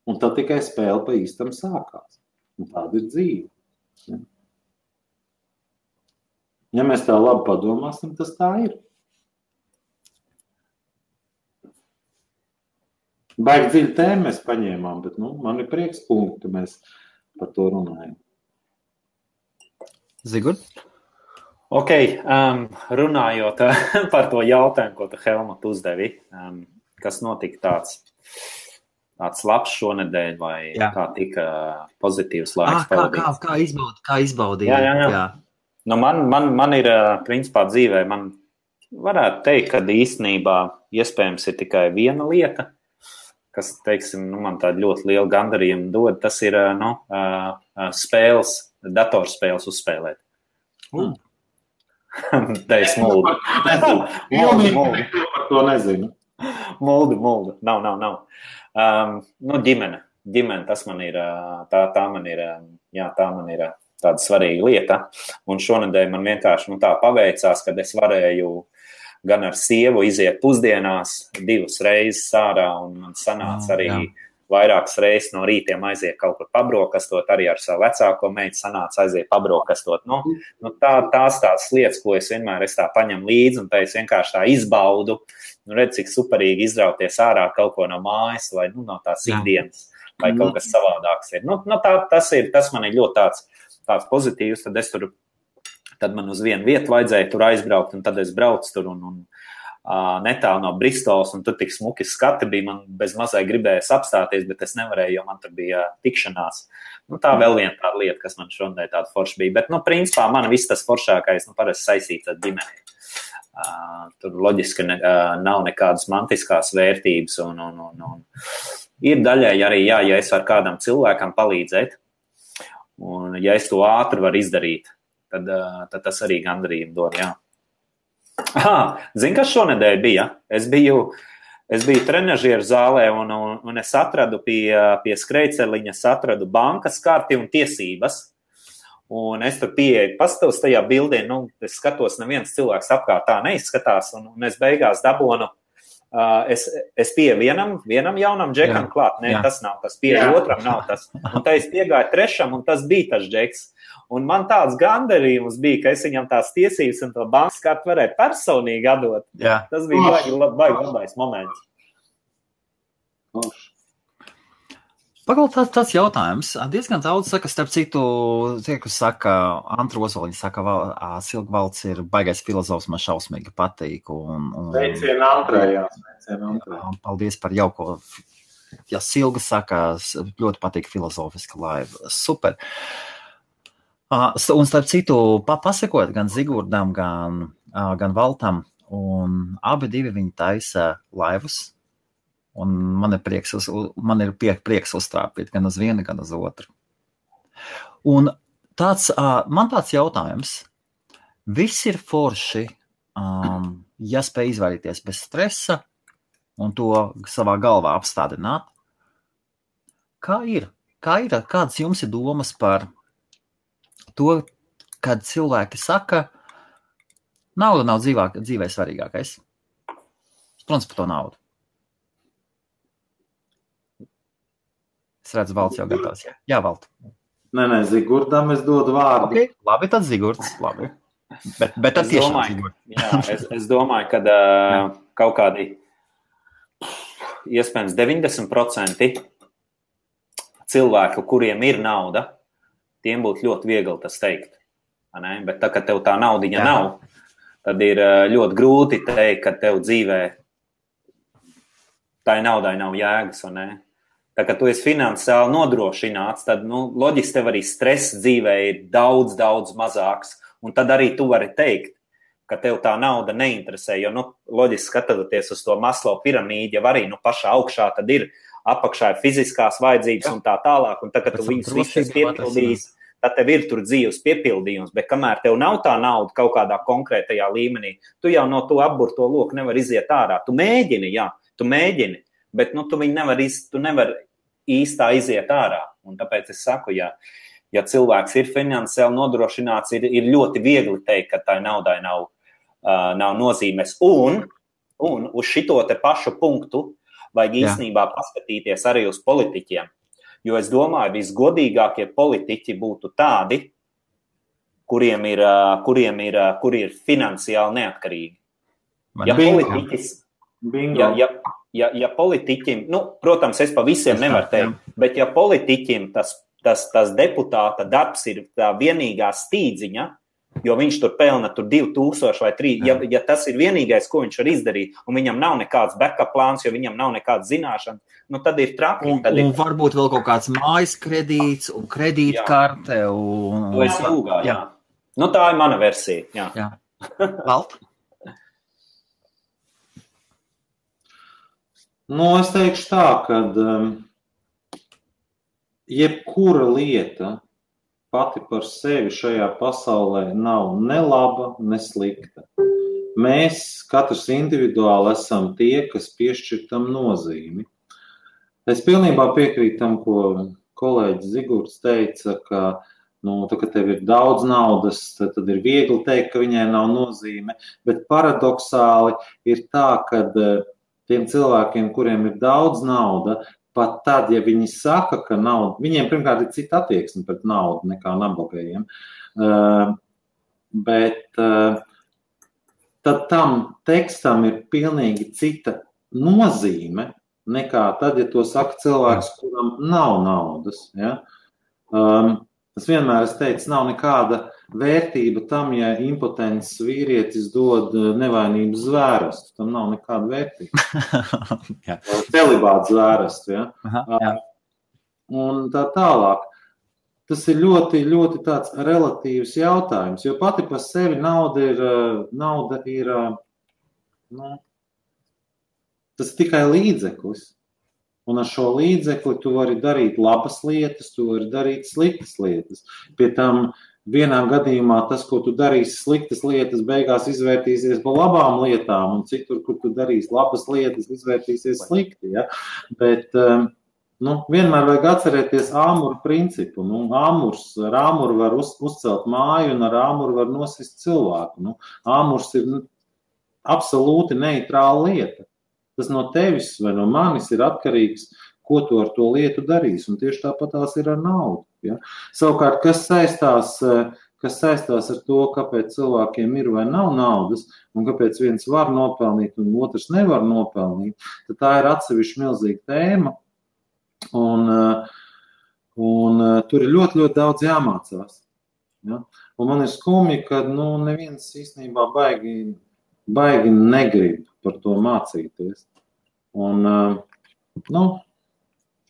Un tad tikai spēle pa īstam sākās. Un tāda ir dzīve. Ja mēs tā labi padomāsim, tas tā ir. Baigi dziļu tēmu mēs paņēmām, bet man ir prieks punkti, mēs par to runājam. Zigurd? Ok, runājot par to jautājumu, ko tu, Helmut, uzdevi, kas notika tāds labs šonedēļ vai kā tika pozitīvs laiks pavadīts? Kā izbaudīja? Jā. Nu, man ir, principā, dzīvē, man varētu teikt, ka īstenībā iespējams ir tikai viena lieta, kas, teiksim, man tādu ļoti lielu gandarījumu dod, tas ir, spēles, datorspēles uzspēlēt. Te es muldu. Muldi. Par to nezinu. Muldu. Nav. Ģimene, tas man ir, tā man ir tāda svarīga lieta. Un šonedēļ man vienkārši tā paveicās, kad es varēju gan ar sievu iziet pusdienās 2 reizes ārā, un man sanāca arī vairākas reizes no rītiem aiziet kaut kur pabrokastot, arī ar savu vecāko meitu sanāca aiziet pabrokastot. Tās lietas, ko es vienmēr tā paņemu līdzi, un tā es vienkārši tā izbaudu, redz, cik superīgi izrauties ārā kaut ko no mājas, vai no tās ikdienas, vai kaut kas savādāks ir. Tas man ir ļoti tāds pozitīvs, tad man uz vienu vietu vajadzēja tur aizbraukt, un tad es braucu tur un netālu no Bristols, un tur tik smuki skati bija, man bez mazai gribējās apstāties, bet es nevarēju, jo man tur bija tikšanās. Tā vēl viena tāda lieta, kas man šodien tāda forša bija, bet, principā, man viss tas foršākais, parasti saistīts ar ģimeni. Tur loģiski nav nekādas mantiskās vērtības, un ir daļai arī, ja es varu kādam cilvēkam palīdzēt, un ja es to ātri varu izdarīt, tad tas arī gandarījumu dod, jā. Zini, kas šonedēļ bija? Es biju trenažieru zālē, un es atradu pie skrejceliņa, atradu bankas karti un tiesības, un es tur pieeju, paskatos tajā bildē, es skatos, neviens cilvēks apkārt tā neizskatās, un es beigās dabonu, es pieeju vienam jaunam džekam klāt, tas nav tas, pieeju otram nav tas, un tā es piegāju trešam, un tas bija tas džeks. Un man tāds gandarījums bija, ka es viņam tās tiesības un to bankas kartu varēju personīgi atdot. Jā. Tas bija baigi labais moments. Pagaidām tāds jautājums. Diezgan daudz saka, starp citu, tie, kas saka, Antra Ozoliņa saka, Silgvalds ir baigais filozofs, man šausmīgi patīk. Sveicien Antrai. Paldies par jauko. Ja Silga saka, ļoti patīk filozofiska laiva. Super. Un starp citu, pasakot gan Zigurdam, gan Valtam, un abi divi viņi taisa laivas, un man ir prieks uztrāpīt gan uz vienu, gan uz otru. Un man tāds jautājums, viss ir forši, ja spēj izvairīties bez stresa un to savā galvā apstādināt. Kādas jums ir domas par to, kad cilvēki saka, nauda nav dzīvē svarīgākais. Protams, par to naudu. Es redzu, Valds jau gatavs. Jā, Vald. Nē, Zigurdam es dodu vārdu. Okay. Labi, tad Zigurds. Labi. Bet tad tiešām Zigurds. Jā, es domāju, ka kaut kādi iespējams 90% cilvēku, kuriem ir nauda, tiem būtu ļoti viegli tas teikt. Bet tā, kad tev tā naudiņa nav, tad ir ļoti grūti teikt, ka tev dzīvē tai naudai nav jēgas. Tā, kad tu esi finansiāli nodrošināts, tad loģiski tev arī stress dzīvē ir daudz, daudz mazāks. Un tad arī tu vari teikt, ka tev tā nauda neinteresē. Jo loģiski skatoties uz to Maslow piramīdu, jau arī pašā augšā tad ir apakšā ir fiziskās vajadzības un tā tālāk, un tad, kad tu viņus visus piepildīs, tad tev ir tur dzīves piepildījums, bet kamēr tev nav tā nauda kaut kādā konkrētajā līmenī, tu jau no to apburto loku nevar iziet ārā. Tu mēģini, bet tu nevar īstā iziet ārā. Un tāpēc es saku, ja cilvēks ir finansiāli nodrošināts, ir ļoti viegli teikt, ka tai naudai nav nozīmes. Un uz šito te pašu punktu vajag īstenībā paskatīties arī uz politiķiem. Jo es domāju, visgodīgākie politiķi būtu tādi, kuri ir finansiāli neatkarīgi. Ja politiķim, protams, es pa visiem nevaru teikt, bet ja politiķim tas deputāta darbs ir tā vienīgā stīdziņa, jo viņš tur pelna 2000 vai 3, ja tas ir vienīgais, ko viņš var izdarīt, un viņam nav nekāds backup plāns, jo viņam nav nekāds zināšana, tad ir traki. Un varbūt vēl kaut kāds mājas kredīts un kredītkarte. To es lūgā, jā. Nu, tā ir mana versija, jā. Valt? Es teikšu tā, ka jebkura lieta pati par sevi šajā pasaulē nav ne laba, ne slikta. Mēs katrs individuāli esam tie, kas piešķir tam nozīmi. Es pilnībā piekrītu tam, ko kolēģis Zigurds teica, ka, ka tev ir daudz naudas, tad ir viegli teikt, ka viņai nav nozīme, bet paradoksāli ir tā, ka tiem cilvēkiem, kuriem ir daudz nauda, pat tad, ja viņi saka, ka nauda, viņiem pirmkārt ir cita attieksme pret naudu nekā nabagajiem, bet tad tam tekstam ir pilnīgi cita nozīme nekā tad, ja to saka cilvēks, kuram nav naudas. Ja? Es vienmēr teicu, nav nekāda vērtība tam, ja impotents vīrietis dod nevainības zvērstu. Tam nav nekāda vērtība. Celibāts zvērstu. Ja? Un tā tālāk. Tas ir ļoti, ļoti tāds relatīvs jautājums, jo pati par sevi nauda ir tas tikai līdzeklis. Un ar šo līdzekli tu vari darīt labas lietas, tu vari darīt sliktas lietas. Pie tam vienā gadījumā tas, ko tu darīsi sliktas lietas, beigās izvērtīsies par labām lietām, un citur, kur tu darīsi labas lietas, izvērtīsies slikti. Ja? Bet vienmēr vajag atcerēties āmuru principu. Ar āmuru var uzcelt māju, un ar āmuru var nosist cilvēku. Āmurs ir absolūti neitrāla lieta. Tas no tevis vai no manis ir atkarīgs, ko tu ar to lietu darīsi. Un tieši tāpat tās ir ar naudu. Ja? Savukārt, kas saistās ar to, kāpēc cilvēkiem ir vai nav naudas, un kāpēc viens var nopelnīt un otrs nevar nopelnīt, tad tā ir atsevišķa milzīga tēma. Un tur ir ļoti, ļoti daudz jāmācās. Ja? Un man ir skumji, ka neviens īstenībā baigi negrib par to mācīties. Un,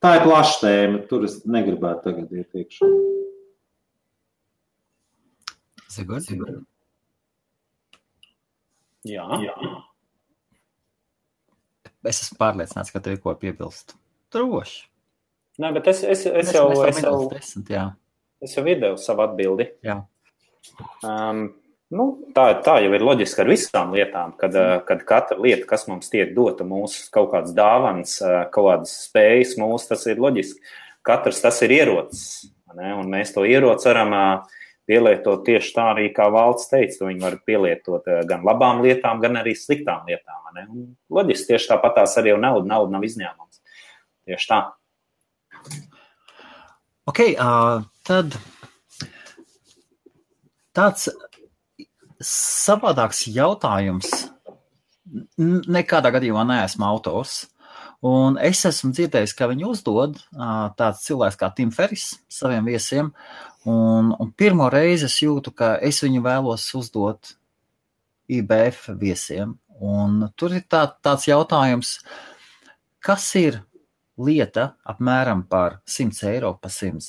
tā ir plaša tēma, tur es negribētu tagad iet iekšā. Zigurds? Jā. Es esmu pārliecināts, ka tev ir ko piebilst. Droši. Nē, bet es jau videoju savu atbildi. Jā. Tā jau ir loģiski ar visām lietām, kad katra lieta, kas mums tiek dota, mūsu kaut kādas dāvanas, kaut kādas spējas mūsu, tas ir loģiski. Katrs tas ir ierocis, ne? Un mēs to ieroci varam pielietot tieši tā arī, kā Valds teica, to viņi var pielietot gan labām lietām, gan arī sliktām lietām. Ne? Un loģiski tieši tāpat tās arī nauda nav izņēmums. Tieši tā. Ok, tad tāds savādāks jautājums. Nekādā gadījumā neesmu autors. Un es esmu dzirdējis, ka viņi uzdod tāds cilvēks kā Tim Ferris saviem viesiem. Un pirmo reizi es jūtu, ka es viņu vēlos uzdot IBF viesiem. Un tur ir tāds jautājums, kas ir lieta apmēram par 100 eiro, par $100,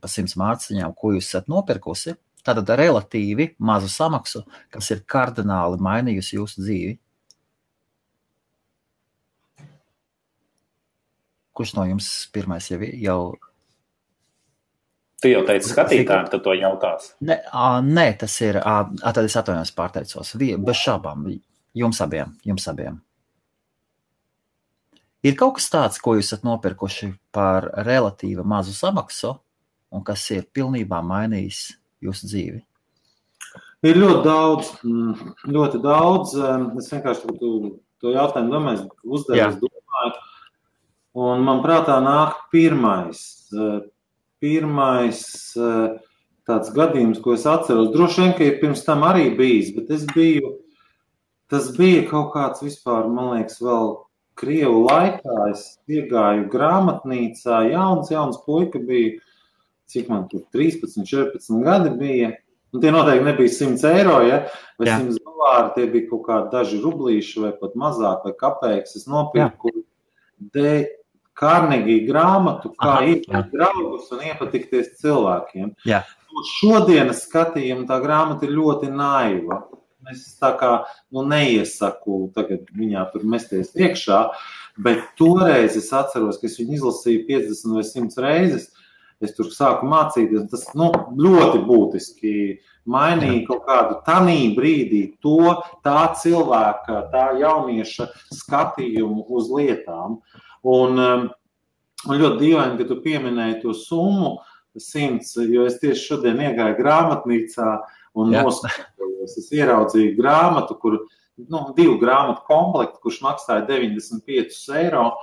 par 100 mārciņām, ko jūs esat nopirkusi, tātad relatīvi mazu samaksu, kas ir kardināli mainījusi jūsu dzīvi. Kurš no jums pirmais jau... Tu jau teici skatītājiem, tu to jautās? Nē, tas ir... Tad es atvainojos pārteicos. Bez šābām. Jums abiem. Ir kaut kas tāds, ko jūs esat nopirkuši par relatīvi mazu samaksu un kas ir pilnībā mainījis jūsu dzīvi? Ir ļoti daudz. Es vienkārši to jautājumu domāju, domāju. Un man prātā nāk pirmais tāds gadījums, ko es atceros. Droši vien, ka ir pirms tam arī bijis, bet tas bija kaut kāds vispār, man liekas, vēl Krievu laikā. Es iegāju grāmatnīcā, jauns puika bija, cik man tur 13, 14 gadi bija. Un tie noteikti nebija 100 eiro, ja? Vai $100, tie bija kaut kādi daži rublīši vai pat mazāk vai kapeiks. Es nopirku Carnegie grāmatu, kā iepatikt draugus un iepatikties cilvēkiem. Jā. šodienas skatījumu tā grāmata ir ļoti naiva. Es tā kā neiesaku tagad viņā tur mesties iekšā, bet toreiz es atceros, ka es viņu izlasīju 50 vai 100 reizes. Es tur sāku mācīties, tas ļoti būtiski mainīja kaut kādu tanī brīdī tā cilvēka, tā jaunieša skatījumu uz lietām. Un ļoti dīvaini, ka tu pieminēji to summu 100, jo es tieši šodien iegāju grāmatnīcā un noskatījos. Es ieraudzīju grāmatu, kur 2 grāmatu komplektu, kurš maksāja 95 eiro,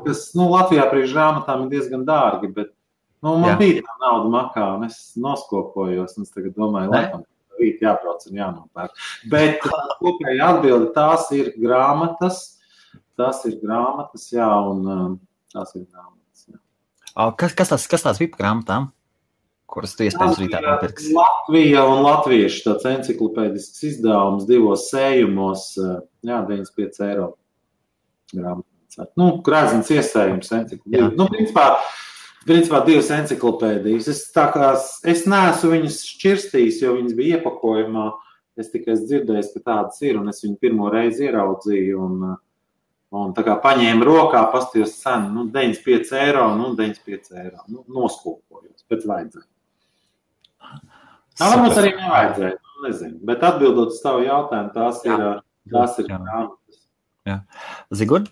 kas Latvijā priekš grāmatām ir diezgan dārgi, bet man bija tā nauda makā, un es noskopojos, un es tagad domāju, laikam, rīt jābrauc un jānopērk. Bet kopēji atbildi, tās ir grāmatas, jā, un tās ir grāmatas, jā. Kas tās bija par grāmatām, kuras tu iespējams rītā nopirksi? Latvija un latviešu tāds enciklopēdisks izdevums 2 sējumos, 95 eiro grāmatā. Grēzins iesējums enciklopēdijas. Principā 2 enciklopēdijas. Es neesmu viņus šķirstījis, jo viņas bija iepakojumā. Es tikai dzirdēju, ka tādas ir, un es viņu pirmo reizi ieraudzīju, un tā kā paņēmu rokā, pastījos cenu, 95 eiro, 95 eiro. Noskopojos, bet vajadzēja. Varbūt arī nevajadzēja, nezinu. Bet atbildot uz tavu jautājumu, tās ir grāmatas. Jā. Zigurd?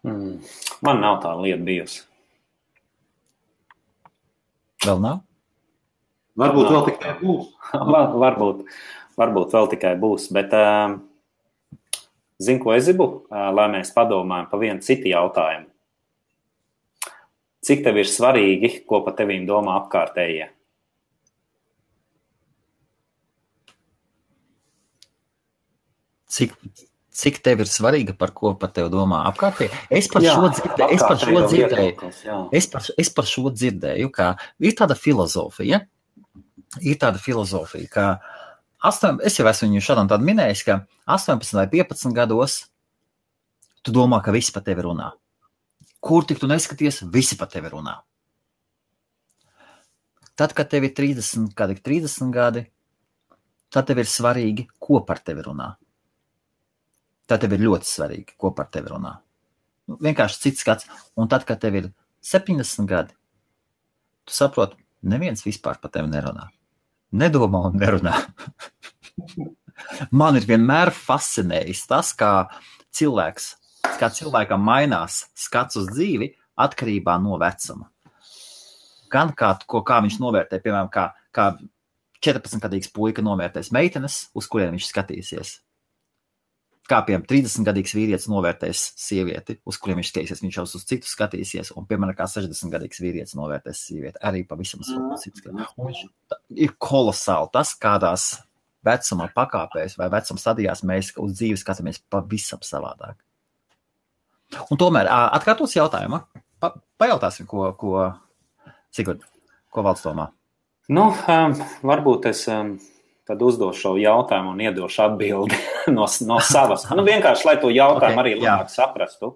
Man nav tā lieta bijusi. Vēl nav? Varbūt vēl tikai būs. Varbūt vēl tikai būs, bet zinu, ko es gribu, lai mēs padomājam pa vienu citu jautājumu. Cik tev ir svarīgi, ko pa tevīm domā apkārtējie? Cik tev ir svarīga, par ko par tevi domā apkārtēji? Es par šo dzirdēju, ka ir tāda filozofija, ka es jau esmu viņu šādām tādu minējis, ka 18 vai 15 gados tu domā, ka visi par tevi runā. Kur tik tu neskaties, visi par tevi runā. Tad, kad tev ir 30 gadi, tad tev ir svarīgi, ko par tevi runā. Tad tev ir ļoti svarīgi, ko par tevi runā. Vienkārši cits skats. Un tad, kad tev ir 70 gadi, tu saproti, neviens vispār par tevi nerunā. Nedomā un nerunā. Man ir vienmēr fascinējis tas, kā cilvēkam mainās skats uz dzīvi atkarībā no vecuma. Gan kā viņš novērtē, piemēram, kā 14-gadīgs puika novērtēs meitenes, uz kuriem viņš skatīsies. Kā, piemēram, 30-gadīgs vīrietis novērtēs sievieti, uz kuriem viņš skatīsies, viņš jau uz citu skatīsies, un, piemēram, kā 60-gadīgs vīrietis novērtēs sievieti, arī pavisam citu. Un viņš ir kolosāli tas, kādās vecuma pakāpēs vai vecuma stadijās mēs uz dzīvi skatāmies pavisam savādāk. Un tomēr, atkārtos jautājumu, pajautāsim, ko Sigurd, ko Valds domā? Varbūt es tad uzdošu šo jautājumu un iedošu atbildi no savas. Vienkārši, lai to jautājumu arī labāk saprastu.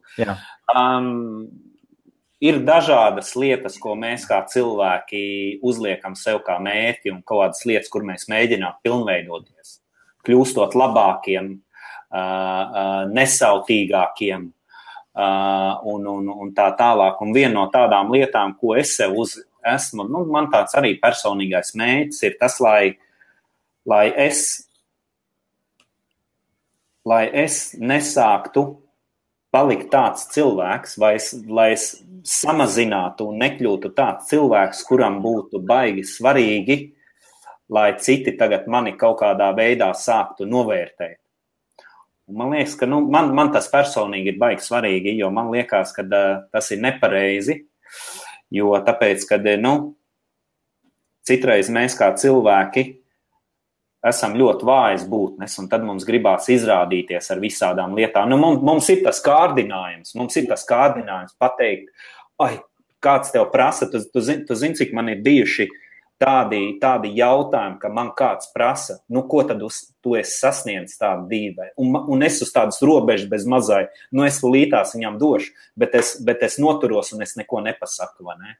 Ir dažādas lietas, ko mēs kā cilvēki uzliekam sev kā mērķi un kaut kādas lietas, kur mēs mēģinām pilnveidoties, kļūstot labākiem, nesautīgākiem un tā tālāk. Un viena no tādām lietām, ko es sev esmu, man tāds arī personīgais mērķis ir tas, lai es nesāktu palikt tāds cilvēks, lai es samazinātu un nekļūtu tāds cilvēks, kuram būtu baigi svarīgi, lai citi tagad mani kaut kādā veidā sāktu novērtēt. Un man liekas, ka man tas personīgi ir baigi svarīgi, jo man liekas, ka tas ir nepareizi, jo tāpēc, ka citreiz mēs kā cilvēki esam ļoti vājas būtnes, un tad mums gribās izrādīties ar visādām lietām. Mums ir tas kārdinājums pateikt, kāds tev prasa, tu zini, cik man ir bijuši tādi jautājumi, ka man kāds prasa, ko tad tu esi sasniedzis tādu dzīvē, un es uz tādas robežas bez mazai, es lītās viņam došu, bet es noturos un es neko nepasaku, vai ne?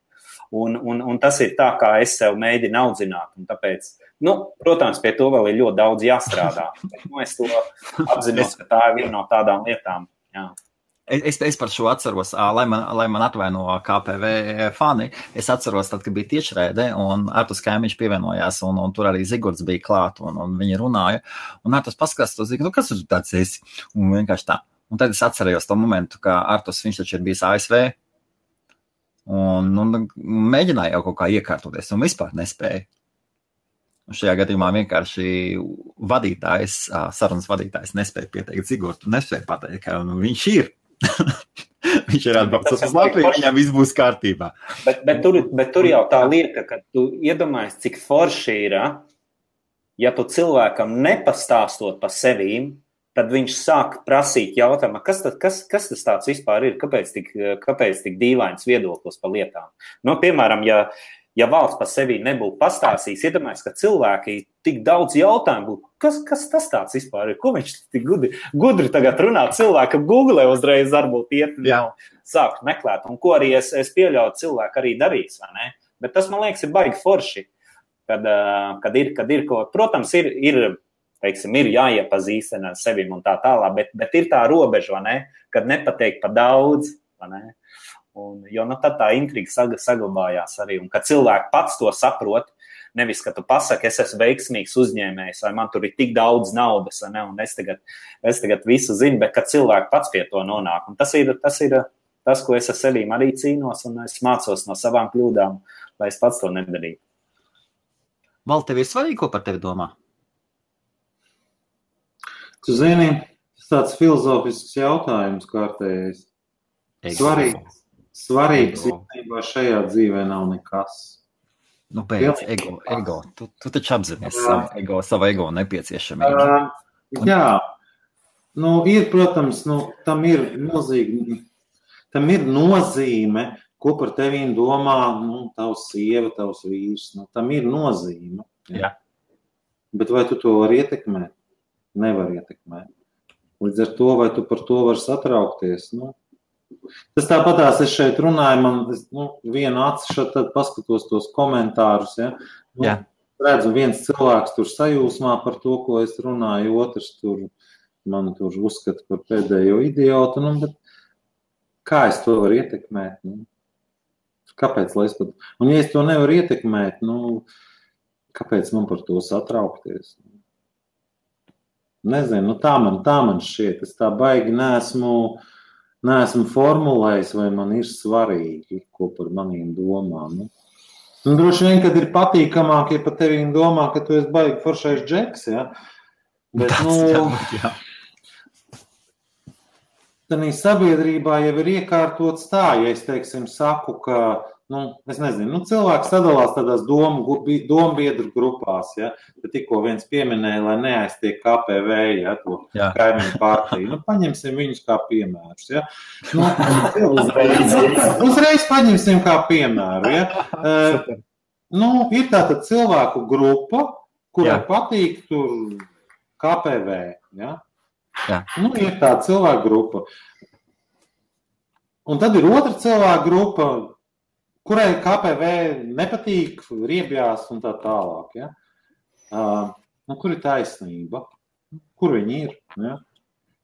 Un tas ir tā, kā es sev mēģinu audzināt. Un tāpēc, protams, pie to vēl ir ļoti daudz jāstrādā. Bet, es to apzinos, ka tā ir viena no tādām lietām. Jā. Es par šo atceros, lai man atvaino KPV fani, es atceros tad, kad bija tiešraide, un Artus Kaimiņš pievienojās, un tur arī Zigords bija klāt, un viņi runāja, un Artus paskatās to Zigordu, kas tur tāds esi? Un vienkārši tā. Un tad es atcerējos to momentu, ka Artus, viņš taču ir bijis ASV, un mēģināja jau kaut kā iekārtoties, un vispār nespēja. Un šajā gadījumā vienkārši sarunas vadītājs nespēja pieteikt Zigordu, nespēja pateikt, ka viņš ir. Viņš ir atbraucis uz Latviju, viņam viss būs kārtībā. Bet tur jau tā lieta, ka tu iedomājies, cik forši ir, ja tu cilvēkam nepastāstot par sevīm, tad viņš sāk prasīt jautājumu, kas tas tāds vispār ir, kāpēc tik dīvains viedoklis par lietām. Piemēram, ja valsts par sevi nebūtu pastāstījis, iedomājies, ka cilvēki tik daudz jautājumu būtu, kas tas tāds vispār ir, ko viņš tik gudri tagad runā, cilvēkam Google uzreiz varbūt iet sākt meklēt, un ko arī es pieļauju cilvēku arī darīs, vai ne? Bet tas, man liekas, ir baigi forši, kad ir ko, protams, ir jāiepazīstina ar sevim un tā tālāk, bet ir tā robeža, vai ne, kad nepateikt par daudz, vai ne? Jo tad tā intriga saglabājās arī, un kad cilvēki pats to saprot, nevis, ka tu pasaki, es esmu veiksmīgs uzņēmējs, vai man tur ir tik daudz naudas, vai ne, un es tagad visu zinu, bet kad cilvēki pats pie to nonāk, un tas ir tas, ko es ar sevīm arī cīnos, un es mācos no savām kļūdām, lai es pats to nedarītu. Val, tev ir svarīgi, ko par tevi domā? Tu zini, tas tāds filozofisks jautājums kārtējais. Svarīgs īstenībā šajā dzīvē nav nekas. Beidz, ego. Tu taču apzinies savu ego nepieciešamību. Jā. Ir, protams, tam ir nozīme, ko par tevīm domā, tavs sieva, tavs vīrs. Tam ir nozīme. Jā. Bet vai tu to vari ietekmēt? Nevar ietekmēt. Līdz ar to, vai tu par to vari satraukties, Tas tāpatās es šeit runāju, man vienu aci tad paskatos tos komentārus, redzu viens cilvēks tur sajūsmā par to, ko es runāju, otrs man tur uzskata par pēdējo idiotu, bet kā es to varu ietekmēt? Kāpēc, lai es pat... Un ja es to nevaru ietekmēt, kāpēc man par to satraukties? Nezinu, tā man šķiet, es tā baigi neesmu formulējis, vai man ir svarīgi, ko par manīm domā. Droši vien, kad ir patīkamāk, ja par tevīm domā, ka tu esi baigi foršais džeks, ja? Bet, tādā sabiedrībā jau ir iekārtots tā, ja es, teiksim, saku, ka, es nezinu, cilvēks sadalās tādās dombiedru grupās, ja? Bet tikko viens pieminēja, lai neaiztiek KPV, ja, to kaimiņu partiju. Paņemsim viņus kā piemērus, ja? Uzreiz paņemsim kā piemēru, ja? Ir tāda cilvēku grupa, kurai patīk tur KPV, ja? Ir tāda cilvēku grupa. Un tad ir otra cilvēku grupa, kurai KPV nepatīk, riebjās un tā tālāk. Ja? Kur ir taisnība? Kur viņi ir? Ja?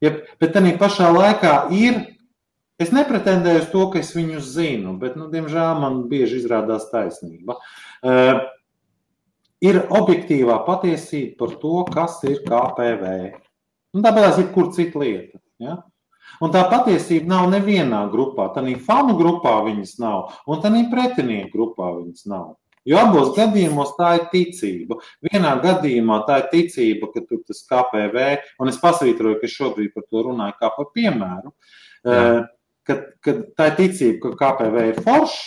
Bet tādā pašā laikā es nepretendēju uz to, ka es viņus zinu, bet, diemžēl, man bieži izrādās taisnība. Ir objektīvā patiesība par to, kas ir KPV. Tāpēc ir kur cita lieta. Ja? Un tā patiesība nav nevienā grupā. Tādā fanu grupā viņas nav, un tādā pretinieku grupā viņas nav. Jo abos gadījumos tā ir ticība. Vienā gadījumā tā ir ticība, ka tur tas KPV, un es pasvītroju, ka šobrīd par to runāju kā par piemēru, ka tā ir ticība, ka KPV ir foršs,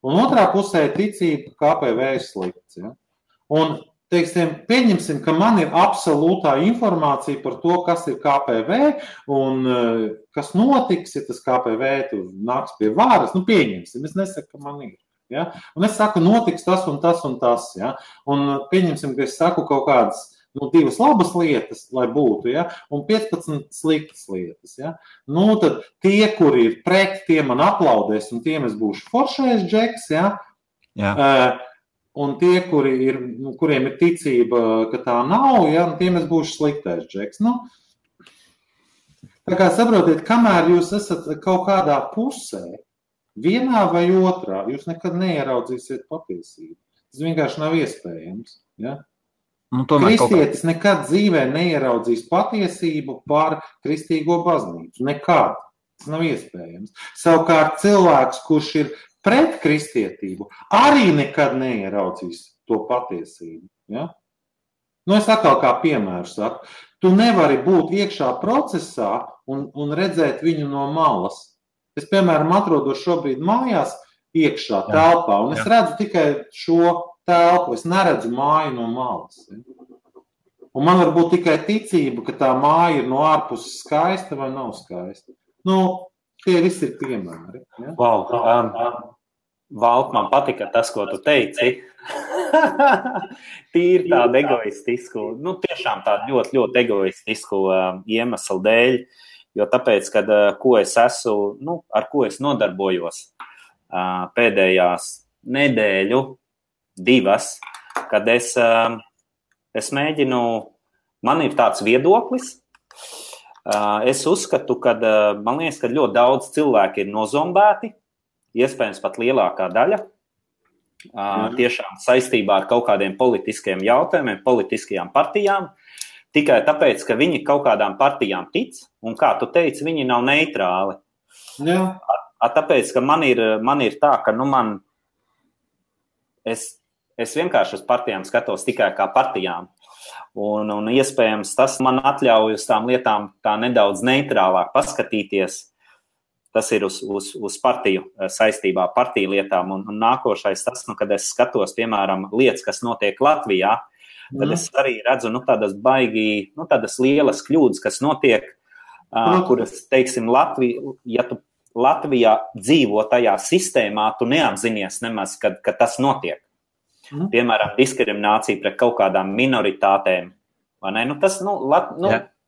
un otrā pusē ir ticība, ka KPV ir slikts. Ja? Un pieņemsim, ka man ir absolūtā informācija par to, kas ir KPV un kas notiks, ja tas KPV tur nāks pie vāras. Pieņemsim, es nesaku, ka man ir. Ja? Un es saku, notiks tas un tas un tas. Ja? Un pieņemsim, ka es saku kaut kādas 2 labas lietas, lai būtu, ja? Un 15 sliktas lietas. Ja? Tad tie, kuri ir pret, tie man aplaudēs un tiem es būšu foršais džeks, ja? Un tie, kuriem ir ticība, ka tā nav, ja, tiem es būšu sliktais džeks. Nu, tā kā saprotiet, kamēr jūs esat kaut kādā pusē, vienā vai otrā, jūs nekad neieraudzīsiet patiesību. Tas vienkārši nav iespējams. Ja? Kristietis nekad dzīvē neieraudzīs patiesību par kristīgo baznīcu. Nekad. Tas nav iespējams. Savukārt cilvēks, kurš ir pret kristietību, arī nekad neieraudzīs to patiesību. Ja? Nu, es atkal kā piemēru saku. Tu nevari būt iekšā procesā un redzēt viņu no malas. Es, piemēram, atrodos šobrīd mājās iekšā telpā, un es redzu tikai šo telpu, es neredzu māju no malas. Un man var būt tikai ticība, ka tā māja ir no ārpuses skaista vai nav skaista. Nu, tie visi ir piemēri. Ja? Wow. Valt, man patika tas, ko tu teici. Tīri tādu egoistisku, nu tiešām tādu ļoti, ļoti egoistisku iemeslu dēļ, jo tāpēc, kad ko es esmu, nu, ar ko es nodarbojos pēdējās nedēļu, 2, kad es mēģinu, man ir tāds viedoklis, es uzskatu, ka man liekas, ka ļoti daudz cilvēki ir nozombēti, iespējams pat lielākā daļa, tiešām saistībā ar kaut kādiem politiskiem jautājumiem, politiskajām partijām, tikai tāpēc, ka viņi kaut kādām partijām tic, un kā tu teici, viņi nav neitrāli. Jā. Tāpēc, ka man ir tā, ka es vienkārši uz partijām skatos tikai kā partijām, un iespējams tas man atļauj uz tām lietām tā nedaudz neitrālāk paskatīties. Tas ir uz partiju saistībā, partiju lietām, un nākošais tas, kad es skatos, piemēram, lietas, kas notiek Latvijā, tad es arī redzu, tādas lielas kļūdas, kas notiek, kuras, teiksim, ja tu Latvijā dzīvo tajā sistēmā, tu neapzinies nemaz, kad tas notiek. Piemēram, diskriminācija pret kaut kādām minoritātēm. Vai ne?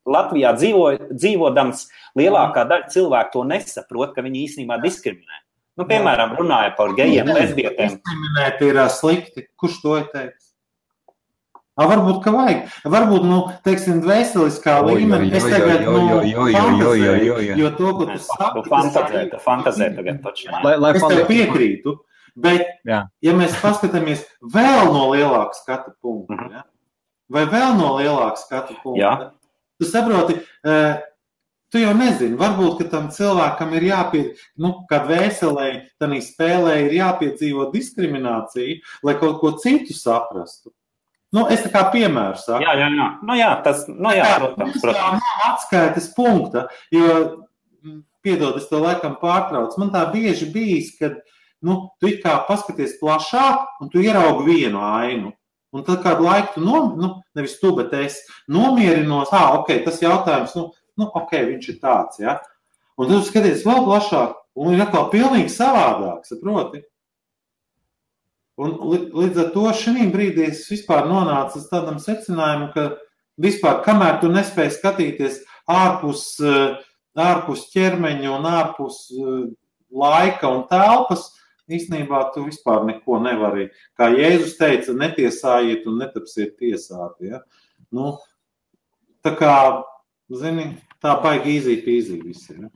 Latvijā dzīvodams lielākā daļa cilvēku to nesaprot, ka viņi īstenībā diskriminē. Nu, piemēram, runāja par gejiem, lesbietēm. Diskriminēt ir slikti. Kurš to ir teicis? Varbūt, ka vajag. Varbūt, teiksim, dvēseliskā līmenī. Es tagad, fantazēju, jo to, ko tu saki. Tu fantazē tagad taču. Es tev piekrītu, bet, ja mēs paskatāmies vēl no lielāka skatu punkta, vai vēl no lielāka skatu punkta, tu saproti, tu jau nezini, varbūt, ka tam cilvēkam ir kā dvēselē, tanī spēlē ir jāpiedzīvo diskriminācija, lai kaut ko citu saprastu. Es tā kā piemēru saku. Protams. Tā nav atskaites punkta, jo, piedod, es to laikam pārtraucu, man tā bieži bijis, kad, tu it kā paskaties plašāk un tu ieraugi vienu ainu. Un tad kādu laiku tu, nevis tu, bet es nomierinos, tas jautājums, viņš ir tāds, ja. Un tu skaties vēl plašāk, un ir atkal pilnīgi savādāk, saproti? Un līdz ar to šī brīdī es vispār nonācu uz tādam secinājumu, ka vispār, kamēr tu nespēji skatīties ārpus ķermeņa un ārpus laika un telpas, īstenībā tu vispār neko nevari. Kā Jēzus teica, netiesājiet un netapsiet tiesāti. Ja? Tā kā, tā baigi easy visi. Ja?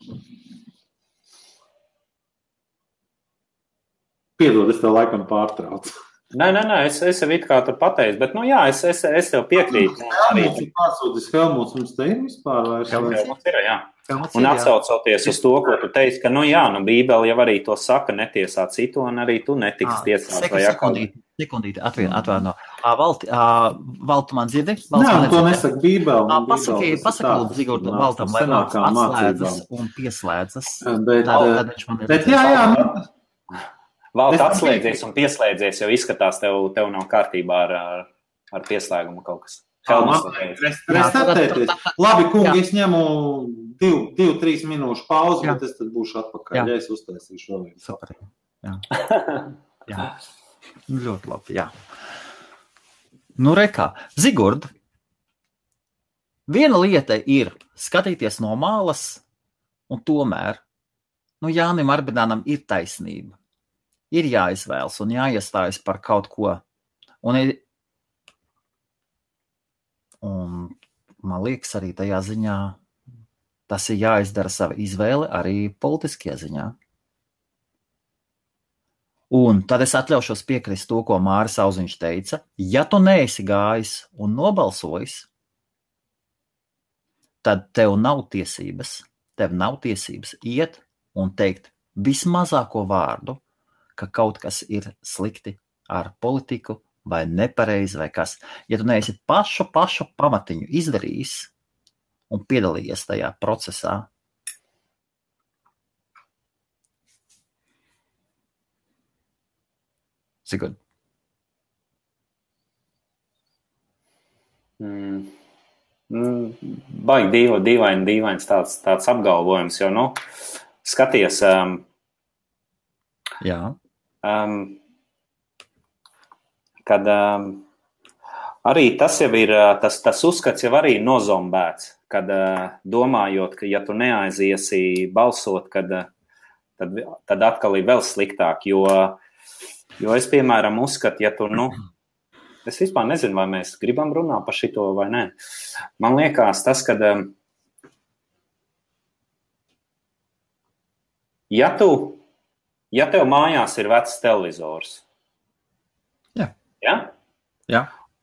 Piedod, es tev laikam pārtraucu. Nē, es jau it kā tur pateicu, bet, es tev piekrītu. Pārsūtis Helmuts, mums te ir vispār vairs? Helmuts ir, jā. Un atsaucoties uz to, ko tu teici, ka, Bībele jau arī to saka, netiesā citu, un arī tu netiksi tiesāt. Sekundīti, atvaino. Valtu man dzirdi? Nē, to nesaka Bībele. Pasaka, Zigorda, Valtam, lai Valts atslēdzas un pieslēdzas. Bet jā. Valts atslēdzies un pieslēdzies, jo izskatās, tev nav kārtībā ar pieslēgumu kaut kas. Labi, kungi, es ņemu 2-3 minūšu pauzi, bet es tad būšu atpakaļ, ja es uztaisīšu vēl vienu. Super. Jā. Ļoti labi, jā. Rekā, Zigurd, viena lieta ir skatīties no malas, un tomēr, Jānim Arbidānam ir taisnība. ir jāizvēlas un jāiestājas par kaut ko. Un man liekas, arī tajā ziņā tas ir jāizdara sava izvēle arī politiskajā ziņā. Un tad es atļaušos piekrist to, ko Māris Auziņš teica. Ja tu neesi gājis un nobalsojis, tad tev nav tiesības iet un teikt vismazāko vārdu, ka kaut kas ir slikti ar politiku vai nepareizi vai kas. Ja tu neesi pašu pamatiņu izdarījis un piedalījies tajā procesā, Sigurd. Baigi dīvains tāds apgalvojums, jo, skaties, Jā. Kad arī tas jau ir, tas uzskats jau arī nozombēts, kad domājot, ka ja tu neaiziesi balsot, tad atkal ir vēl sliktāk, jo es, piemēram, uzskatu, ja tu, es vispār nezinu, vai mēs gribam runāt par šito vai nē. Man liekas tas, kad ja tev mājās ir vecs televizors, Jā.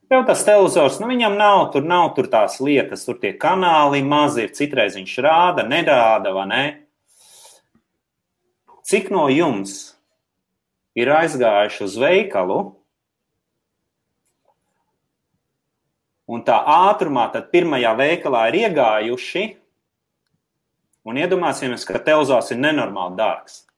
Tev tas televizors, viņam nav tur tās lietas, tur tie kanāli mazi ir, citreiz viņš rāda, nerāda, vai ne? Cik no jums ir aizgājuši uz veikalu un tā ātrumā tad pirmajā veikalā ir iegājuši un iedomāsimies, ka televizors ir nenormāli dārgs.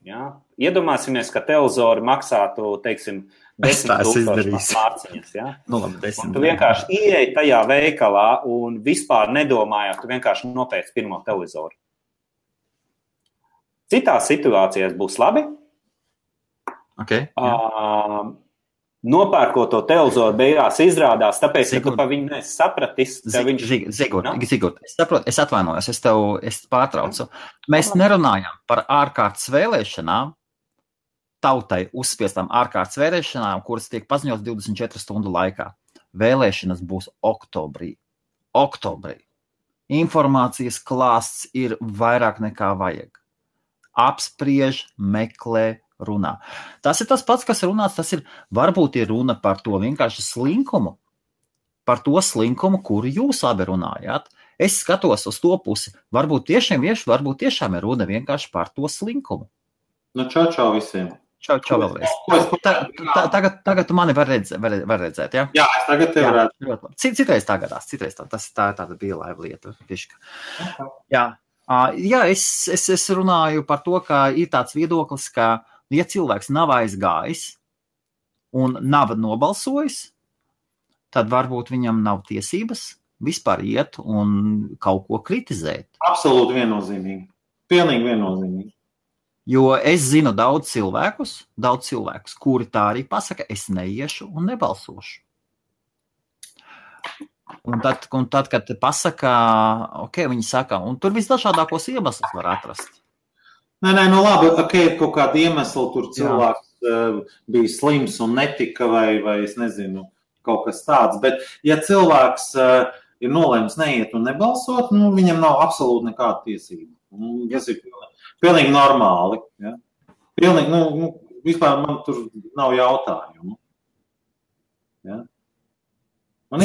Ja? Iedomāsimies, ka televizori maksātu, teiksim, 10,000 mārciņas. Ja? Un tu vienkārši ieej tajā veikalā un vispār nedomājot, tu vienkārši nopērci pirmo televizoru. Citās situācijās būs labi. Okay, nopērkot to televizoru beigās izrādās, tāpēc, ka tu pa viņu nesi sapratis. Zigurd, es saprotu, es atvainojos, es pārtraucu. Mēs nerunājam par ārkārtas vēlēšanām, tautai uzspiestām ārkārtas vēlēšanām, kuras tiek paziņotas 24 stundu laikā. Vēlēšanas būs oktobrī. Informācijas klāsts ir vairāk nekā vajag. Apspriež, meklē, runā. Tas ir tas pats, kas runāts, varbūt ir runa par to vienkārši slinkumu, par to slinkumu, kuru jūs abi runājāt. Es skatos uz to pusi, varbūt tiešām ir runa vienkārši par to slinkumu. Čau visiem. Čau vēlreiz. Tagad tu mani var redzēt, ja? Jā, es tagad tev redzu. Citreiz tā gadās, tā ir tāda bija laiva lieta. Jā, es runāju par to, ka ir tāds viedoklis, ka ja cilvēks nav aizgājis un nav nobalsojis, tad varbūt viņam nav tiesības vispār iet un kaut ko kritizēt. Absolūti viennozīmīgi. Pilnīgi viennozīmīgi. Jo es zinu daudz cilvēkus, kuri tā arī pasaka, es neiešu un nebalsošu. Un tad, kad pasaka, viņi saka, un tur visdažādākos iemeslus var atrast. Nē, labi, kaut kāda iemesla tur cilvēks bija slims un netika vai es nezinu, kaut kas tāds. Bet ja cilvēks ir nolēmis neiet un nebalsot, viņam nav absolūti nekāda tiesība. Tas ir pilnīgi normāli. Ja? Pilnīgi, vispār man tur nav jautājumu. Ja? Un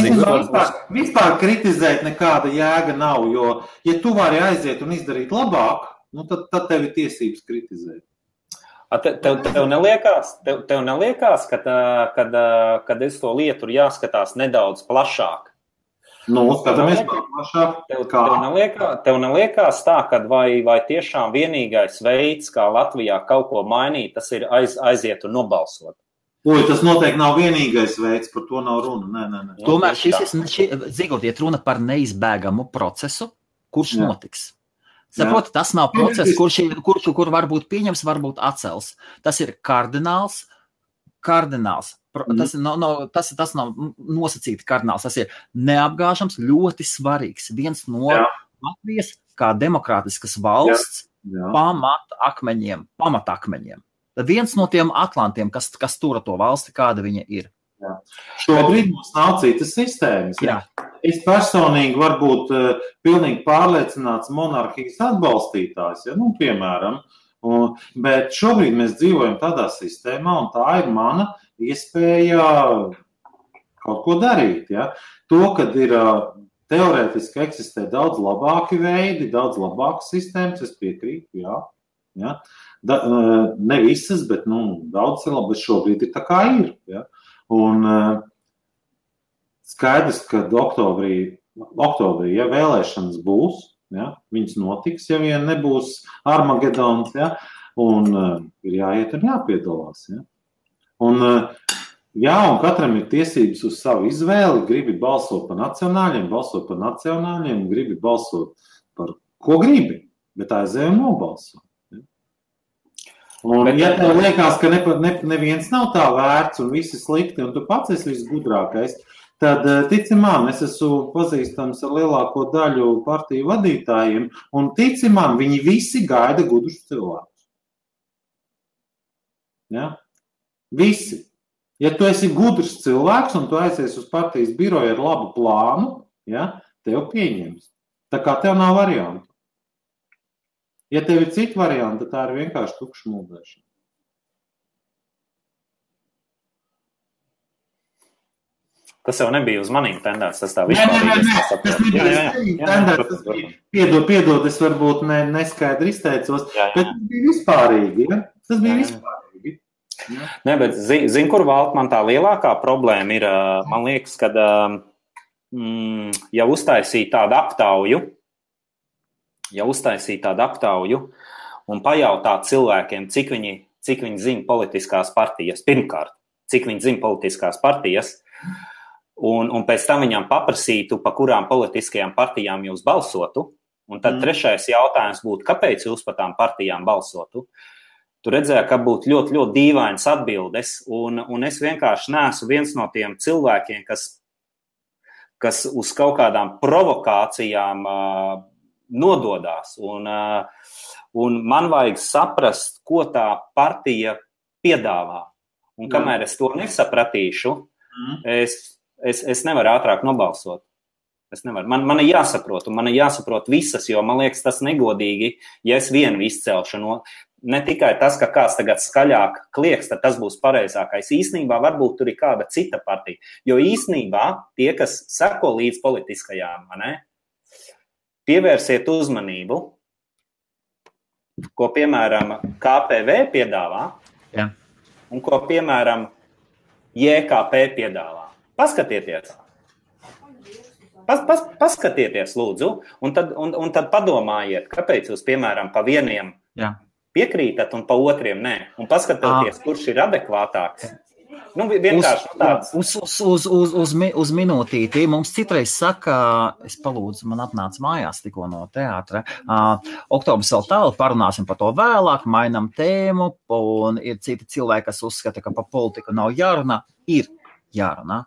vispār kritizēt nekāda jēga nav, jo, ja tu vari aiziet un izdarīt labāk, tad tev ir tiesības kritizēt. Tev neliekās, kad es to lietu ir jāskatās nedaudz plašāk? Skatāmies plašāk. Tev neliekās tā, ka vai tiešām vienīgais veids, kā Latvijā kaut ko mainīt, tas ir aiziet un nobalsot? Tas noteikti nav vienīgais veids, par to nav runa. Nē. Tomēr Zigurd, iet runa par neizbēgamu procesu, kurš notiks. Saproti, tas nav process, kur varbūt pieņems, varbūt atcels. Tas ir kardināls. Tas nav nosacīti kardināls. Tas ir neapgāžams, ļoti svarīgs. Viens no Latvijas kā demokrātiskas valsts pamatakmeņiem. viens no tiem atlantiem, kas tura to valsti, kāda viņa ir. Jā. Šobrīd mums nav citas sistēmas. Jā. Es personīgi varu būt pilnīgi pārliecināts monarhijas atbalstītājs, ja? Piemēram. Bet šobrīd mēs dzīvojam tādā sistēmā, un tā ir mana iespēja kaut ko darīt. Ja? To, kad ir teorētiski eksistē daudz labāki veidi, daudz labākas sistēmas, es piekrītu, jā. Ja? Ne visas, bet daudz ir labi, bet šobrīd ir tā kā ir. Ja? Un skaidrs, ka oktobrī ja vēlēšanas būs, ja? Viņas notiks, ja vien nebūs Armagedons, ja? Un ir jāiet un jāpiedalās. Ja? Un katram ir tiesības uz savu izvēli, gribi balsot par nacionāļiem, gribi balsot par ko gribi, bet aizēj un nobalso. Un, ja tev liekas, ka neviens nav tā vērts un visi slikti, un tu pats esi visgudrākais, tad tici man, es esmu pazīstams ar lielāko daļu partiju vadītājiem, un tici man, viņi visi gaida gudrus cilvēkus. Ja? Visi. Ja tu esi gudrs cilvēks un tu aizies uz partijas biroju ar labu plānu, ja, tev pieņems. Tā kā tev nav variantu. Ja tev ir citi varianti, tad tā ir vienkārši tukša mūdēšana. Tas jau nebija uz manīm tendēts, tas tā vispār. Tas nebija tendēts. Piedod, es varbūt neskaidri izteicos, bet tas bija vispārīgi. Ja? Tas bija vispārīgi. Ja? Nē, bet zin, kur Valt man tā lielākā problēma ir, man liekas, kad ja uztaisīja tādu aptauju un pajautāt cilvēkiem, cik viņi zina politiskās partijas, pirmkārt, cik viņi zina politiskās partijas, un pēc tam viņam paprasītu, pa kurām politiskajām partijām jūs balsotu, un tad trešais jautājums būtu, kāpēc jūs pa tām partijām balsotu. Tu redzēji, ka būtu ļoti, ļoti dīvainas atbildes, un es vienkārši neesmu viens no tiem cilvēkiem, kas uz kaut kādām provokācijām nododās. Un man vajag saprast, ko tā partija piedāvā. Un kamēr es to nesapratīšu, es nevaru ātrāk nobalsot. Es nevaru. Man ir jāsaprot, un man ir jāsaprot visas, jo man liekas tas negodīgi, ja es vienu izcelšu no... Ne tikai tas, ka kāds tagad skaļāk klieks, tad tas būs pareizākais. Īsnībā varbūt tur ir kāda cita partija. Jo īsnībā tie, kas seko līdz politiskajām, pievērsiet uzmanību, ko, piemēram, KPV piedāvā, un ko, piemēram, JKP piedāvā. Paskatieties. Paskatieties, lūdzu, un tad padomājiet, kāpēc jūs, piemēram, pa vieniem piekrītat un pa otriem nē. Un paskatieties, kurš ir adekvātāks. Vienkārši tāds. Uz minūtīti. Mums citreiz saka, es palūdzu, man atnāca mājās tikko no teātra. Oktobris vēl tālu, parunāsim par to vēlāk, mainam tēmu, un ir citi cilvēki, kas uzskata, ka pa politiku nav jārunā. Ir jārunā.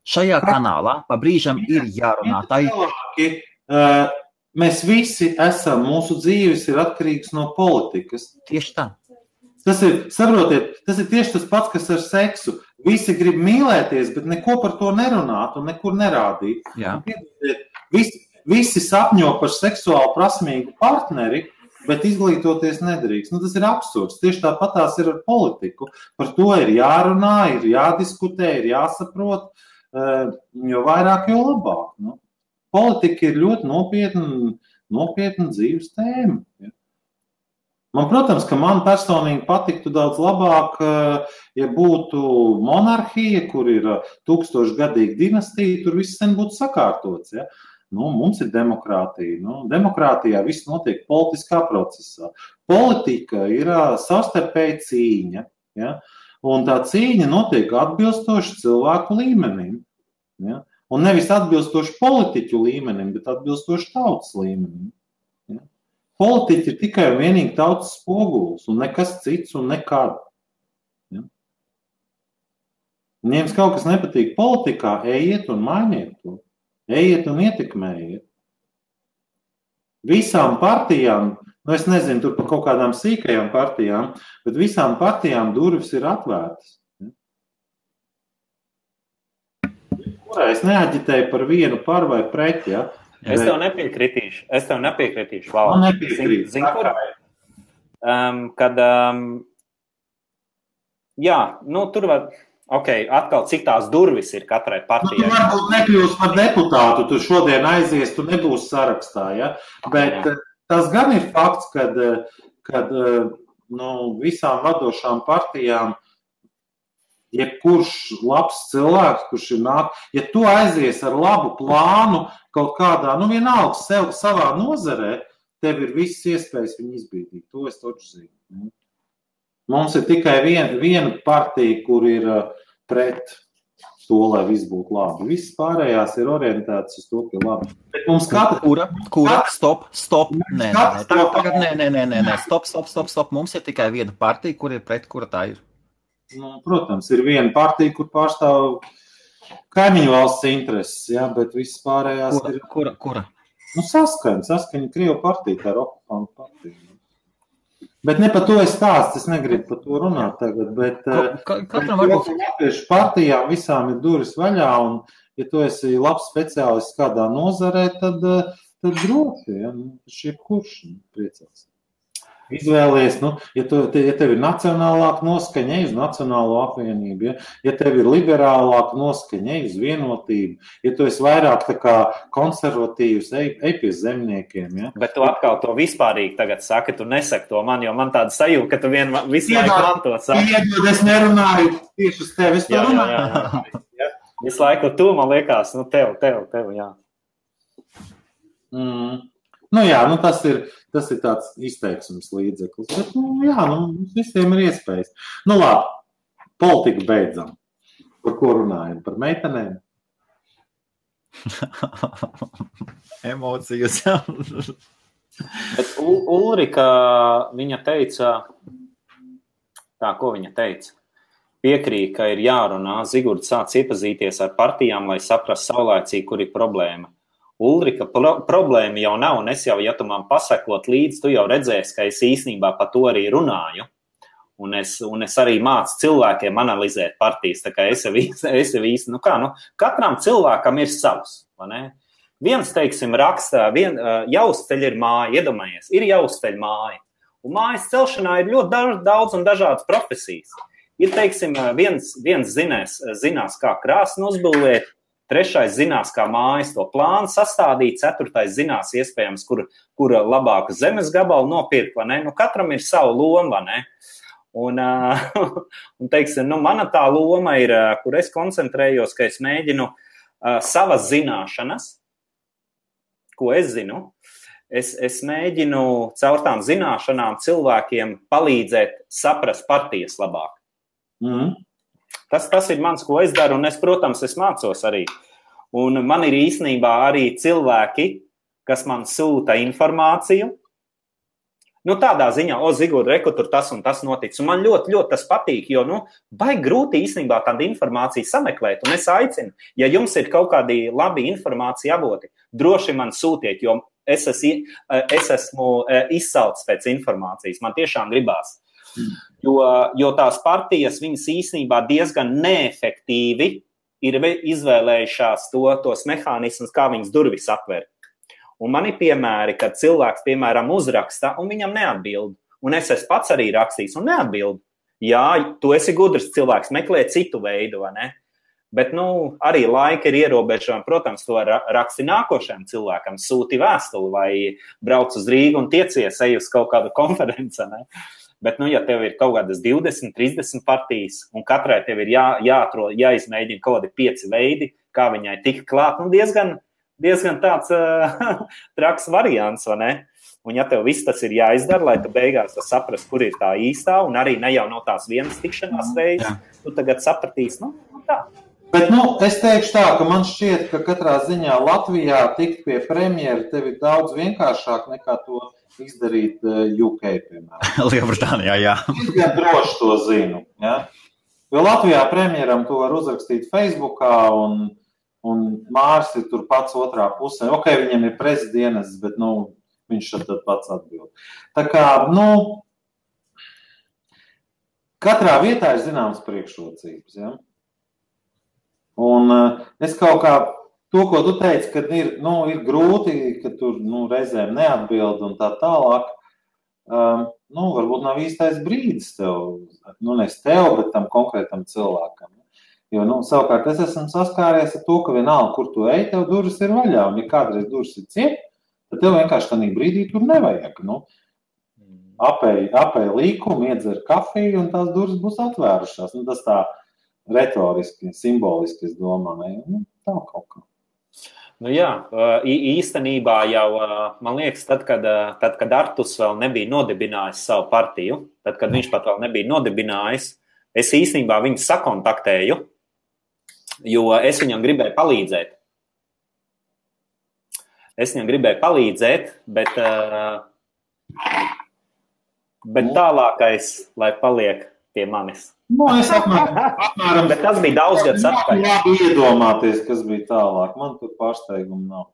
Šajā kanālā pa brīžam ir jārunā. Mēs visi esam, mūsu dzīves ir atkarīgs no politikas. Tieši tā. Saprotiet, tas ir tieši tas pats, kas ar seksu. Visi grib mīlēties, bet neko par to nerunāt un nekur nerādīt. Visi sapņo par seksuāli prasmīgu partneri, bet izglītoties nedrīkst. Tas ir absurds. Tieši tāpat tās ir ar politiku. Par to ir jārunā, ir jādiskutē, ir jāsaprot, jo vairāk, jo labāk. Politika ir ļoti nopietna dzīves tēma. Ja. Man, protams, ka man personīgi patiktu daudz labāk, ja būtu monarhija, kur ir 1000-gadīga dinastija, tur viss sen būtu sakārtots. Ja. Mums ir demokrātija. Demokrātijā viss notiek politiskā procesā. Politika ir savstarpēja cīņa. Ja. Un tā cīņa notiek atbilstoši cilvēku līmenim. Ja. Un nevis atbilstoši politiķu līmenim, bet atbilstoši tautas līmenim. Ja? Politiķi ir tikai un vienīgi tautas spogulis, un nekas cits un nekad. Ja? Un, ja jums kaut kas nepatīk politikā, ejiet un mainiet to. Ejiet un ietekmējiet. Visām partijām es nezinu, tur par kaut kādām sīkajām partijām, bet visām partijām durvis ir atvērtas. Kurā es neaģitēju par vienu par vai pret, ja? Es tev nepiekritīšu. Man nepiekrīt. Zini, kur? Jā, tur var, atkal cik tās durvis ir katrai partijai. Tu varbūt nekļūst par deputātu, tu šodien aizies, tu nebūsi sarakstā, ja? Bet tas gan ir fakts, kad visām vadošām partijām jebkurš labs cilvēks, kurš ir ja tu aizies ar labu plānu kaut kādā, vienalga sev savā nozarē, tev ir visas iespējas viņu izbīdīt. To es taču zinu. Mums ir tikai viena partija, kur ir pret to, lai viss būtu labi. Visas pārējās ir orientētas uz to, ka labi. Bet mums Kura? Stop. Nē. Stop. Mums ir tikai viena partija, kur ir pret, kura tā ir. Protams, ir viena partija, kur pārstāv kaimiņu valsts intereses, ja, bet visas pārējās ir... Kura? Saskaņa Krievu partija, tā ir okupantu partija. Bet ne par to es stāstu, es negribu par to runāt tagad, bet latviešu partijām visām ir durvis vaļā, un ja tu esi labs speciālists kādā nozarē, tad droši, ja, jebkurš priecās. Izvēlies, ja tev ir nacionālāka noskaņa, ej uz Nacionālo apvienību, ja tev ir liberālāka noskaņa, ej uz Vienotību, ja tu esi vairāk tā kā konservatīvs, ej pie zemniekiem. Ja? Bet tu atkal to vispārīgi tagad saki, tu nesaki to man, jo man tāda sajūta, ka tu visu laiku man to saki. Iedod, es nerunāju tieši uz tevi, es to runāju. Jā. Visu laiku tu, man liekas, tev, jā. Tas ir tāds izteiksmes līdzeklis, bet, mums visiem ir iespējas. Labi, politiku beidzam. Par ko runājam? Par meitenēm? Emocijas. Bet Ulrika, viņa teica, ko viņa teica? Piekrīt, ka ir jārunā, Zigurds sāc iepazīties ar partijām, lai saprast saulēcīgi, kur ir problēma. Ulrika, problēma jau nav, un es jau, ja tu man pasakot līdzi, tu jau redzēsi, ka es īstenībā par to arī runāju, un es arī mācu cilvēkiem analizēt partijas, tā kā es jau īsti, katram cilvēkam ir savs, vai ne? Viens, teiksim, rakstā, Jauzceļa ir māja, iedomājies, ir Jauzceļa māja, un mājas celšanā ir ļoti daudz un dažādas profesijas. Ir, teiksim, viens zinās, kā krāsni uzbūvēt, trešais zinās, kā mājas to plānu sastādīt, ceturtais zinās iespējams, kur labāku zemes gabalu nopirkt, vai ne? Katram ir savu loma, vai ne? Un teiksim, mana tā loma ir, kur es koncentrējos, ka es mēģinu savas zināšanas, ko es zinu, es mēģinu caur tām zināšanām cilvēkiem palīdzēt saprast partijas labāk. Tas ir mans, ko es daru, un protams, es mācos arī. Un man ir īstenībā arī cilvēki, kas man sūta informāciju. Tādā ziņā, Zigurd, reku, tur tas un tas noticis. Un man ļoti, ļoti tas patīk, jo, baigi grūti īstenībā tādu informāciju sameklēt. Un es aicinu, ja jums ir kaut kādi labi informācija avoti, droši man sūtiet, jo es esmu izsalcis pēc informācijas. Man tiešām gribās. Jo tās partijas, viņas īstenībā diezgan neefektīvi ir izvēlējušās tos mehānismus, kā viņas durvis atver. Un man ir piemēri, kad cilvēks, piemēram, uzraksta un viņam neatbild. Un es esmu pats arī rakstījis un neatbild. Jā, tu esi gudrs cilvēks, meklē citu veidu, vai ne? Bet, arī laika ir ierobežojumi. Protams, to raksti nākošajam cilvēkam, sūti vēstuli vai brauc uz Rīgu un tiecies, ej uz kaut kādu konferenci, ne? Bet, ja tev ir kaut kādas 20, 30 partijas, un katrai tev ir jāizmēģina kaut kādi 5 veidi, kā viņai tik klāt, diezgan tāds traks variants, vai ne? Un ja tev viss tas ir jāizdara, lai tu beigās saprast, kur ir tā īstā, un arī ne jau no tās vienas tikšanās reizes, tu tagad sapratīsi, tā. Bet, es teikšu tā, ka man šķiet, ka katrā ziņā Latvijā tikt pie premjera tev ir daudz vienkāršāk nekā to izdarīt UK, piemēram. Lielbritānijā, jā. Es gan droši to zinu, ja? Jo Latvijā premjeram to var uzrakstīt Facebookā, un Mārs ir tur pats otrā pusē. Ok, viņam ir prezidienas, bet, viņš tad pats atbild. Tā kā, katrā vietā ir zināmas priekšrocības, ja? Un es kaut kā to, ko tu teici, kad ir grūti, ka tur reizēm neatbild un tā tālāk, varbūt nav īstais brīdis tev, nevis tev, bet tam konkrētam cilvēkam. Jo, savukārt es esmu saskāries ar to, ka vienalga, kur tu ej, tev durvis ir vaļā, un ja kādreiz durvis ir ciet, tad tev vienkārši tādā brīdī tur nevajag. Apēj līkumu, iedzer kafiju, un tās durvis būs atvērušās. Tas tā retoriski, simboliski, es domāju. Tā kaut kā. Jā, īstenībā jau, man liekas, tad, kad Artus vēl nebija nodibinājis savu partiju, tad, kad viņš pat vēl nebija nodibinājis, es īstenībā viņu sakontaktēju, jo es viņam gribēju palīdzēt. Bet tālākais, lai paliek pie manis. Es apmēram, bet tas bija daudz gadus atpakaļ. Labi iedomāties, kas bija tālāk. Man tur pārsteigumu nav.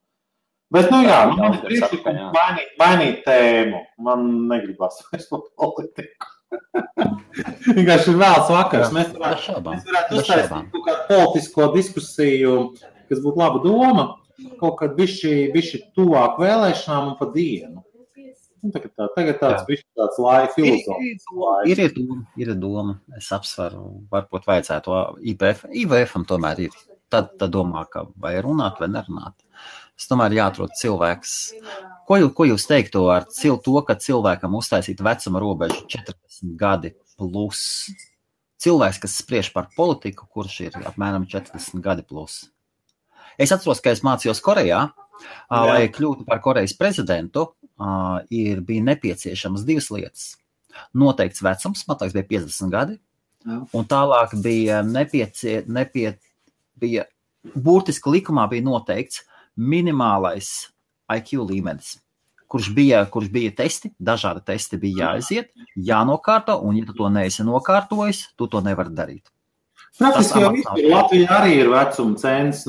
Bet, man priekšlikums mainīt tēmu. Man negribas vairs par politiku. Vienkārši ir vēls vakars. Mēs varētu uztaisīt kaut kādu politisko diskusiju, kas būtu laba doma, kaut kad bišķi tuvāk vēlēšanām un pa dienu. Tagad tāds bišķi tāds filozofs. Ir doma. Es apsveru, varbūt vajadzētu IVF-am tomēr ir. Tad domā, ka vai runāt vai nerunāt. Es tomēr jāatrod cilvēks. Ko jūs teiktu ar to, ka cilvēkam uztaisīt vecuma robežu 40 gadi plus? Cilvēks, kas spriež par politiku, kurš ir apmēram 40 gadi plus. Es atceros, ka es mācījos Korejā, lai kļūtu par Korejas prezidentu, bija nepieciešamas 2 lietas. Noteikts vecums, man liekas, bija 50 gadi, un tālāk bija bija burtiski likumā bija noteikts minimālais IQ līmenis, kurš bija testi, dažādi testi bija jāaiziet, jānokārto, un ja tu to neesi nokārtojis, tu to nevari darīt. Praktiski jau vispār Latvijā arī ir vecuma cens,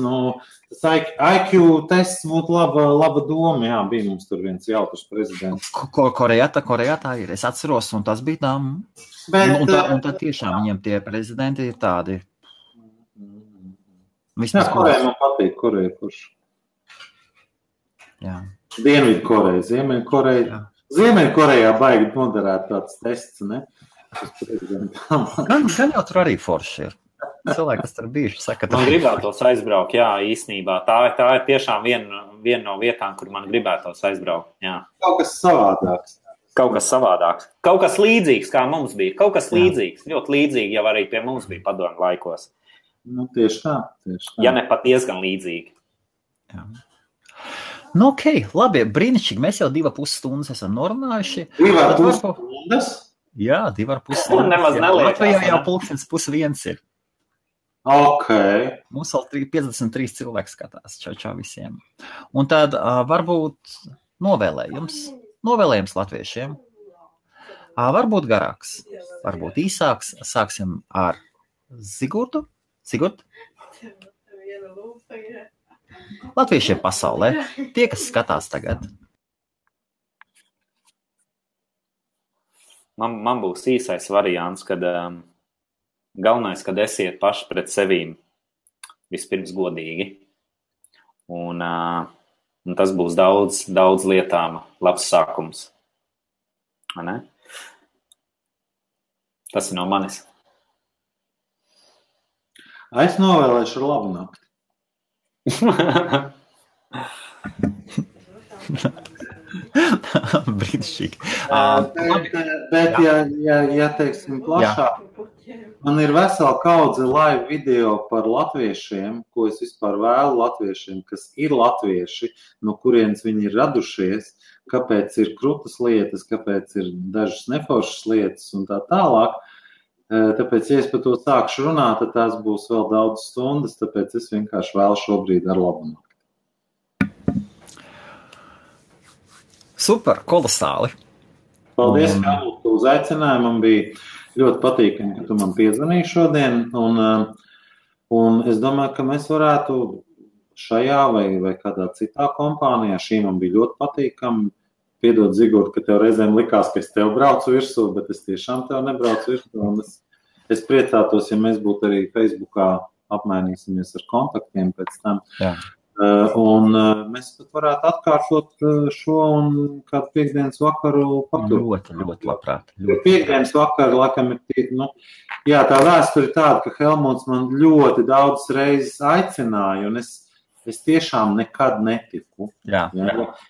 tas IQ tests būtu laba doma, bija mums tur viens jautrs prezidents. Korejā tā ir, es atceros, un tas bija tā, un tad tiešām viņiem tie prezidenti ir tādi. Koreja man patīk, Koreja kurš. Jā. Dienvidkoreja, Ziemeļkorejā baigi noderēt tāds tests, ne? Gan jau tur arī forši ir. Cilvēki, kas tur bijuši, saka, man gribētos aizbraukt, jā, īstenībā. Tā ir tiešām viena no vietām, kur man gribētos aizbraukt, jā. Kaut kas savādāks. Kaut kas līdzīgs, kā mums bija. Kaut kas līdzīgs, ļoti līdzīgi jau arī pie mums bija padomju laikos. Tieši tā. Ja ne pat diezgan līdzīgi. Jā. Ok, labi, brīnišķīgi. Mēs jau 2,5 stundas esam norunājuši. 2,5 stundas? Jā, 2,5 stundas. Nemaz neliekas. Latvijā jau 12:30 ir. Ok. Mums vēl 53 cilvēki skatās. Čau visiem. Un tad varbūt novēlējums latviešiem. Varbūt garāks, varbūt īsāks. Sāksim ar Sigurdu. Sigurd? Latviešiem pasaulē. Tie, kas skatās tagad. Man būs īsais variants, kad galvenais, kad esiet paši pret sevīm vispirms godīgi. Un tas būs daudz lietām labs sākums. Ne? Tas ir no manis. Es novēlēšu labu nakti. Brīnišķīgi. Bet ja teiksim plašāk, man ir vesela kaudze live video par latviešiem, ko es vispār vēlu latviešiem, kas ir latvieši, no kurienes viņi ir radušies, kāpēc ir krutas lietas, kāpēc ir dažas neforšas lietas un tā tālāk. Tāpēc, ja es par to sākšu runāt, tad tās būs vēl daudz stundas, tāpēc es vienkārši vēlu šobrīd ar labu nakti. Super, kolosāli. Paldies, Kārli, ka uzaicināji. Man bija ļoti patīkami, ka tu man piezvanīji šodien. Un es domāju, ka mēs varētu šajā vai kādā citā kompānijā, šī man bija ļoti patīkami, piedod, Zigurd, ka tev reizēm likās, ka es tev braucu virsū, bet es tiešām tev nebraucu virsū. Un es priecātos, ja mēs būtu arī Facebookā apmainīsimies ar kontaktiem pēc tam. Jā. Un mēs pat varētu atkārtot šo un kādu piekdienas vakaru paturēt. Ļoti labprāt. Piekdienas vakaru, laikam, ir jā, tā vēsture ir tāda, ka Helmuts man ļoti daudz reizes aicināja, un es tiešām nekad netiku. Jā.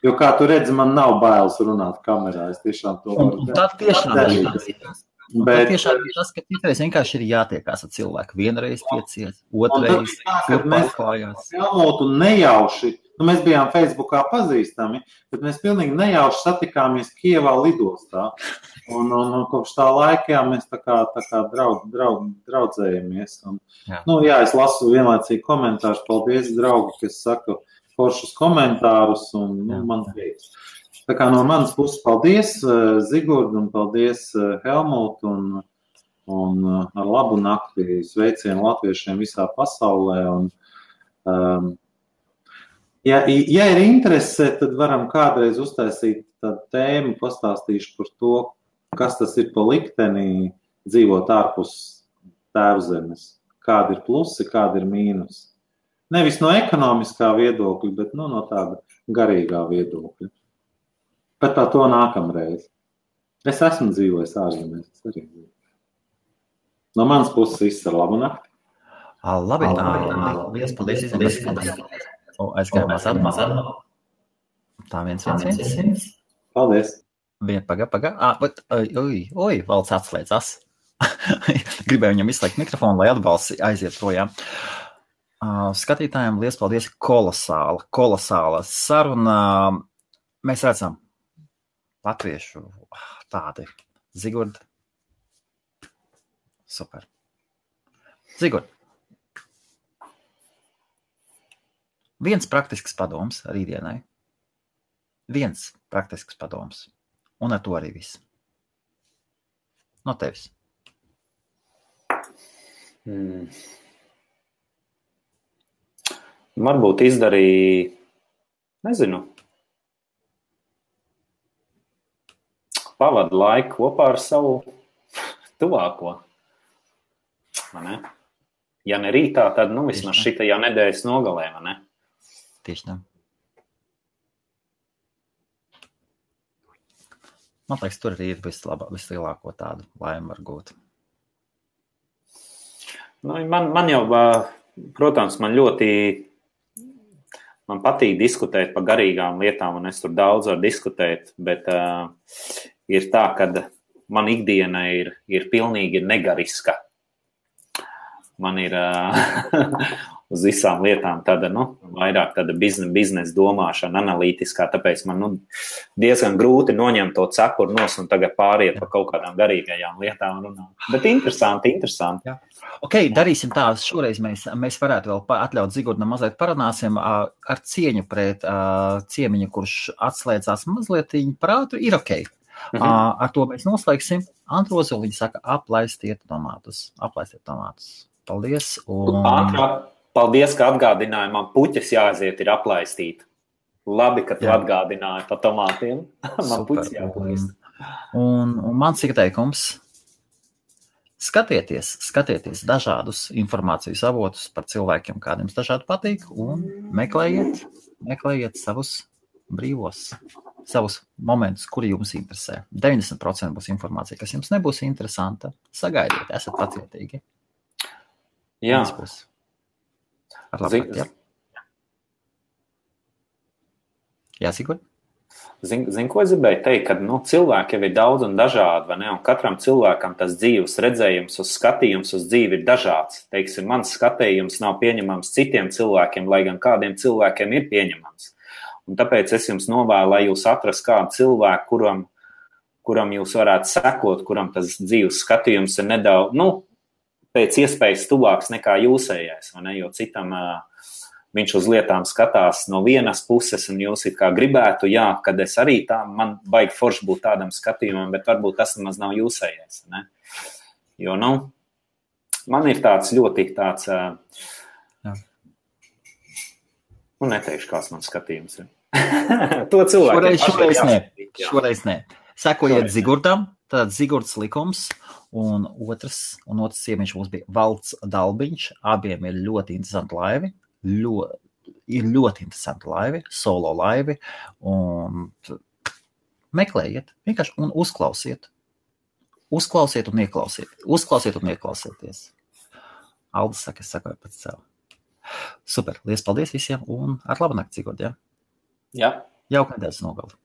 Jo, kā tu redzi, man nav bailes runāt kamerā. Es tiešām to varu darīt. Tā tiešām ir. Bet tiešām ir tas, ka citreiz vienkārši ir jātiekās ar cilvēku. Vienreiz tiecies, otrreiz pārklājās. Helmutu nejauši, mēs bijām Facebookā pazīstami, bet mēs pilnīgi nejauši satikāmies Kievā lidostā. Un kopš tā laika mēs tā kā draudzējamies. Jā, es lasu vienlaicīgi komentārus. Paldies, draugi, kas saka foršus komentārus un man prieks. Tā kā no manas puses paldies, Zigurd, un paldies, Helmut, un ar labu nakti sveicienu latviešiem visā pasaulē. Un, ja ir interese, tad varam kādreiz uztaisīt tādu tēmu, pastāstīšu par to, kas tas ir pa likteni dzīvot ārpus tēvzemes. Kādi ir plusi, kādi ir mīnusi. Nevis no ekonomiskā viedokļa, bet no tāda garīgā viedokļa. Bet par to nākamreiz. Es esmu dzīvojis ārzemēs. No manas puses viss ar labu nakti. Labi. Liels paldies. Aizgājumās atmazā. Tā viens. Paldies. Paga. Valds atslēdzas. Gribēju viņam izslēgt mikrofonu, lai atbalsts aiziet projām. Skatītājiem liels paldies. Kolosāla saruna. Mēs redzam latviešu tādi. Zigurd. Super. Zigurd. Viens praktisks padoms rītdienai. Viens praktisks padoms. Un ar to arī viss. No tevis. Varbūt izdarīja, nezinu, pavadu laiku kopā ar savu tuvāko. Ne? Ja ne rītā, tad vismaz šitajā nedēļas nogalē, vai ne? Tieši tā. Man liekas, tur arī ir vislielāko tādu laimi var gūt. Man jau, protams, man patīk diskutēt par garīgām lietām, un es tur daudz varu diskutēt, bet ir tā, ka man ikdiena ir pilnīgi negariska. Man ir uz visām lietām tāda, vairāk tāda biznesa domāšana, analītiskā, tāpēc man diezgan grūti noņemt to cepuru nos un tagad pāriet par kaut kādām garīgajām lietām runāt. Bet interesanti. Jā. Ok, darīsim tā, šoreiz mēs varētu vēl atļaut Zigurdam mazliet parunāsim ar cieņu pret ciemiņu, kurš atslēdzās mazliet prātu, ir ok. Ar to mēs noslēgsim. Antrozoliņa saka, aplaistiet tomātus. Paldies. Paldies, ka atgādināji, man puķes jāaiziet ir aplaistīt. Labi, ka tu atgādināji par tomātiem. Man puķes jāaplaist. Un mans ieteikums. Skatieties dažādus informācijas avotus par cilvēkiem, kādiem dažādi patīk, un meklējiet savus brīvos, savus momentus, kuri jums interesē. 90% būs informācija, kas jums nebūs interesanta. Sagaidiet, esat pacietīgi. Jā. Jā, Sigurd? Zini, ko es gribēju teikt, ka cilvēki jau ir daudz un dažādi, vai ne? Un katram cilvēkam tas dzīves redzējums, skatījums uz dzīvi ir dažāds. Teiksim, mans skatījums nav pieņemams citiem cilvēkiem, lai gan kādiem cilvēkiem ir pieņemams. Un tāpēc es jums novēlu, lai jūs atrast kādu cilvēku, kuram jūs varētu sekot, kuram tas dzīves skatījums ir nedaudz, pēc iespējas tuvāks nekā jūsējais, vai ne? Jo citam viņš uz lietām skatās no vienas puses, un jūs it kā gribētu, kad es arī tā, man baigi forši būt tādam skatījumam, bet varbūt tas nemaz nav jūsējais, ne? Jo, man ir tāds ļoti tāds, neteikšu, kāds man skatījums ir. To cilvēkiem šoreiz ne. Šoreiz nē. Sekojiet Zigurdam, tad Zigurds likums, un otrs ciemiņš mums bija Valds Dalbiņš. Abiem ir ļoti interesanti laivi, ļoti interesanti laivi, solo laivi, un meklējiet, vienkārši un uzklausiet. Uzklausiet un ieklausieties. Aldis saka, es sakoju pēc sev. Super, liels paldies visiem, un ar labu nakti, Zigurd, ja? Jā. Jauka nedēļas nogali.